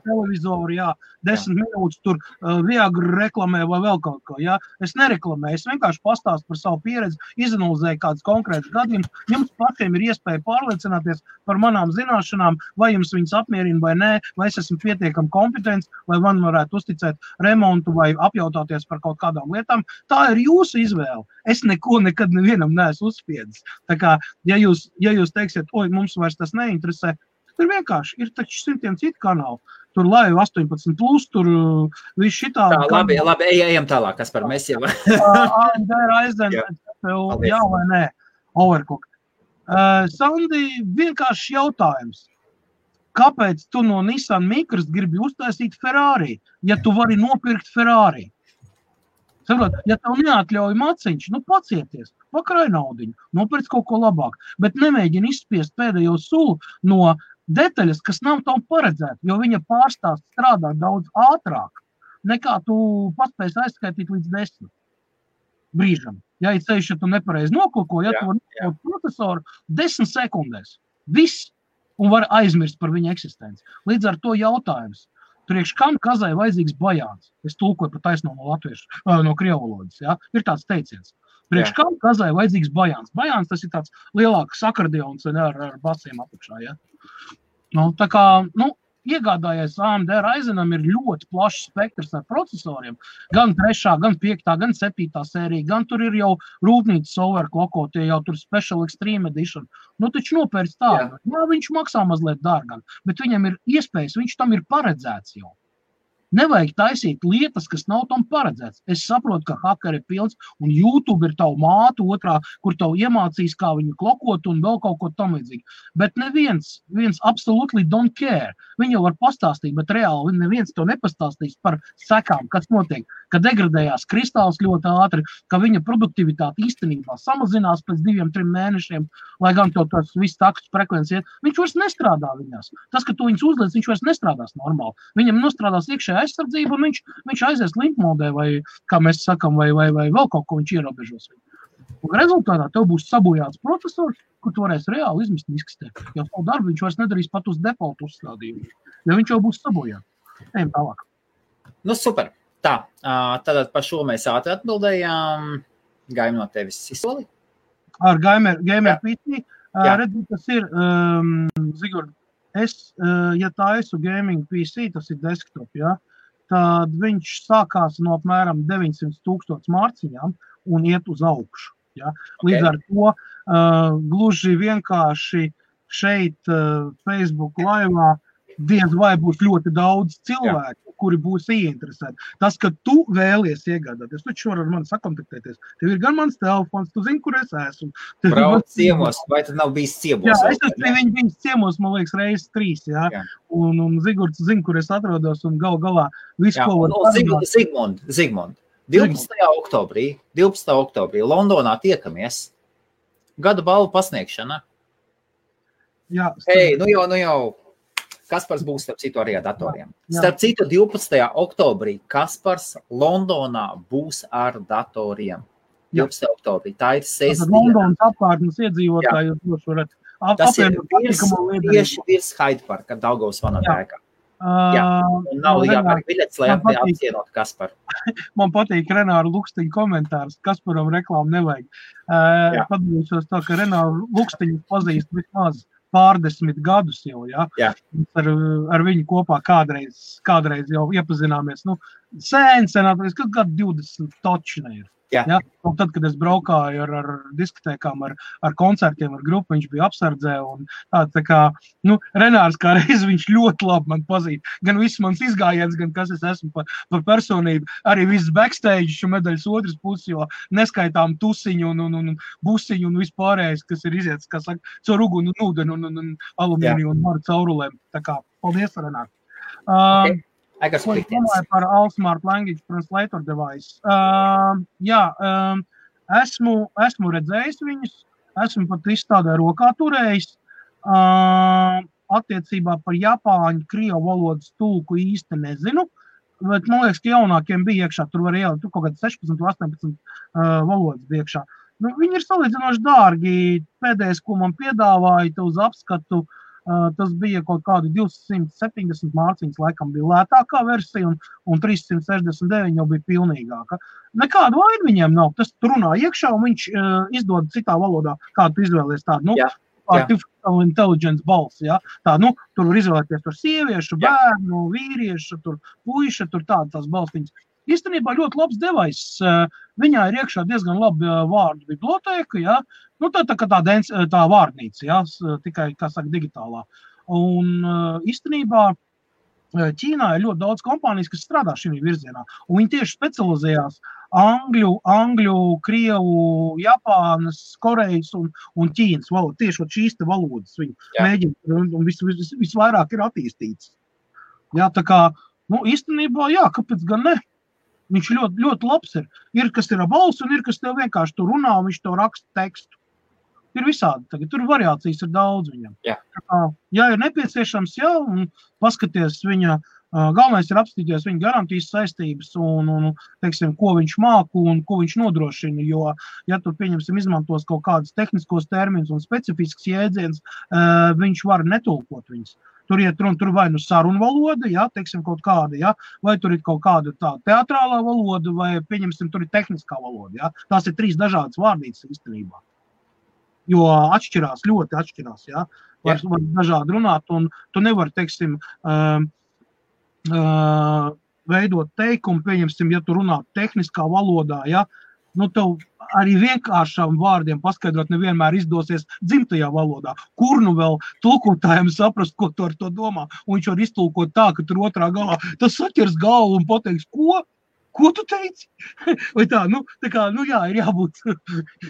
televizoru, 10 minūtes tur Viagra reklamē vai vēl kaut ko, Es nereklamēju, es vienkārši pastāstu par savu pieredzi, izanalizēju kādus konkrētus gadījumus. Jums pašiem ir iespēja pārliecināties par manām zināšanām, vai jums viņas apmierina vai nē, vai es esmu pietiekami kompetents, vai man varētu uzticēt remontu vai apjautāties par kaut kādām lietām. Tā ir jūsu izvēle. Es neko nekad nevienam neesmu uzspiedis. Tā kā, ja jūs teiksiet, mums vairs tas neinteresē, tur vienkārši ir taču 100 citu kanālu. Tur Live 18+, tur viss šitā... Tā, labi, ejam tālāk, Kaspar, mēs jau... AMD Ryzen, jā vai nē, Overclock. Sandi, vienkārši jautājums. Kāpēc tu no Nissan Micras gribi uztaisīt Ferrari, ja tu vari nopirkt Ferrari? Saprot, ja tev neatļauj maciņš, pacieties, pakrāj naudiņu, nopirc kaut ko labāk, bet nemēģini izspiest pēdējo sulu no detaļas, kas nav tev paredzēta, jo viņa pārstāst strādāt daudz ātrāk, nekā tu paspēs aizskaitīt līdz 10 brīžam. Ja ir ceļš, ja tu nepareizi noklako, ja tu vari nokļūt procesoru 10 sekundēs, viss, un var aizmirst par viņa eksistenci. Līdz ar to jautājums. Priekš kam kazai vajadzīgs bajāns? Es tulkoju pa taisno no latviešu, no krievvalodas, Ir tāds teiciens. Priekš kam kazai vajadzīgs bajāns? Bajāns tas ir tāds lielāks akordeons ar basiem apakšā, Tā kā, iegādājies AMD Ryzenam ir ļoti plašs spektrs ar procesoriem, gan 3., gan 5., gan 7. sērija, gan tur ir jau rūpnīcas overclockotie, jau tur Special Extreme Edition. Taču nopērc tādu. Viņš maksā mazliet dārgāk, bet viņam ir iespējas, viņš tam ir paredzēts jau. Nevajag taisīt lietas, kas nav tam paredzēts. Es saprotu, ka hakeri ir pilns, un YouTube ir tavu mātu otrā, kur tavu iemācīs, kā viņu klokot un vēl kaut ko tam līdzīgi. Bet neviens absolutely don't care. Viņi jau var pastāstīt, bet reāli neviens to nepastāstīs par sekām, kas notiek, ka degradējās kristāls ļoti ātri, ka viņa produktivitāte īstenībā samazinās pēc 2-3 mēnešiem, lai gan to tas viss takstus frekvenci iet. Viņš vairs nestrādā viņās. Tas, ka tu viņus uzliec, viņš vairs nestrādās normāli. Viņam nostrādās iekšējā aizsardzību, un viņš aizies limpmodē, vai, kā mēs sakam, vai vēl kaut ko viņš ierobežos. Un rezultātā tev būs sabojāts procesors, kur tu varēsi reāli izmest miskastē. Jo savu darbu viņš vairs nedarīs pat uz default uzstādījumu, jo viņš jau būs sabojāts. Ejam tālāk. Super. Tā, tad par šo mēs ātri atbildējām. Gaim no tevis izsoli? Ar Gamer PC. Redzi, tas ir, Zigurd, ja tā esmu gaming PC, tas ir desktop, tad viņš sākās no apmēram 900,000 mārciņām un iet uz augšu. Līdz ar to gluži vienkārši šeit Facebook laivā diez vai būs ļoti daudz cilvēku, kuri būs ieinteresēti. Tas, ka tu vēlies iegādāties, tu taču vari ar mani sakontaktēties. Tev ir gan mans telefons, tu zini, kur es esmu. Brauc ciemos, vai tad nav bijis ciemos? Jā, es esmu bijis ciemos, man liekas, reizes 3, Un Zigurds zina, kur es atrodos, un galā visu, ko var parunāt. Zigmund, 12. oktobrī Londonā tiekamies. Gada balvu pasniegšana. Jā. Hei, nu jau. Kaspars būs starp citu arī ar datoriem. Starp citu 12. oktobrī Kaspars Londonā būs ar datoriem. 12. oktobrī. Tā ir sestdiena. Londonas apkārtnes iedzīvotāji jūs droši varat apvienot tieši virs Hyde Parka, Daugavas vanatēkā. Un nav jāpērk biļetes, lai apcienot Kasparu. Man patīk Renāra Lukstiņa komentārs. Kasparam reklāmu nevajag. Padalīšos tā, ka Renāra Lukstiņu pazīst vismaz pārdesmit gadus jau, ar viņu kopā kādreiz jau iepazināmies. Sen, kas gadu 20 točina ir. Ja? Un tad, kad es braukāju ar diskotēkām, ar koncertiem, ar grupu, viņš bija apsardzē. Un tā kā, Renārs kā reiz viņš ļoti labi man pazīst. Gan viss mans izgājiens, gan kas es esmu par personību. Arī viss backstage medaļas otras puses, jo neskaitām tusiņu un busiņu un vispārējais, kas ir iziets, kā saka, caur uguni un ūdeni un alumīniju un maru caurulēm. Tā kā, paldies, Renārs. Okay. Ko es domāju par All-Smart Language Translator device? Esmu redzējis viņus, esmu pat izstādē rokā turējis. Attiecībā par japāņu, krievu valodas tulku īsti nezinu, bet man liekas, ka jaunākiem bija iekšā, tur var ielikt, tur kaut kāds 16, 18 valodas bija iekšā. Viņi ir salīdzinoši dārgi, pēdējais, ko man piedāvāja, uz apskatu, tas bija kaut kādi 270 mārciņas, laikam bija lētākā versija, un 369 jau bija pilnīgāka. Nekādu vainu viņiem nav, tas tur runā iekšā, un viņš izdod citā valodā, kādu tu izvēlies tādu, artificial intelligence balss, ja? Tā, tur var izvēlēties tur sieviešu, bērnu, vīriešu, tur puiša, tur tās balstiņas. Īstenībā ļoti labs devais. Viņā ir iekšā diezgan labi vārdu bibliotēka, ja? Tā vārdnīca, ja? Tikai, kā saka, digitālā. Un īstenībā Ķīnā ir ļoti daudz kompānijas, kas strādā šī virzienā. Un viņi tieši specializējās angļu, krievu, Japānas, Korejas un Ķīnas valodas. Tieši šīs te valodas viņi mēģina un visvairāk ir attīstīts. Jā, tā kā, īstenībā, kāpēc gan ne? Viņš ļoti, ļoti labs ir. Ir, kas ir ar balsi, un ir, kas tev vienkārši tur runā, un viņš tev raksta tekstu. Ir visādi tagad. Tur variācijas ir daudz viņam. Ja ir nepieciešams, un paskaties viņa, galvenais ir apstīties viņa garantijas saistības un teiksim, ko viņš māku un ko viņš nodrošina, jo, ja tur, pieņemsim, izmantos kaut kādus tehniskos terminus un specifisks jēdziens, viņš var netulkot viņus. Tur iet runa, tur vai sarunu valoda, teiksim, kaut kāda, vai tur ir kaut kāda tā teatrālā valoda, vai, pieņemsim, tur ir tehniskā valoda, Tās ir 3 dažādas vārdītes īstenībā. Jo ļoti atšķirās, Var dažādi runāt, un tu nevari, teiksim, veidot teikumu, pieņemsim, ja tu runā tehniskā valodā, tev arī vienkāršām vārdiem paskaidrot nevienmēr izdosies dzimtajā valodā. Kur vēl tulkotājiem saprast, ko tu ar to domā? Un viņš var iztulkot tā, ka tur otrā galā tas saķers galvu un pateiks, ko tu teici? Vai tā, ir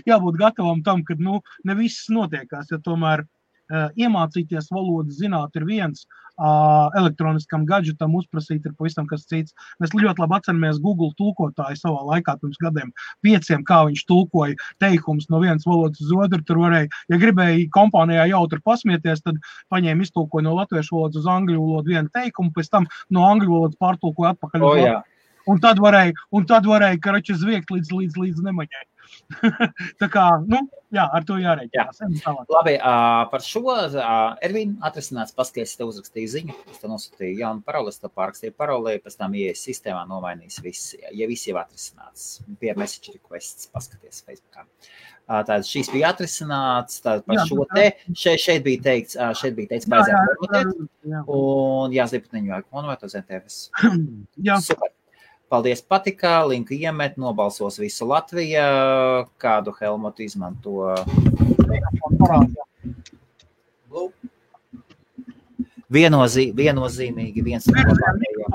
jābūt gatavam tam, kad, ne viss notiekās, ja tomēr iemācīties valodas zināt ir viens, elektroniskam gadžetam uzprasīt ir pavisam kas cits. Mēs ļoti labi atceramies Google tulkotāju savā laikā pirms gadiem 5, kā viņš tulkoja teikumus no vienas valodas uz otru. Tur varēja, ja gribēja kompānijā jautri pasmieties, tad paņēma iztulkoja no latviešu valodas uz angļu valodu vienu teikumu, pēc tam no angļu valodas pārtulkoja atpakaļ uz latviešu. Un tad varēja, karači zviegt līdz nemaņai. Tā kā, ar to jārēķinās. Labi, par šo, Ervīn, atrisināts paskaties, te uzrakstīju ziņu, es te nosūtīju jaunu paroli, es te pārakstīju paroli, pēc tam ieies sistēmā nomainīs viss, ja viss jau atrisināts. Pie message requests paskaties Facebookā. Tātad šīs bija atrisināts, tātad par šo te, šeit bija teikts, baidzēt formulēt, un jāslīpatniņu vajag konvēt uz NTFS. Super. Paldies, patikā, linku iemet, nobalsos visu Latviju, kādu Helmutu izmanto. Viennozīmīgi viens no labākajiem.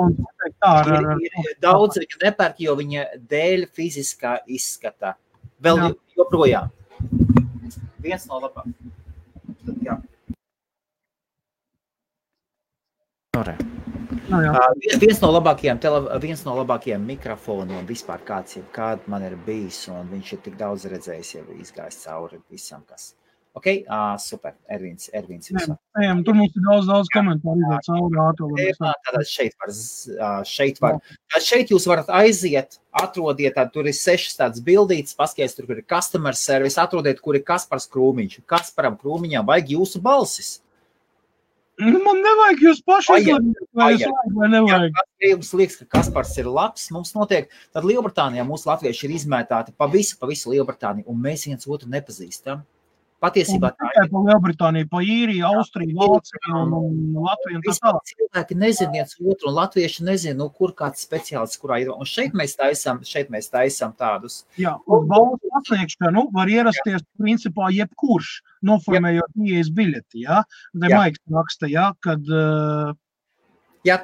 Ir daudz viņa nepērk, jo viņa dēļ fiziskā izskata. Vēl joprojām. Viens no labākajiem. Viens no labākajiem mikrofoniem vispār kāda man ir bijis, un viņš ir tik daudz redzējis, jau izgājis cauri visam, kas. Ok, super, Ervīns visam. Tur mums ir daudz komentāru izēt cauri. Šeit jūs varat aiziet, atrodiet, tur ir 6 tādas bildītes, paskaties, tur ir customer service, atrodiet, kur ir Kaspars Krūmiņš. Kasparam Krūmiņam vajag jūsu balsis. Man nevajag jūs paši, vai nevajag. Ja jums liekas, ka Kaspars ir labs, mums notiek, tad Lielbritānijā mūsu latvieši ir izmētāti pa visu Lielbritāniju, un mēs viens otru nepazīstam. Patiesībā tā ir. Pa Lielbritāniju, pa Īriju, Austriju, Vāciju un Latviju un tā tālāk. Cilvēki nezin viens otru, un latvieši nezin, kur kāds speciālists, kurā ir. Un šeit mēs taisam tādus. Jā, un balvas pasniegšanu var ierasties principā jebkurš, noformējot ieejas biļeti, jā. Maiks raksta, jā, kad... Jā,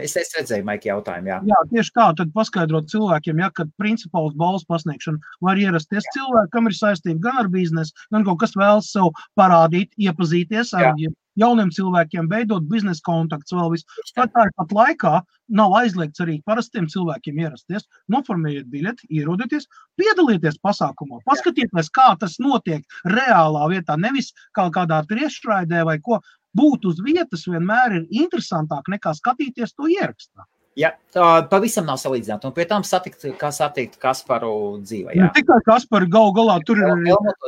es redzēju, Maiki, jautājumu, jā. Jā, tieši tā, tad paskaidrot cilvēkiem, ja, kad principā uz balvas pasniegšanu var ierasties cilvēki, kam ir saistība gan ar biznesu, gan kaut kas vēlas sev parādīt, iepazīties ar jauniem cilvēkiem, veidot biznesa kontakts vēl visu. Tāpat laikā nav aizliegts arī parastiem cilvēkiem ierasties, noformējiet biļeti, ierodieties, piedalieties pasākumā, paskatieties, kā tas notiek reālā vietā, nevis kādā tiešraidē vai ko. Būt uz vietas vienmēr ir interesantāk nekā skatīties to ierakstā. Jā, pavisam nav salīdzināt. Un pie tam satikt Kasparu dzīvē. Jā. Ne tikai Kasparu galā tur ir...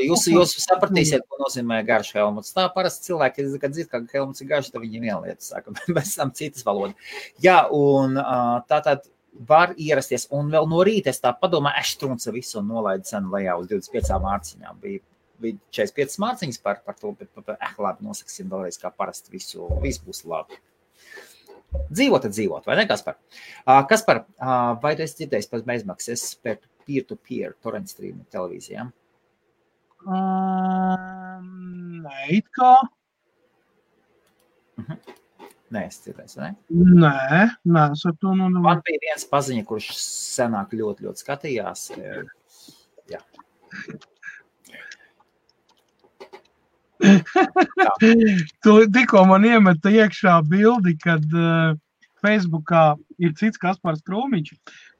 Jūs sapratīsiet, ko nozīmē garš helmuts. Tā parasti cilvēki, kad dzird, ka helmuts ir garš, tad viņi viena lieta saka, bez tam citas valoda. Jā, un tātad var ierasties. Un vēl no rīta es tā padomāju, Eštrunca visu un nolaidu cenu lejā uz 25 mārciņām. Bija 45 mārciņas par to, bet labi, nosaksim vēlreiz, kā parasti viss būs labi. Dzīvot, vai ne, Kaspar? Kaspar, vai tu esi dzirdējis par bezmaksas par peer-to-peer torrent streamu televīzijām? Nē, it kā. Nē, es dzirdējis, vai ne? Nē, es ar to Man bija viens paziņa, kurš senāk ļoti skatījās. Jā. Tu tikko man iemeta iekšā bildi, kad Facebookā ir cits Kaspars Krūmiņš,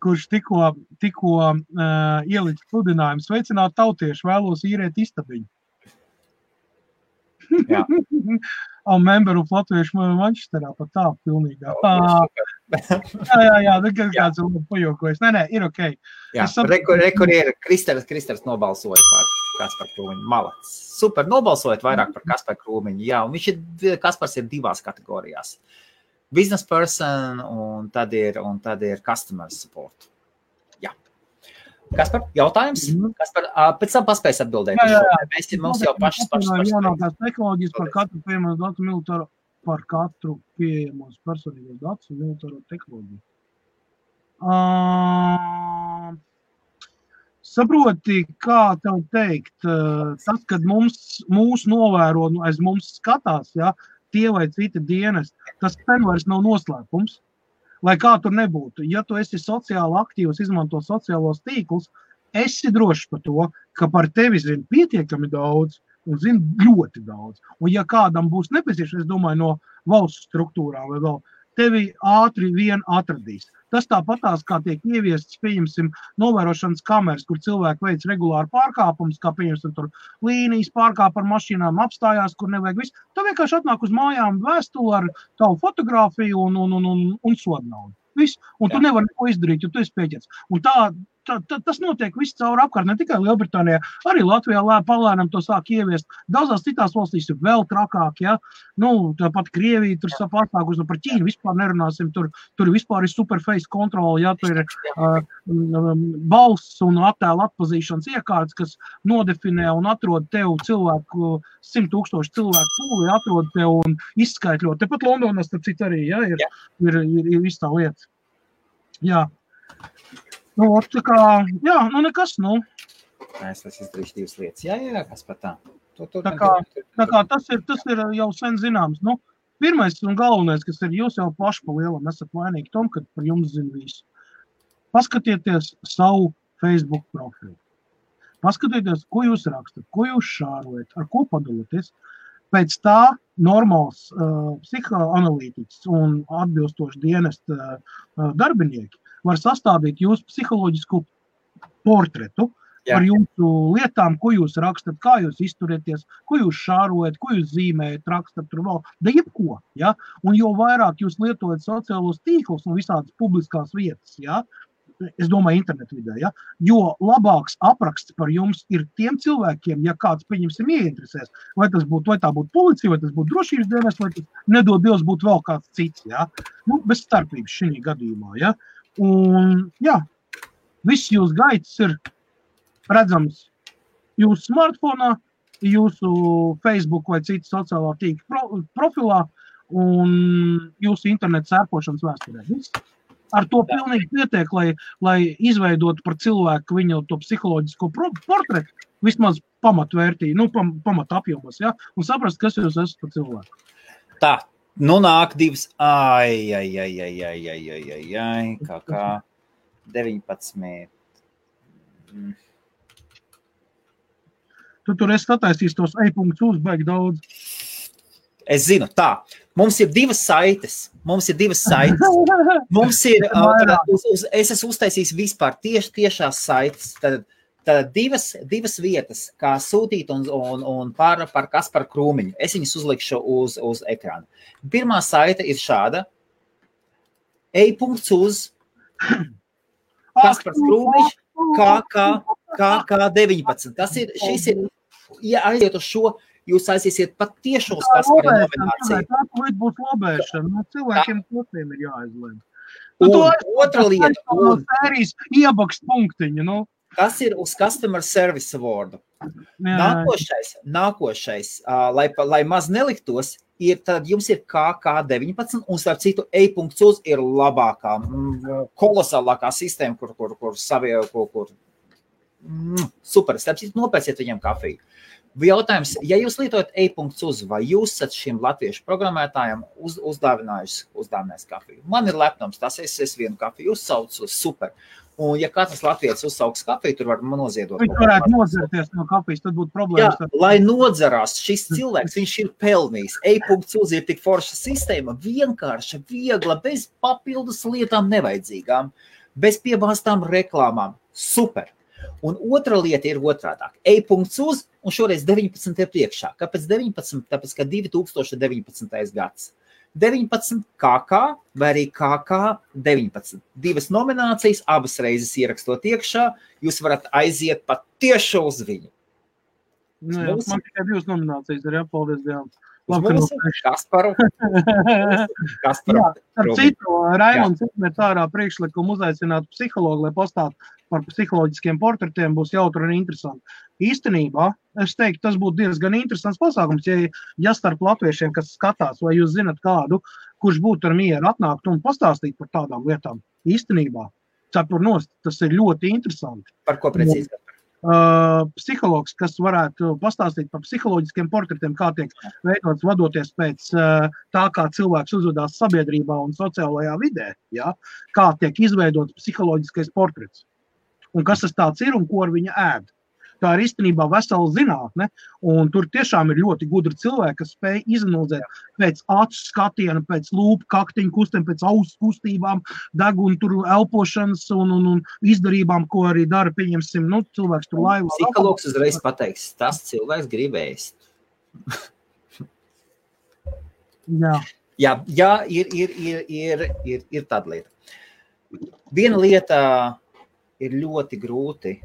kurš tikko ielicis sludinājumu sveicināt tautiešu, vēlos īrēt istabiņu. Jā. Memberu Latviešu Manchesterā pat tā pilnīgā. Jā, kāds ir pajokojas. Nē, ir okei. Jā, rekur ir Kristers nobalsoja par Kasparu Krūmiņu. Malacis. Super, nobalsojot vairāk par Kasparu Krūmiņu. Jā, un Kaspars ir divās kategorijās. Business person un tad ir customer support. Jā. Kaspar, jautājums? Kaspar, pēc tam paspējas atbildēt. Jā. Mums jau pašas. Jaunākās tehnoloģijas par katru pieejamo datu militāro, par katru pieejamos personīgos datus un militāro tehnoloģiju. Saproti, kā tev teikt, tas, kad mūs novēro, aiz mums skatās, ja, tie vai citi dienesti, tas ten vairs nav noslēpums. Lai kā tur nebūtu, ja tu esi sociāli aktīvs, izmanto sociālos tīklus, esi drošs par to, ka par tevi zina pietiekami daudz un zina ļoti daudz. Un ja kādam būs nepieciešams, es domāju, no valsts struktūrām vai vēl, tevi ātri vien atradīs. Tas tāpatās, kā tiek ieviests, pieņemsim, novērošanas kameras, kur cilvēki veic regulāri pārkāpumus, kā pieņemsim tur līnijas pārkāp ar mašīnām, apstājās, kur nevajag visu. Tā vienkārši atnāk uz mājām vēstuli ar tavu fotogrāfiju un sodnaudu. Viss. Un tu nevari neko izdarīt, jo tu esi pieķerts. Un tas notiek viss caur apkārt, ne tikai Lielbritānijā, arī Latvijā palēnām to sāk ieviest. Daudzās citās valstīs ir vēl trakāk, ja. Tāpat Krievija tur sapāstākus, par Ķīnu vispār nerunāsim, tur vispār ir superface kontroli, ja, tur ir balss un attēla atpazīšanas iekārtas, kas nodefinē un atrod tev cilvēku, 100,000 cilvēku pūli, atrod tev un izskaitļot. Tepat Londonas, tad cit arī, ja, ir viss tā lieta. Jā. Tā kā, nekas, Es izdarīšu divas lietas. Jā, kas par tā. Tā kā tas ir jau sen zināms. Pirmais un galvenais, kas ir, jūs jau paši pa lielam esat vainīgi tom, kad par jums zina visu. Paskatieties savu Facebook profilu. Paskatieties, ko jūs rakstat, ko jūs šārojat, ar ko padaloties. Pēc tā normāls psihoanalītiķis un atbilstoši dienesta darbinieki var sastādīt jūsu psiholoģisku portretu par jūsu lietām, ko jūs rakstat, kā jūs izturieties, ko jūs šārojat, ko jūs zīmējat, rakstat tur vēl, da jebko, ja? Un jo vairāk jūs lietojat sociālos tīklus un visādas publiskās vietas, ja? Es domāju internetu vidē, ja? Jo labāks apraksts par jums ir tiem cilvēkiem, ja kāds, pieņemsim, ieinteresēs, vai tā būtu policija, vai tas būtu drošības dienas, vai tas nedod Dievs būtu vēl kāds cits, ja? Bez starpības šī gadījumā, ja? Un, viss jūs gaitas ir redzams jūsu smartfonā, jūsu Facebook vai citu sociālā tīkla profilā un jūsu interneta sērpošanas vēsturē. Ar to pilnīgi pietiek, lai izveidotu par cilvēku viņu to psiholoģisko portretu, vismaz pamatvērtīgi, pamat apjomos, ja? Un saprast, kas jūs esat par cilvēku. Tā, nāk divas, kā 19. Tu tur esi sataisījis tos e-punktus baigi daudz. Es zinu, tā. Mums ir divas saites. Mums ir, es esmu uztaisījis vispār tiešās saites. Tad divas vietas, kā sūtīt un par Kasparu Krūmiņu. Es viņus uzlikšu uz ekrāna. Pirmā saite ir šāda. e.uz Kaspars Krūmiņš KK19. Šis ir, ja aiziet uz šo, jūs aiziesiet pat tiešo uz Kaspara nomināciju. Tā būs lobēšana. Cilvēkiem kotiem ir jāizlēm. Un otra lieta. Sērijas iebakst punktiņu, Tas ir uz Customer Service Award. Nākošais, lai maz neliktos, tad jums ir KK19, un starp citu e.uz ir labākā, kolosālākā sistēma, kur super, starp citu nopērciet viņiem kafiju. Jautājums, ja jūs lietojat e.uz, vai jūs esat šiem latviešu programmētājiem uzdāvinājis kafiju? Man ir lepnums, tas es vienu kafiju uzsaucu, super. Un ja katrs latvietis uzsauks kafiju, tur var noziedot. Viņš varētu nozerties no kafijas, tad būtu problēmas. Jā, lai nodzerās šis cilvēks, viņš ir pelnījis. e.uz ir tik forša sistēma, vienkārša, viegla, bez papildus lietām nevajadzīgām, bez piebāstām reklāmām. Super. Un otra lieta ir otrādāk. e.uz un šoreiz 19 ir priekšā. Kāpēc 19? Tāpēc, ka 2019. gads. 19 KK vai arī KK19. Divas nominācijas, abas reizes ierakstot iekšā, jūs varat aiziet pat tieši uz viņu. Man tikai divas nominācijas ir jāpaldies Dievam. Kasparu. Ar citu, Raimonds izmet ārā priekšlikumu uzaicināt psihologu, lai pastātu par psiholoģiskiem portretiem, būs jautri un interesanti. Īstenībā, es teiktu, tas būtu diezgan interesants pasākums, ja starp latviešiem, kas skatās, vai jūs zinat kādu, kurš būtu ar mieru atnākt un pastāstīt par tādām lietām. Īstenībā, cepur nost, tas ir ļoti interesanti. Par ko precīzi? Psihologs, kas varētu pastāstīt par psiholoģiskiem portretiem, kā tiek veidots vadoties pēc tā, kā cilvēks uzvedās sabiedrībā un sociālajā vidē, ja? Kā tiek izveidots psiholoģiskais portrets. Un kas tas tāds ir un ko ar viņa ēd. Tā ir īstenībā vesela zinātne, un tur tiešām ir ļoti gudri cilvēki, kas spēj izanalizēt pēc acu skatiena, pēc lūpu kaktiņu kustiem, pēc ausu kustībām, deguna tur elpošanas un izdarībām, ko arī dara, pieņemsim, cilvēks tur laivā. Psihologs uzreiz pateiks, tas cilvēks grib ēst. Jā, ir tāda lieta. Viena lieta ir ļoti grūti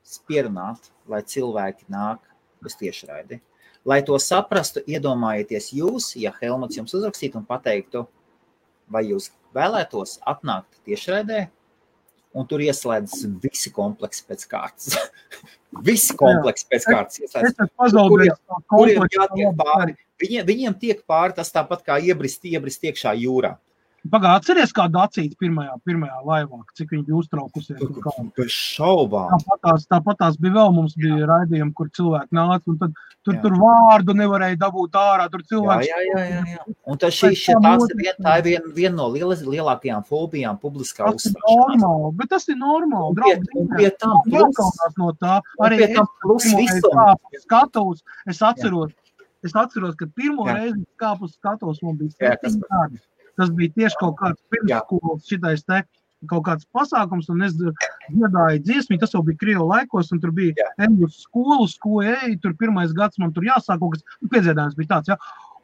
spierunāt, lai cilvēki nāk uz tiešraidi. Lai to saprastu, iedomājieties jūs, ja Helmuts jums uzrakstītu un pateiktu, vai jūs vēlētos atnākt tiešraidē, un tur ieslēdz visi kompleksi pēc kārtas. Visi kompleksi pēc kārtas. Kuriem jātiek pāri. Viņiem tiek pāri tas tāpat kā iebrist iekšā jūrā. Pagā, atceries kādu acīti pirmajā laivā, cik viņi bija uztraukusies? Bez šaubām. Tāpatās bija vēl, mums bija raidījumi, kur cilvēki nāca, un tad tur vārdu nevarēja dabūt ārā, tur cilvēks... Jā. Un tā ir viena no lielākajām fobijām publiskā uzstāšanās. Bet tas ir normāli. Un pie tam plus skatos, es atceros, ka pirmo reizi kāpus skatos, man bija 7 gadi. Tas bija tieši kaut kāds pirmskolas šitais te kaut kāds pasākums, un es dziedāju dziesmi, tas jau bija Krievu laikos, un tur bija Engļus skolu, tur pirmais gads man tur jāsāk kaut kas, piedziedājums bija tāds, ja.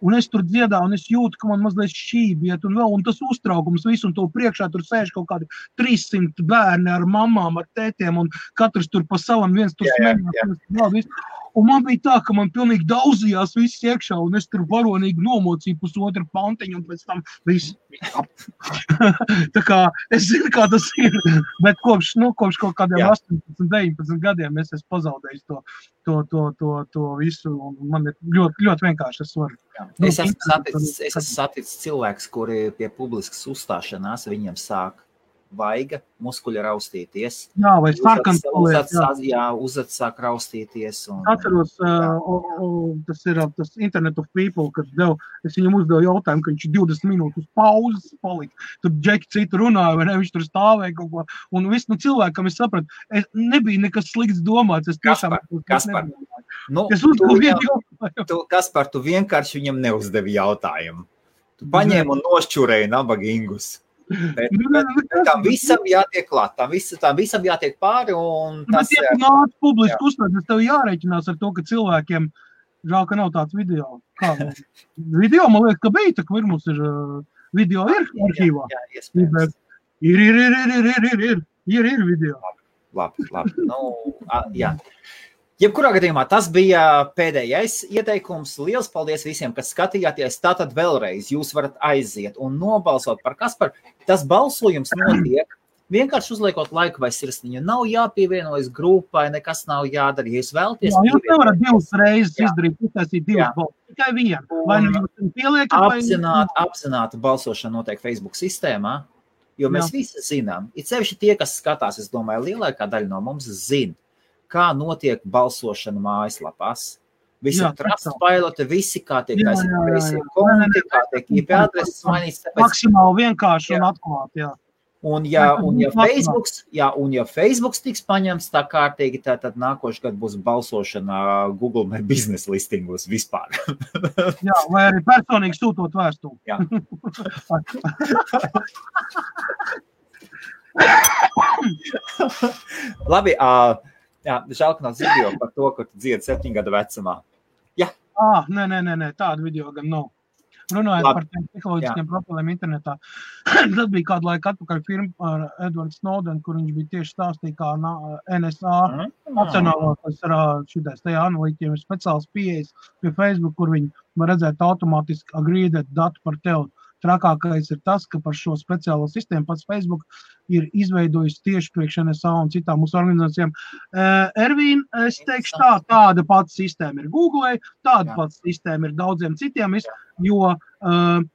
Un es tur dziedāju, un es jūtu, ka man mazliet šībiet, un tas uztraukums visu, un to priekšā tur sēž kaut kādi 300 bērni ar mamām, ar tētiem, un katrs tur pa savam viens tur smēļās. Un man bija tā, ka man pilnīgi daudzījās viss iekšā, un es tur varonīgi nomocīju pusotru pantiņu, un pēc tam viss. Tā kā es zinu, kā tas ir, bet kopš kaut kādiem 18, 19 gadiem es esmu pazaudējis to visu, un man ir ļoti, ļoti vienkārši es varu. Es esmu saticis cilvēks, kuri pie publiskas uzstāšanās viņiem sāk vaiga, muskuļi raustīties. Jā, vai sarkans paliek. Uzad sāk raustīties. Atceros, tas ir tas Internet of People, kad es viņam uzdevu jautājumu, ka viņš 20 minūtes pauzes palika. Tur džeki citu runāja, vai ne, viņš tur stāvēja kaut ko. Un viss, cilvēkam es sapratu, nebija nekas slikts domāts. Kaspar. Es uzdevu jautājumu. Kaspar, tu vienkārši viņam neuzdevi jautājumu. Tu paņēmi un nošķurēji nabagingus. Bet tam visam jātiek klāt, tam visam jātiek pāri, un tas... Bet, ja tu nāc publiski uzstāties, tev jārēķinās ar to, ka cilvēkiem žēl, ka nav tāds video. Kā? Video, man liekas, ka bija, tā ka mums ir video ir arhīvā. Jā, iespējams. Ir video. Labi. Jā. Jebkurā gadījumā tas bija pēdējais ieteikums. Liels paldies visiem, kas skatījāties. Tātad vēlreiz jūs varat aiziet un nobalsot par Kasparu. Tas balsojums notiek vienkārši uzliekot laiku vai sirsniņu. Nav jāpievienojas grupai, nekas nav jādara. Ja jūs vēlaties... Jā, jūs nevarat divas reizes izdarīt, uztaisīt divas balsas. Tikai vienu. Vai jūs pieliekat? Apzināta balsošana notiek Facebook sistēmā, jo mēs visi zinām. It sevišķi tie, kas skatās, es domāju, lielākā daļa no mums zina, kā notiek balsošana mājaslapās. Visi Trustpiloti, visi kā tiek aizsaka konti, kā tiek IP adreses mainīts. Maksimāli vienkārši un atklāt, jā. Un ja Facebooks tiks paņemts tā kārtīgi, tad nākošu gadu būs balsošana Google My Business listingos vispār. Jā, vai arī personīgi sūtot vēstuli. Jā. Labi, jā, žēl, ka nav video par to, ka tu dziedi 7 gadu vecumā. Jā. Nē, tādu video gan nav. Runājot par tiem psiholoģiskiem profiliem internetā. Tas bija kādu laiku atpakaļ firma ar Edward Snowden, kur viņš bija tieši stāstīja, kā NSA nacionālās šitais tajā analītiķiem ir speciāls pieejas pie Facebook, kur viņi var redzēt automātiski agreedēt datu par tevi. Trakākais ir tas, ka par šo speciālo sistēmu pats Facebook ir izveidojis tieši priekš NSA un citām mūsu organizācijām. Ervīn, es teikšu tāda pats sistēma ir Google, tāda pats sistēma ir daudziem citiem, jo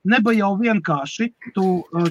neba jau vienkārši tu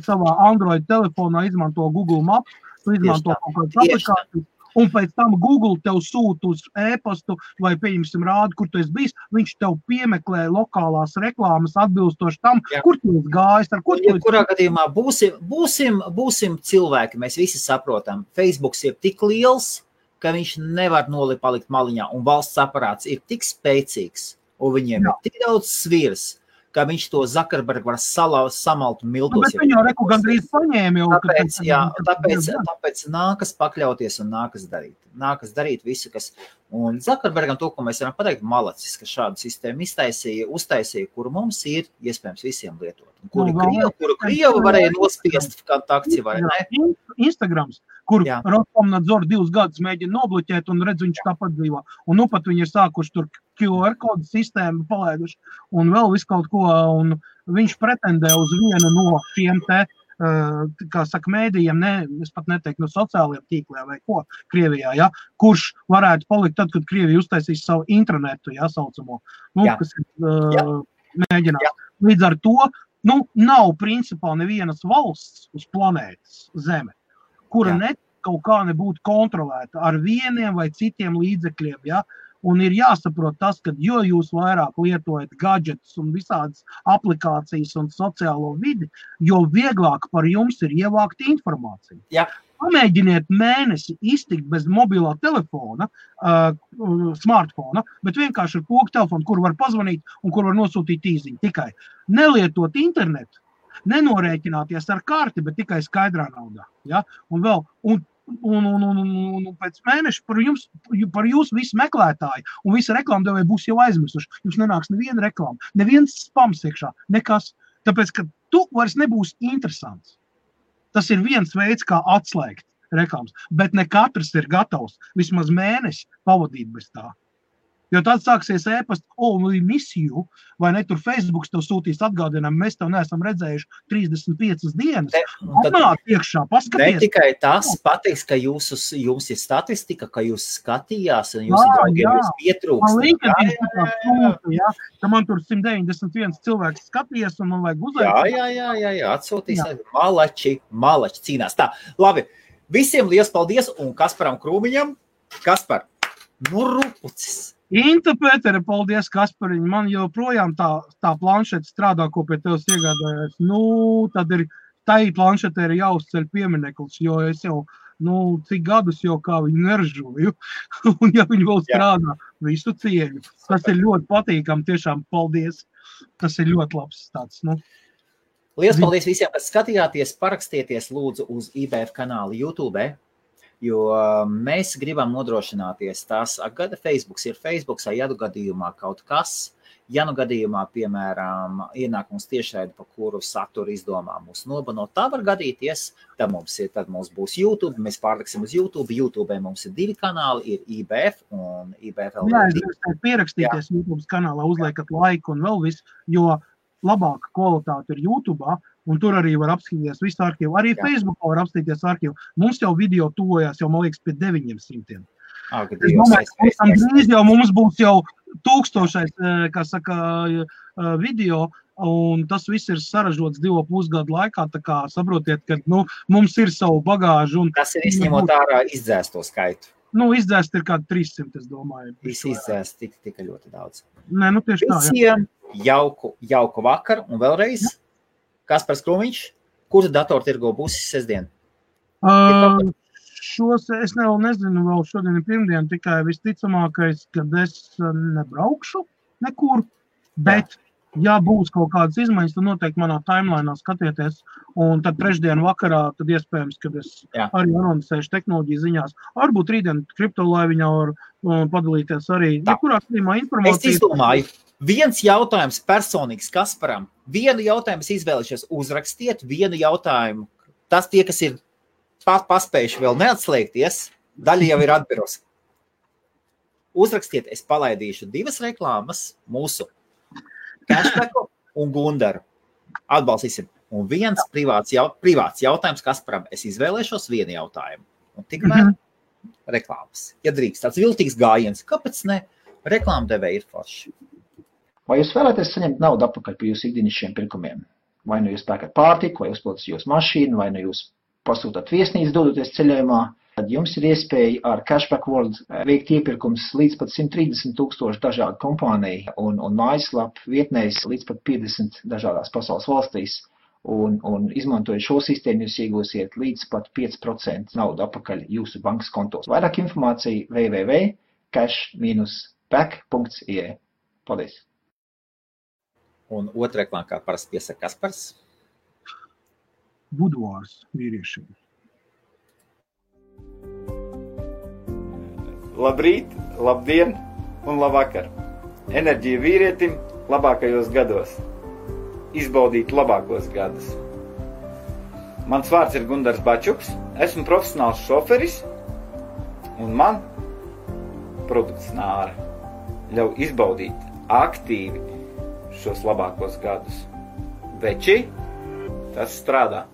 savā Android telefonā izmanto Google Maps, tu izmanto kaut kādas aplikācijas, un pēc tam Google tev sūta uz e-pastu vai, pieņemsim, rādu, kur tu esi bijis, viņš tev piemeklē lokālās reklāmas atbilstoši tam, kur tu esi gājis, ar kur tu esi. Kurā gadījumā būsim cilvēki, mēs visi saprotam, Facebooks ir tik liels, ka viņš nevar palikt maliņā, un valsts aparāts ir tik spēcīgs, un viņiem ir tik daudz svirs, ka viņš to Zuckerberg var samalt miltos. Bet viņu reku gandrīz paņēma jau. Tāpēc nākas pakļauties un nākas darīt visu, kas... Un Zuckerbergam to, ko mēs varam pateikt, malacis, ka šādu sistēmu uztaisīja, kuru mums ir iespējams visiem lietot. Kuru Krievu varēja nospiest kontakti vai ne? Instagrams, kur Roskomnadzor 2 gadus mēģina nobloķēt un redz, viņš tāpat dzīvo. Un nu pat viņi ir sākuši tur QR kodu sistēmu palaiduši un vēl visu kaut ko, un viņš pretendē uz vienu no šiem kā saka, mēdījiem, es pat neteiktu no sociālajiem tīkliem vai ko Krievijā, kurš varētu palikt tad, kad Krievija uztaisīs savu intranetu, saucamo, kas mēģinās. Līdz ar to, nav principā nevienas valsts uz planētas Zeme, kura kaut kā nebūtu kontrolēta ar vieniem vai citiem līdzekļiem, Un ir jāsaprot tas, ka jo jūs vairāk lietojat gadgetus un visādas aplikācijas un sociālo vidi, jo vieglāk par jums ir ievākt informāciju. Jā. Pamēģiniet mēnesi iztikt bez mobilā telefona, smartfona, bet vienkārši ar pogu telefonu, kur var pazvanīt un kur var nosūtīt īziņu. Tikai nelietot internetu, nenorēķināties ar karti, bet tikai skaidrā naudā. Ja? Un vēl... Un pēc mēneša par jūsu visu meklētāju un visi reklāmdevēji būs jau aizmirsuši. Jums nenāks neviena reklāma, neviens spams iekšā, nekas. Tāpēc, ka tu vairs nebūs interesants. Tas ir viens veids, kā atslēgt reklāmas, bet ne katrs ir gatavs vismaz mēnesi pavadīt bez tā. Jo tad sāksies ēpast, we miss you, vai ne, tur Facebooks tev sūtīs atgādinām, mēs tev neesam redzējuši 35 dienas. Atnāk iekšā, paskaties. Ne tikai tas patiks, ka jums ir statistika, ka jūs skatījās un jūs draugiem jūs pietrūkst. Ka man tur 191 cilvēks skatījies un man vajag uzaicināt. Jā, atsūtīs. Malači cīnās. Tā, labi, visiem liels paldies un Kasparam Krūmiņam. Kaspar, rupucis. Inta Pētere, paldies Kaspariņ, man joprojām tā planšeta strādā, ko pie tevis iegādājās. Tad ir, tai planšetē ir jāuzceļ piemineklis, jo es jau, cik gadus jau kā viņu neržoju, un ja viņi vēl strādā, visu cieņu. Tas ir ļoti patīkam, tiešām paldies. Tas ir ļoti labs tāds, Liels paldies visiem, kas skatījāties, parakstieties lūdzu uz IBF kanālu YouTube. Jo mēs gribam nodrošināties tās, gada Facebooks ir Facebooks, ja gadījumā kaut kas, ja gadījumā, piemēram, ienākums tiešraidi, pa kuru saturu izdomā mūs nobanot, tā var gadīties, tad mums būs YouTube, mēs pārliksim uz YouTube, YouTube mums ir 2 kanāli, ir IBF un IBF LV. Jā, pierakstīties YouTube kanālā, uzliekat laiku un vēl visu, jo labāka kvalitāte ir YouTube, un tur arī var apskatīties visu arhīvu. Arī Facebookā var apskatīties arhīvu. Mums jau video tuvojās, jau, man liekas, pie 900. Es domāju, drīz jau mums būs jau 1000, kā saka, video, un tas viss ir saražots 2,5 gadu laikā, tā kā saprotiet, ka, mums ir savu bagāžu. Tas ir izņemot ārā izdzēsto skaitu. Izdzēst ir kādi 300, es domāju. Visi izdzēst tika ļoti daudz. Nē, tieši tā, Visiem jauku vakaru un vēlreiz. Kaspars Krūmiņš, kura datortirgo būs sestdien? Es nezinu, vēl šodien ir pirmdien, tikai visticamākais, kad es nebraukšu nekur, bet ja būs kaut kādas izmaiņas, tad noteikti manā timelainā skatieties, un tad trešdien vakarā, tad iespējams, kad es arī anoncēšu tehnoloģiju ziņās, varbūt rītdien kriptolaiviņā var padalīties arī nekurā klīmā informāciju. Es izdomāju, viens jautājums personīgs Kasparam, vienu jautājumu es izvēlēšos uzrakstiet, vienu jautājumu, tas tie, kas ir paspējuši vēl neatslēgties, daļa jau ir atbiros. Uzrakstiet, es palaidīšu 2 reklāmas mūsu Cashbacku un Gundaru. Atbalstīsim. Un viens privāts jautājums Kasparam. Es izvēlēšos vienu jautājumu. Un tikmēr reklāmas. Ja drīkst, tāds viltīgs gājiens. Kāpēc ne? Reklāmdevēji ir forši. Vai jūs vēlaties saņemt naudu atpakaļ par jūsu ikdienišķiem pirkumiem? Vai jūs pērkat pārtiku, vai uzpildat jūsu mašīnu, vai jūs pasūtat viesnīcu dodoties ceļojumā? Tad jums ir iespēja ar Cashback World veikt iepirkums līdz pat 130,000 dažādu kompāniju un mājaslapu vietnēs līdz pat 50 dažādās pasaules valstīs. Un izmantojot šo sistēmu, jūs iegūsiet līdz pat 5% naudu atpakaļ jūsu bankas kontos. Vairāk informācija www.cash-back.ie. Paldies! Un otra reklāma, kā parasti piesaka Kaspars. Buduārs vīriešiem. Labrīt, labdien un labvakar. Enerģija vīrietim labākajos gados. Izbaudīt labākos gadus. Mans vārds ir Gundars Bačuks, esmu profesionāls šoferis un man produkts Nāra ļauj izbaudīt aktīvi šos labākos gadus. Veči, tas strādā.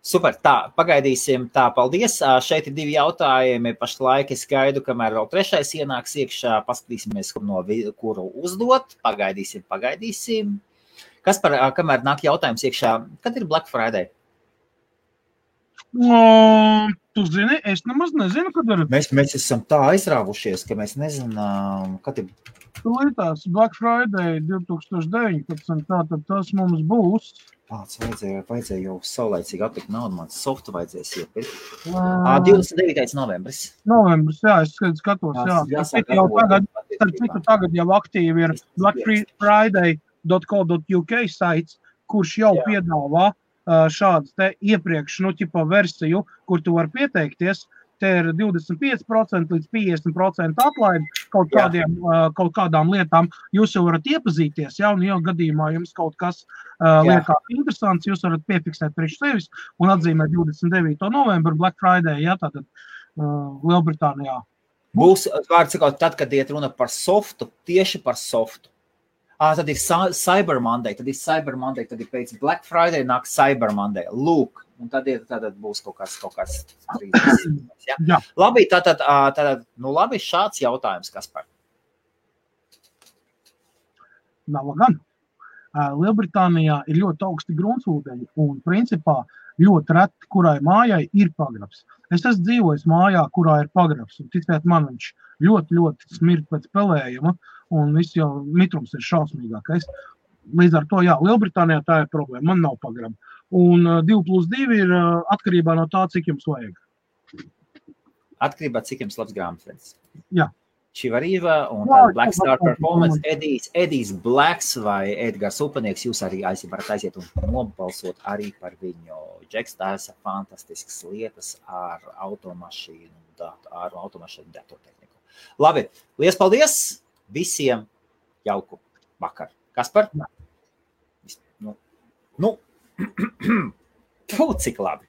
Super, tā, pagaidīsim, tā, paldies. Šeit ir 2 jautājumi, pašlaik es gaidu, kamēr vēl 3. ienāks iekšā, paskatīsimies, kuru uzdot, pagaidīsim. Kaspar, kamēr nāk jautājums iekšā, kad ir Black Friday? Tu zini, es nemaz nezinu, kad ir. Mēs esam tā aizrāvušies, ka mēs nezinām, kad ir. Tās Black Friday 2019, tātad tas mums būs. Pats vajadzēja jau saulaicīgi atlikt naudu, man softu vajadzēs iepirkt. 29. novembris. Novembris, jā, es skatos, jā. Tagad jau aktīvi ir blackfriday.co.uk saits, kurš jau piedāvā šādas te iepriekš, versiju, kur tu var pieteikties. Te ir 25% līdz 50% atlaidi kaut kādām lietām. Jūs jau varat iepazīties, un jau gadījumā jums kaut kas liekas interesants, jūs varat piefiksēt priekš sevis un atzīmēt 29. novembru Black Friday, tātad Lielbritānijā. Būs, vārds sakot, tad, kad iet runa par softu, tieši par softu. Tad ir Cyber Monday, tad ir pēc Black Friday nāk Cyber Monday. Lūk, un tad būs kaut kas 30. Ja? Jā. Labi, tātad, labi, šāds jautājums, Kaspar. Nav gan. Lielbritānijā ir ļoti augsti gruntsūdeņi un principā ļoti reti, kurai mājai ir pagrabs. Es esmu dzīvojis mājā, kurā ir pagrabs, un ticiet man, viņš ļoti smird pēc pelējuma, un viss jau mitrums ir šausmīgākais. Līdz ar to, jā, Lielbritānijā tā ir problēma, man nav pagraba. Un 2+2 ir atkarībā no tā, cik jums vajag. Atkarībā, cik jums labs grāmatvedis. Jā. Čivariva un Black Star Performance, Edijs Blacks vai Edgars Upanieks, jūs arī varat aiziet un nobalsot arī par viņu. Džeks taisa fantastiskas lietas ar automašīnu datortehniku. Labi, liels paldies visiem, jauku vakaru. Kaspar? Cik labi.